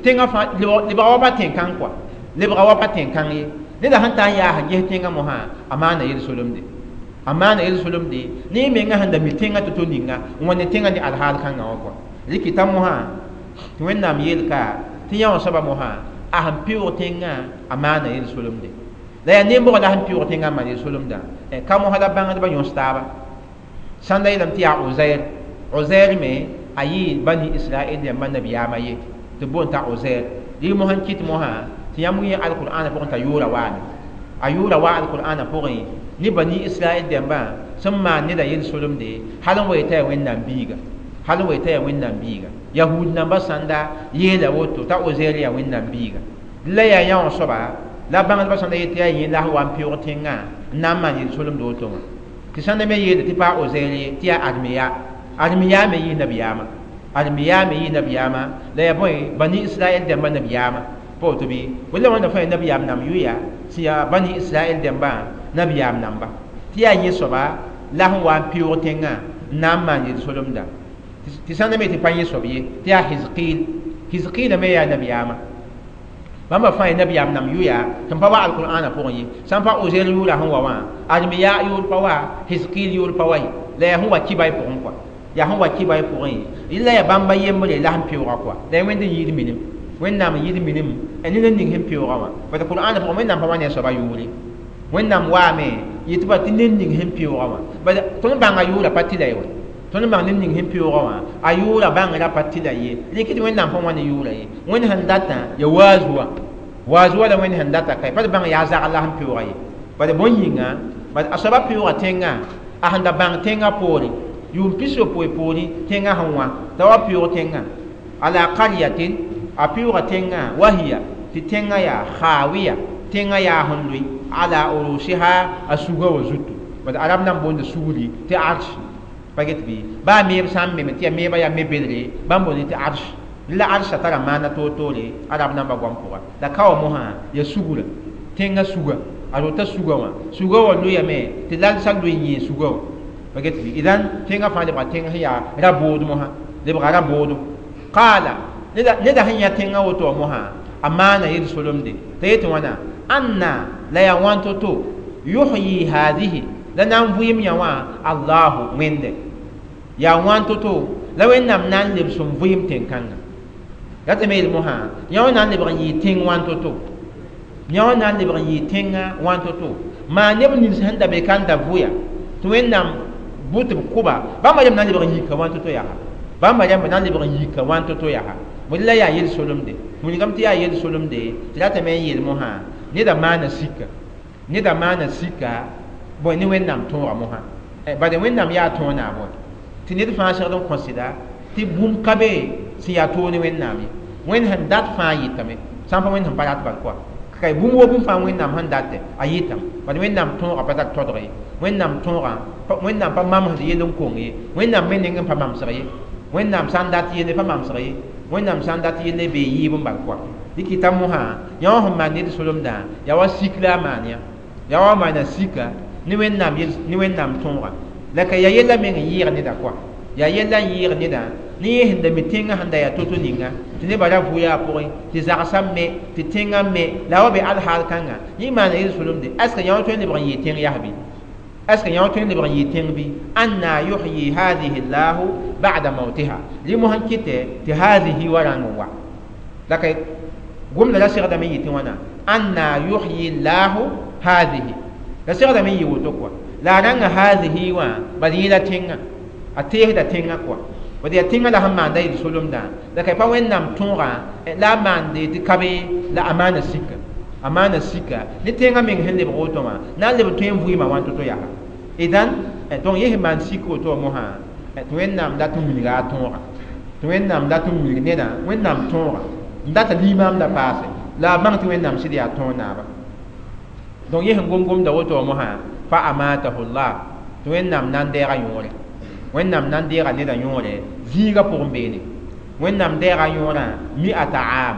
tẽngã fãa lebga wa pa tẽn-kãng kɔa lebga wa pa tẽn-kãng ye neda sẽn ta n yaas n ges tẽngã mosã a maana yel-solemde a maana yel-solemde ne y menga sẽn da mi tẽngã tɩ to ninga n wa ne tẽngã ne alhaal kãngã wã kɔa rɩkɩta mosã tɩ Wẽnnaam yeelka tɩ yã wã soaba mosã a sẽn pɩʋʋg tẽngã a maana yel-solemde la yaa nembgã la sẽn pɩʋʋg tẽngã n maan yel-solemdã ka mosã la bãngdbã yõs taaba sãn da yeelame tɩ yaa Ozair Ozair me a yɩ Bani Israɛl dẽmbã nabiyaamã ye tɩ boond t'a Ozair rɩ mosã n kɩt mosã tɩ yãmb yẽ alqur'ana pʋgẽ t'a yʋʋra waame a yʋʋra wa alqur'ana pʋgẽ ne Bani Israɛl dẽmbã sẽn maan neda yel-solemde hal n wa yetã yaa Wẽnnaam biiga hal n wa yetã yaa Wẽnnaam biiga yahud nambã sãnda yeela woto t'a Ozair yaa Wẽnnaam biiga la yaa yã wã soaba la bãngdbã sãnda yetɩ yaa yẽ la sẽn wa n pɩʋʋg tẽngã n na n maan yel-solemd woto wã tɩ sãnda me yeela tɩ pa Ozair ye tɩ yaa Armiya Armiya me yɩ nabiyaamã Armiya me yɩ nabiyaamã la yaa bõe Bani Israɛl dẽmbã nabiyaamã pa woto bɩ wala wãnda fãa yaa nabiyaam nam yʋya sẽn yaa Bani Israɛl dẽmbã nabiyaam namba tɩ yaa yẽ soaba la sẽn wa n pɩʋʋg tẽngã n na n maan yel-solemda tɩ sãnda me tɩ pa yẽ soab ye tɩ yaa Hizqil Hizqila me yaa nabiyaamã bãmba fãa yaa nabiyaam nam yʋya tɩ n pa wa alqur'ana pʋgẽ ye sã n pa Ozair yʋʋra sẽn wa wã Armiya yʋʋr pa wa Hizqil yʋʋr pa wa ye la yaa sẽn wa kibay pʋgẽ kɔa yaa sẽn wa kibay pʋgẽ la yaa bãmba yembre la sẽn pɩʋʋga kɔa la yaa Wẽnd n yɩɩd minim Wẽnnaam n yɩɩd minim ned n ning sẽn pɩʋʋga wã bala qur'ana pʋgẽ Wẽnnaam pa wa ne a soaba yʋʋre Wẽnnaam waame yetɩ ba tɩ ned ning sẽn pɩʋʋga wã bala tõnd bãnga yʋʋra pa tɩ la ye wa tõnd bãng ned ning sẽn pɩʋʋga wã a yʋʋra bãngrã pa tɩ la ye rɩk tɩ Wẽnnaam pa wa ne yʋʋra ye Wẽnd sẽn datã ya waaz wã waaz wã la Wẽnd sẽn data ka pa tɩ bãng yaa zagl la sẽn pɩʋʋga ye bala bõn yĩnga bala a soaba pɩʋʋga tẽngã a sẽn da bãng tẽngã poore yʋʋm 60 poorẽ tẽngã sẽn wã t'a wa pɩʋʋg tẽngã ala qaryatin a pɩʋʋga tẽngã wahiya tɩ tẽngã yaa khawiya tẽngã yaa sẽn loe ala urusiha a suga wa zutu bala arab nan boonda sugri tɩ arsh pa get bɩ baa meeb sã n meme tɩ yaa meebã yaa me-bedre bãmb boonde tɩ arsh La arsha tara maana toor-toore arab namba goam pʋga la ka wa mosã ya sugura tẽngã suga a rota suga wã suga wã loyame tɩ lalsã loe n yẽ suga wã pa get bɩ idan tẽngã fãa lebga tẽng sẽn yaa ra-bood mosã lebga ra-boodo qaala neda sẽn yã tẽngã woto wã mosã a maana yel-solemde t'a yetɩ wãna anna la yaa wãn to-to yuhyi hadihi la na n vɩɩm yã wã allahu wẽnde yaa wãn to-to la wẽnnaam na n lebs n vɩɩm tẽn-kãngã ratame yel mosã yã wã na n lebg n yɩɩ tẽng wãn to-to yã wã na n lebg n yɩɩ tẽngã wãn to-to maa neb nins sẽn da be ka n da vʋya tɩ wẽnnaam bʋ tɩ b kʋba bãmba rẽmb na n lebg n yika wãn to-to yaa bãmba rẽmb na n lebg n yika wãn to-to yaa bõe la yaa yel-solemde wilgame tɩ yaa yel-solemde tɩ ratame n yeel mosã neda maana sika neda maana sika bõe ne wẽnnaam tõoga mosã bade wẽnnaam yaa tõog naab wã tɩ ned fãa segd n kõ sɩda tɩ bũmb ka be sẽn yaa toog ne wẽnnaam ye wẽnd sẽn dat fãa yɩtame sã n pa wẽnd sẽn pa rat bal koa ka bũmb wo bũmb fãa wẽnnaam sẽn datɛ a yɩtame bad wẽnnaam tõogã pa tar todg ye wẽnnaam tõogã wẽnnaam pa mamsd yell n kong ye wẽnnaam me neng n pa mamsg ye wẽnnaam sã n dat yelle pa mamsg ye wẽnnaam sã n dat yelle bee yɩɩb n bal koa dɩ kɩta mosã yã wã sẽn maan ned solemdã yaa wa sik la a maan yã yaa wa maana sika ne wẽnnaam ne wẽnnaam tõoga la ka yaa yella meng n yɩɩg neda koa yaa yella n yɩɩg neda ne yẽ sẽn da mi tẽngã sẽn da yaa to-to ninga tɩ nebã ra vʋya a pʋgẽ tɩ zagsã me tɩ tẽngã me la wa be alhaal kãnga yẽ maana yel-solemde est ce que yã wã tõe n lebg n yɩɩ tẽng yas bɩ est ce que yã wã tõe n lebg n yɩɩ tẽng bɩ anna yuhyi hadihi llahu ba'da mautiha rɩ mosã kɩtɛ tɩ hadihi wa rãng n wa la ka gomda la segdame n yɩ tɩ wãna anna yuhyi llahu hadihi la segdame n yɩ woto koa la a rãnga hadihi wã bad yẽla tẽngã a teesda tẽngã koa bad yaa tẽngã la sẽn maanda yel-solemdã la ka pa wẽnnaam tõogã la a maande tɩ ka be la a maana sika a maana sika ne tẽngã meng sẽn lebg woto wã na n leb tõe n vɩɩmã wãn to-to yaa idan donc yẽ sẽn maan sik woto wã mosã tɩ wẽnnaam dat n wilga a tõoga tɩ wẽnnaam dat n wilg nedã wẽnnaam tõoga n data limaam la paase la a bãng tɩ wẽnnaam sɩd yaa tõog naaba donc yẽ sẽn gom-gomda woto wã mosã fa amatahu llah tɩ wẽnnaam na n deega yõore wẽnnaam na n deega neda yõore zĩigã pʋgẽ beene wẽnnaam deega yõorã mi'ata aam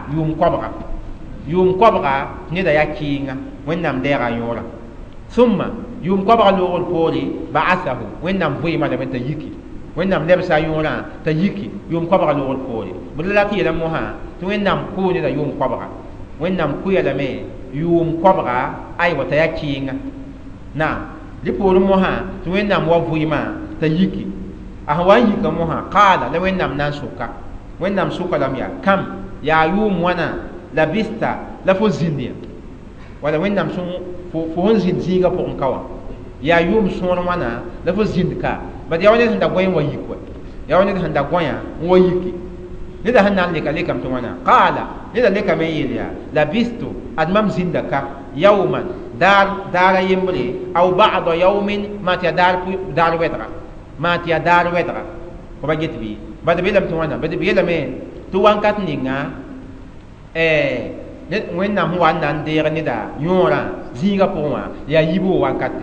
yʋʋm koabga neda yaa kɩɩnga wẽnnaam deega yõorã summa yʋʋm koabga loogr poore ba'athahu wẽnnaam vɩɩma lame t'a yiki wẽnnaam lebsa yõorã t'a yiki yʋʋm koabga loogr poore bd la tɩ yeelame mosã tɩ wẽnnaam kʋʋ neda yʋʋm koabga wẽnnaam kʋya lame yʋʋm koabga aywa t'a yaa kɩɩnga naam rɩ poorẽ mosã tɩ wẽnnaam wa vɩɩmã t'a yiki a sẽn wa n yika mosã qaala la wẽnnaam na n soka wẽnnaam soka lame yaa kam yaa yʋʋm wãna labista la fo zĩnd ya wala wẽnnaam fo sẽn zĩnd zĩigã pʋgẽ ka wã yaa yʋʋm sõor wãna la fo zĩnd ka bad yaa wa ned sẽn da gõe n wa yik wa yaa wa ned sẽn da gõyã n wa yiki neda sẽn na n leka lekame tɩ wãna qaala neda lekame n yeel yaa labistu ad mam zĩnda ka yawman daara yembre aw ba'da yawmin maa tɩ yaa daar wɛdga maa tɩ yaa daar wɛdga fo ba get bɩ bad b yeelame tɩ wãna bad b yeelame tɩ wãnkat ninga wẽnnaam sẽn wa n na n deeg neda yõorã zĩigã pʋgẽ wã yaa yiboog wankate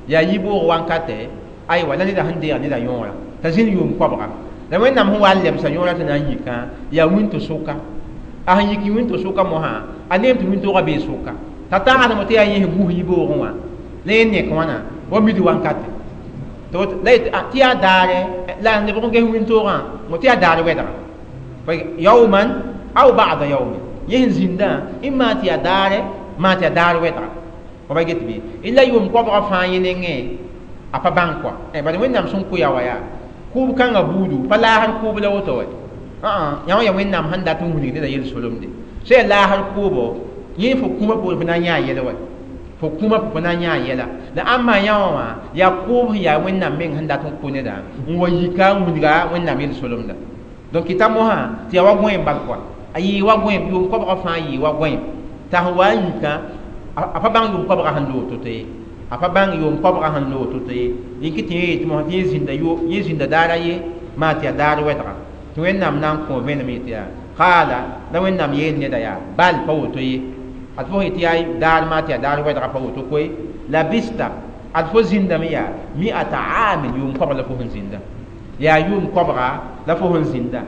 yaa yiboog wankate aywa la neda sẽn deeg neda yõorã t'a zĩnd yʋʋm koabga la wẽnnaam sẽn wa n lebsa yõorã tɩ na n yikã yaa wĩnto-sʋka a sẽn yik wĩnto-sʋka mosã a neem tɩ wĩntoogã bee sʋka t'a tãgsdame tɩ yaa yẽ sẽn gus yiboogẽ wã la yẽ nek wãna wa mid wankate tɩ yaa daare la lebg n ges wĩntoogã tɩ yaa daar wɛdga yawman aw ba'da yawmin yẽ sẽn zĩndã n maa tɩ yaa daare maa tɩ yaa daar wɛdga fo ba get bɩ la yʋʋm koabga fãa yẽ nengẽ a pa bãng kɔa bad wẽnnaam sẽn kʋ ya wa yaa kʋʋb kãngã buudu pa laasr kʋʋb la woto wɛ yã wã yaa wẽnnaam sẽn dat n wilg neda yel-solemde sã yaa laasr kʋʋbo yẽ fo kũumã poore fo na n yã a yɛl wa fo kũumã fo na n yã a yɛla la ãmba yã wã wã yaa kʋʋb sẽn yaa wẽnnaam meng sẽn dat n kʋ neda n wa yika n wilga wẽnnaam yel-solemda donc kɩta mosã tɩ yaa wa gõeem bal kɔa a yɩɩ wa gõeem yʋʋm koabgã fãa yɩɩ wa gõeem t'a sẽn wa n yikã a pa bãng yʋʋm koabgã sẽn loog to-to ye a pa bãng yʋʋm koabgã sẽn loog to-to ye yẽ kɩ tɩ yẽ yetɩ mosã tɩ yẽ zĩnda daara ye maa tɩ yaa daar wɛdga tɩ wẽnnaam na n kõ vẽenem yetɩ yaa qaala la wẽnnaam yeel neda yaa bal pa woto ye ad fo yetɩ yaa daar maa tɩ yaa daar wɛdga pa woto koe labista ad fo zĩndame yaa mi'ata aamin yʋʋm koabg la fo sẽn zĩnda yaa yʋʋm koabga la fo sẽn zĩnda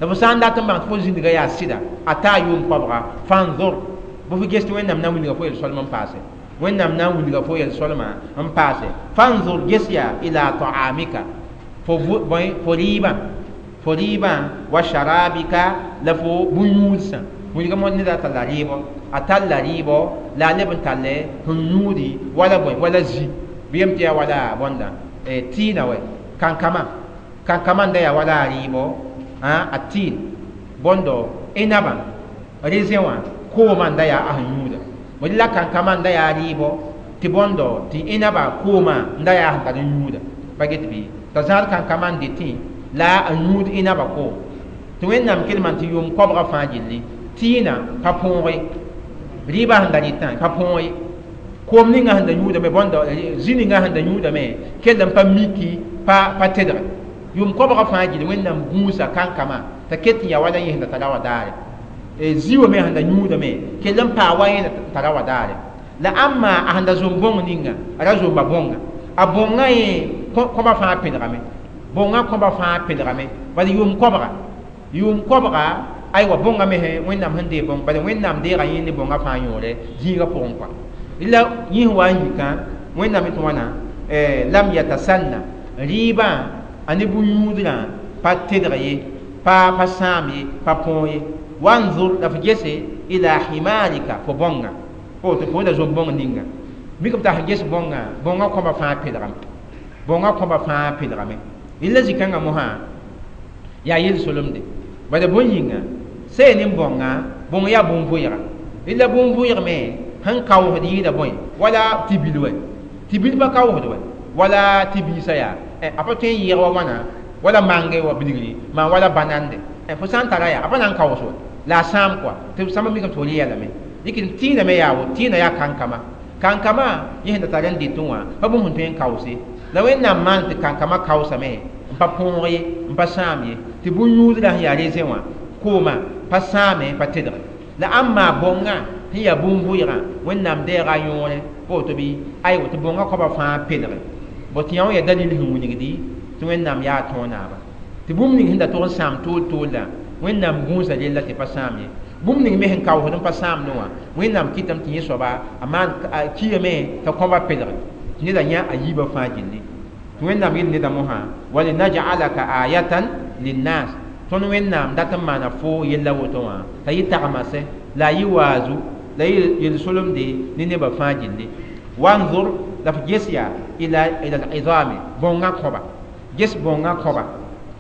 La fo sã n dat n bãng tɩ fo zĩndga yaa sɩda a taa yʋʋm koabga fanzor bɩ fo ges tɩ Wẽnnaam na n wilga fo yel-soalm n paase Wẽnnaam na n wilga fo yel-soalmã n paase fanzur ges yaa ila ta'amika fo fo rɩɩbã fo rɩɩbã wa sharabika la fo bũn-yũudsã wilga mo neda talla rɩɩbɔ a talla rɩɩbɔ la a leb n talle sẽn yũudi wala bõe wala zi bɩ yem tɩ yaa wala bõnda tɩɩna wɛ kankama kankama n da yaa wala a rɩɩbɔ a tɩɩn bõndo inaba raisin wã koomã n da yaa a sẽn yũuda bõe la kankama n da yaa rɩɩbɔ tɩ bõndo tɩ inaba koomã n da yaa sẽn tar n yũuda pa get bɩ t'a zãad kankama n dɩtẽ la a yũud inaba koom tɩ Wẽnnaam kelmã tɩ yʋʋm koabga fãa gilli tɩɩna pa põoge rɩɩbã sẽn da rɩtã pa põoge koom ninga sẽn da yũudame bõndo zĩ ninga sẽn da yũudame kell n pa miki pa pa tedge yʋʋm koabga fãa gilli Wẽnnaam gũusa kankama t'a ket n yaa wala yẽ sẽn da tara wa daare zĩ wã me sẽn da yũudame kell n paa wa yẽ tara wa daare la ãmma a sẽn da zom bõng ninga a ra zomba bõnga a bõngã yẽ kõba fãa pẽdgame bõngã kõba fãa pẽdgame bala yʋʋm koabga aywa bõngã me Wẽnnaam sẽn dee bõng bala Wẽnnaam deega yẽ ne bõngã fãa yõore zĩigã pʋgẽ kɔa la yẽ sẽn wa n yikã Wẽnnaam tɩ wãna lam yatasanna rɩɩbã a ne bũn-yũudrã pa tedg ye pa pa sãam ye pa põog ye wanzur la fo gese ila himarika fo bõnga fo tɩ fo da zom bõng ninga mikame t'a sẽn ges bõngã bõngã kõba fãa pẽdgame bõngã kõba fãa pẽdgame la zĩ-kãngã mosã yaa yel-solemde bala bõe yĩnga see ne bõnga bõng yaa bũn-vʋɩga la bũn-vʋɩg me sẽn kaoosd yɩɩda bõe wala tɩ bil wɛ tɩ bil pa kaoosd wɛ wala tɩ biisã yaa a pa tõe n yɩɩg wa wãna wala mange wa bilgri maan wala banande fo sã n tara yaa a pa na n kaoos wɛ la a sãam kɔa tɩ sãmba mikame tɩ fo rɩ lame dɩk tɩɩna me yaa woto tɩɩna yaa kankama kankama yẽ sẽn da tar n dɩtẽ wã pa bũmb sẽn tõe n kaoose la Wẽnnaam maan tɩ kankama kaoosame n pa põog ye n pa sãam ye tɩ bũn-yũudrã sẽn yaa raisin wã koomã pa sãame pa tedge la ãmma bõngã sẽn yaa bũn-vʋɩgã Wẽnnaam deega a yõore pa woto bɩ aywa tɩ bõngã koabã fãa pedge bõ tɩ yã wã yaa dalil sẽn wilgdi tɩ Wẽnnaam yaa tõog naaba tɩ bũmb ning sẽn da tog n sãam tool toolla Wẽnnaam gũusa rella tɩ pa sãam ye bũmb ning me sẽn kaoosd n pa sãamdẽ wã Wẽnnaam kɩtame tɩ yẽ soaba a maan kiame t'a kõba pedge tɩ neda yã a yiibã fãa gilli tɩ Wẽnnaam yel neda mosã walinajalaka ayatan linnas tõnd Wẽnnaam dat n maana fo yella woto wã t'a yɩ tagmase la a yɩ waazu la yɩ yel-solemde ne nebã fãa gilli wanzur la f ges yaa ila al-izami bõngã kõba ges bõngã kõba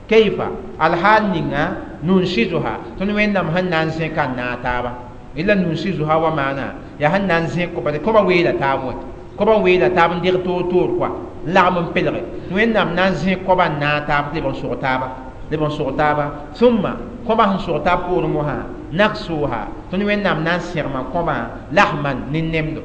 kayfa alhaal ninga nunsizuha tõnd Wẽnnaam sẽn na n zẽka n naag taaba ila nunsizuha wa maana yaa sẽn na n zẽk kõ bala kõba weela taab wɛ kõba weela taab n deg toor toor kɔa n lagm n pelge tɩ Wẽnnaam na n zẽk kõba n naag taab tɩ leb n sog taaba leb n sog taaba sũmma kõba sẽn sog taab poorẽ mosã naksuha tõnd Wẽnnaam na n sẽgma kõbã lahman ne nemdo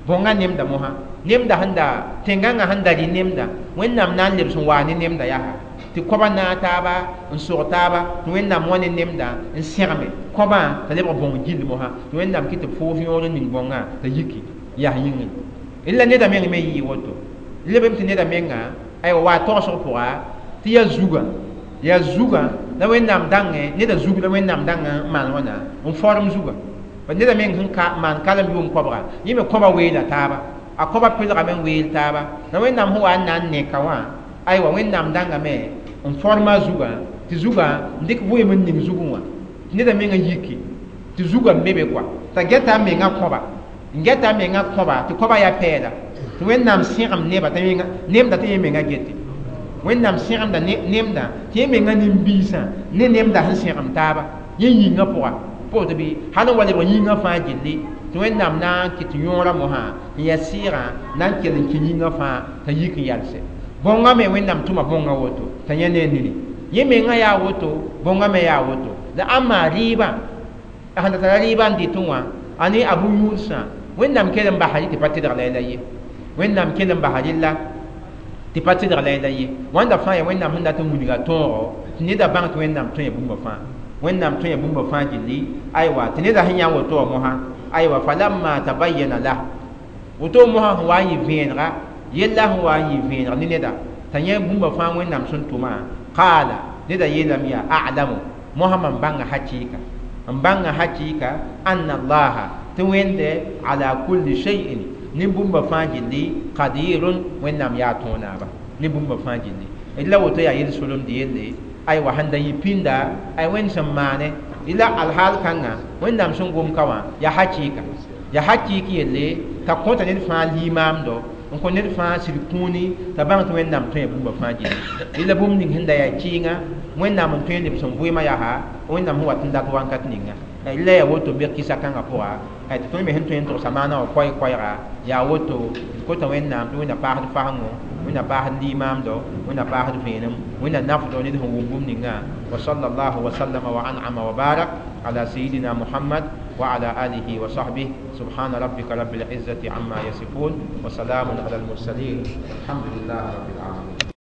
bõngã nemda mosã nemda sẽn da tẽngãngã sẽn da rɩ nemda Wẽnnaam na n lebs n waa ne nemda yaa tɩ kõba naag taaba n sog taaba tɩ Wẽnnaam wã ne nemda n sẽgme kõbã t'a lebg bõng gill mosã tɩ Wẽnnaam kɩ tɩ foos yõor n ning bõngã t'a yiki yaa yĩngri la neda meng me yɩɩ woto lebem tɩ neda menga aywa waa togsg pʋga tɩ yaa zugã la Wẽnnaam dãngẽ neda zug la Wẽnnaam dãngã n maan wãna n form zugã pa neda meng sẽn ka maan kalem yʋʋm koabga yẽ me kõba weela taaba a kõba pelgame n weel taaba la Wẽnnaam sẽn wa n na n neka wã aywa Wẽnnaam dãngame n forma zugã tɩ zugã n dɩk vʋɩɩm n ning zugẽ wã tɩ neda meng n yiki tɩ zugã n be be kɔa t'a gɛta a menga kõba n gɛta a menga kõba tɩ kõba yaa pɛɛla tɩ Wẽnnaam sẽgem neba t'a nemda tɩ yẽ menga gete Wẽnnaam sẽgemda nemda tɩ yẽ menga nin-biisã ne nemda sẽn sẽgem taaba yẽ yĩngã pʋga pa woto bɩ hal n wa lebg yĩngã fãa gilli tɩ Wẽnnaam na n kɩt yõorã mosã n yaa sɩɩgã na n kell n kẽ yĩngã fãa t'a yik n yalse bõngã me Wẽnnaam tʋma bõngã woto t'a yẽ ne nini yẽ menga yaa woto bõngã me yaa woto la ãmma rɩɩbã a sẽn da tara rɩɩbã n dɩtẽ wã a ne a bũn-yũudsã Wẽnnaam kell n basa rɩ tɩ pa tedg la la ye Wẽnnaam kell n basa rɩlla tɩ pa tedg la la ye wãnda fãa yaa Wẽnnaam sẽn dat n wilga tõogo tɩ neda bãng tɩ Wẽnnaam tõe bũmba fãa Wẽnnaam tõe bũmba fãa gilli aywa tɩ neda sẽn yã woto wã mosã aywa falamma tabayyana lah woto mosã sẽn wa n yɩ vẽenega yella sẽn wa n yɩ vẽeneg ne neda t'a yẽ bũmba fãa Wẽnnaam sẽn tʋma qaala neda yeelame yaa a'lamu Mosã mam bãnga hakɩɩka n bãnga hakɩɩka anna allaha tɩ wẽnde ala kulli shay'in ne bũmba fãa gilli qadirun wẽnnaam yaa tõo naaba ne bũmba fãa gilli d la woto yaa yel-solemd yelle aywa sẽn da yɩ pĩnda ay wẽnd sẽn maane la alhaal kãngã wẽnnaam sẽn gom ka wã yaa hakɩɩka yaa hakɩɩk yelle t'a kõta ned fãa limaamdo n kõ ned fãa sɩd kũuni t'a bãng tɩ wẽnnaam tõe bũmba fãa gilli la bũmb ning sẽn da yaa kɩɩngã wẽnnaam n tõe n leb sẽn vɩɩmã yaa wẽnnaam sẽn wat n dat wãnkat ninga la yaa woto be kɩsa kãngã pʋga tɩ tõnd me sẽn tõe n togsa maana wã koɛɛ-koɛɛga yaa woto d kota wẽnnaam tɩ wẽnna paasd fasengo wẽnna paasd limaamdo wẽnna paasd vẽenem wẽnna nafdo ned sẽn wʋm bũmb ningã wa sallallahu wa sallama wa an'ama wa barak ala sayidina muhammad وعلى آله وصحبه سبحان ربك رب العزة عما يصفون وسلام على المرسلين الحمد لله رب العالمين.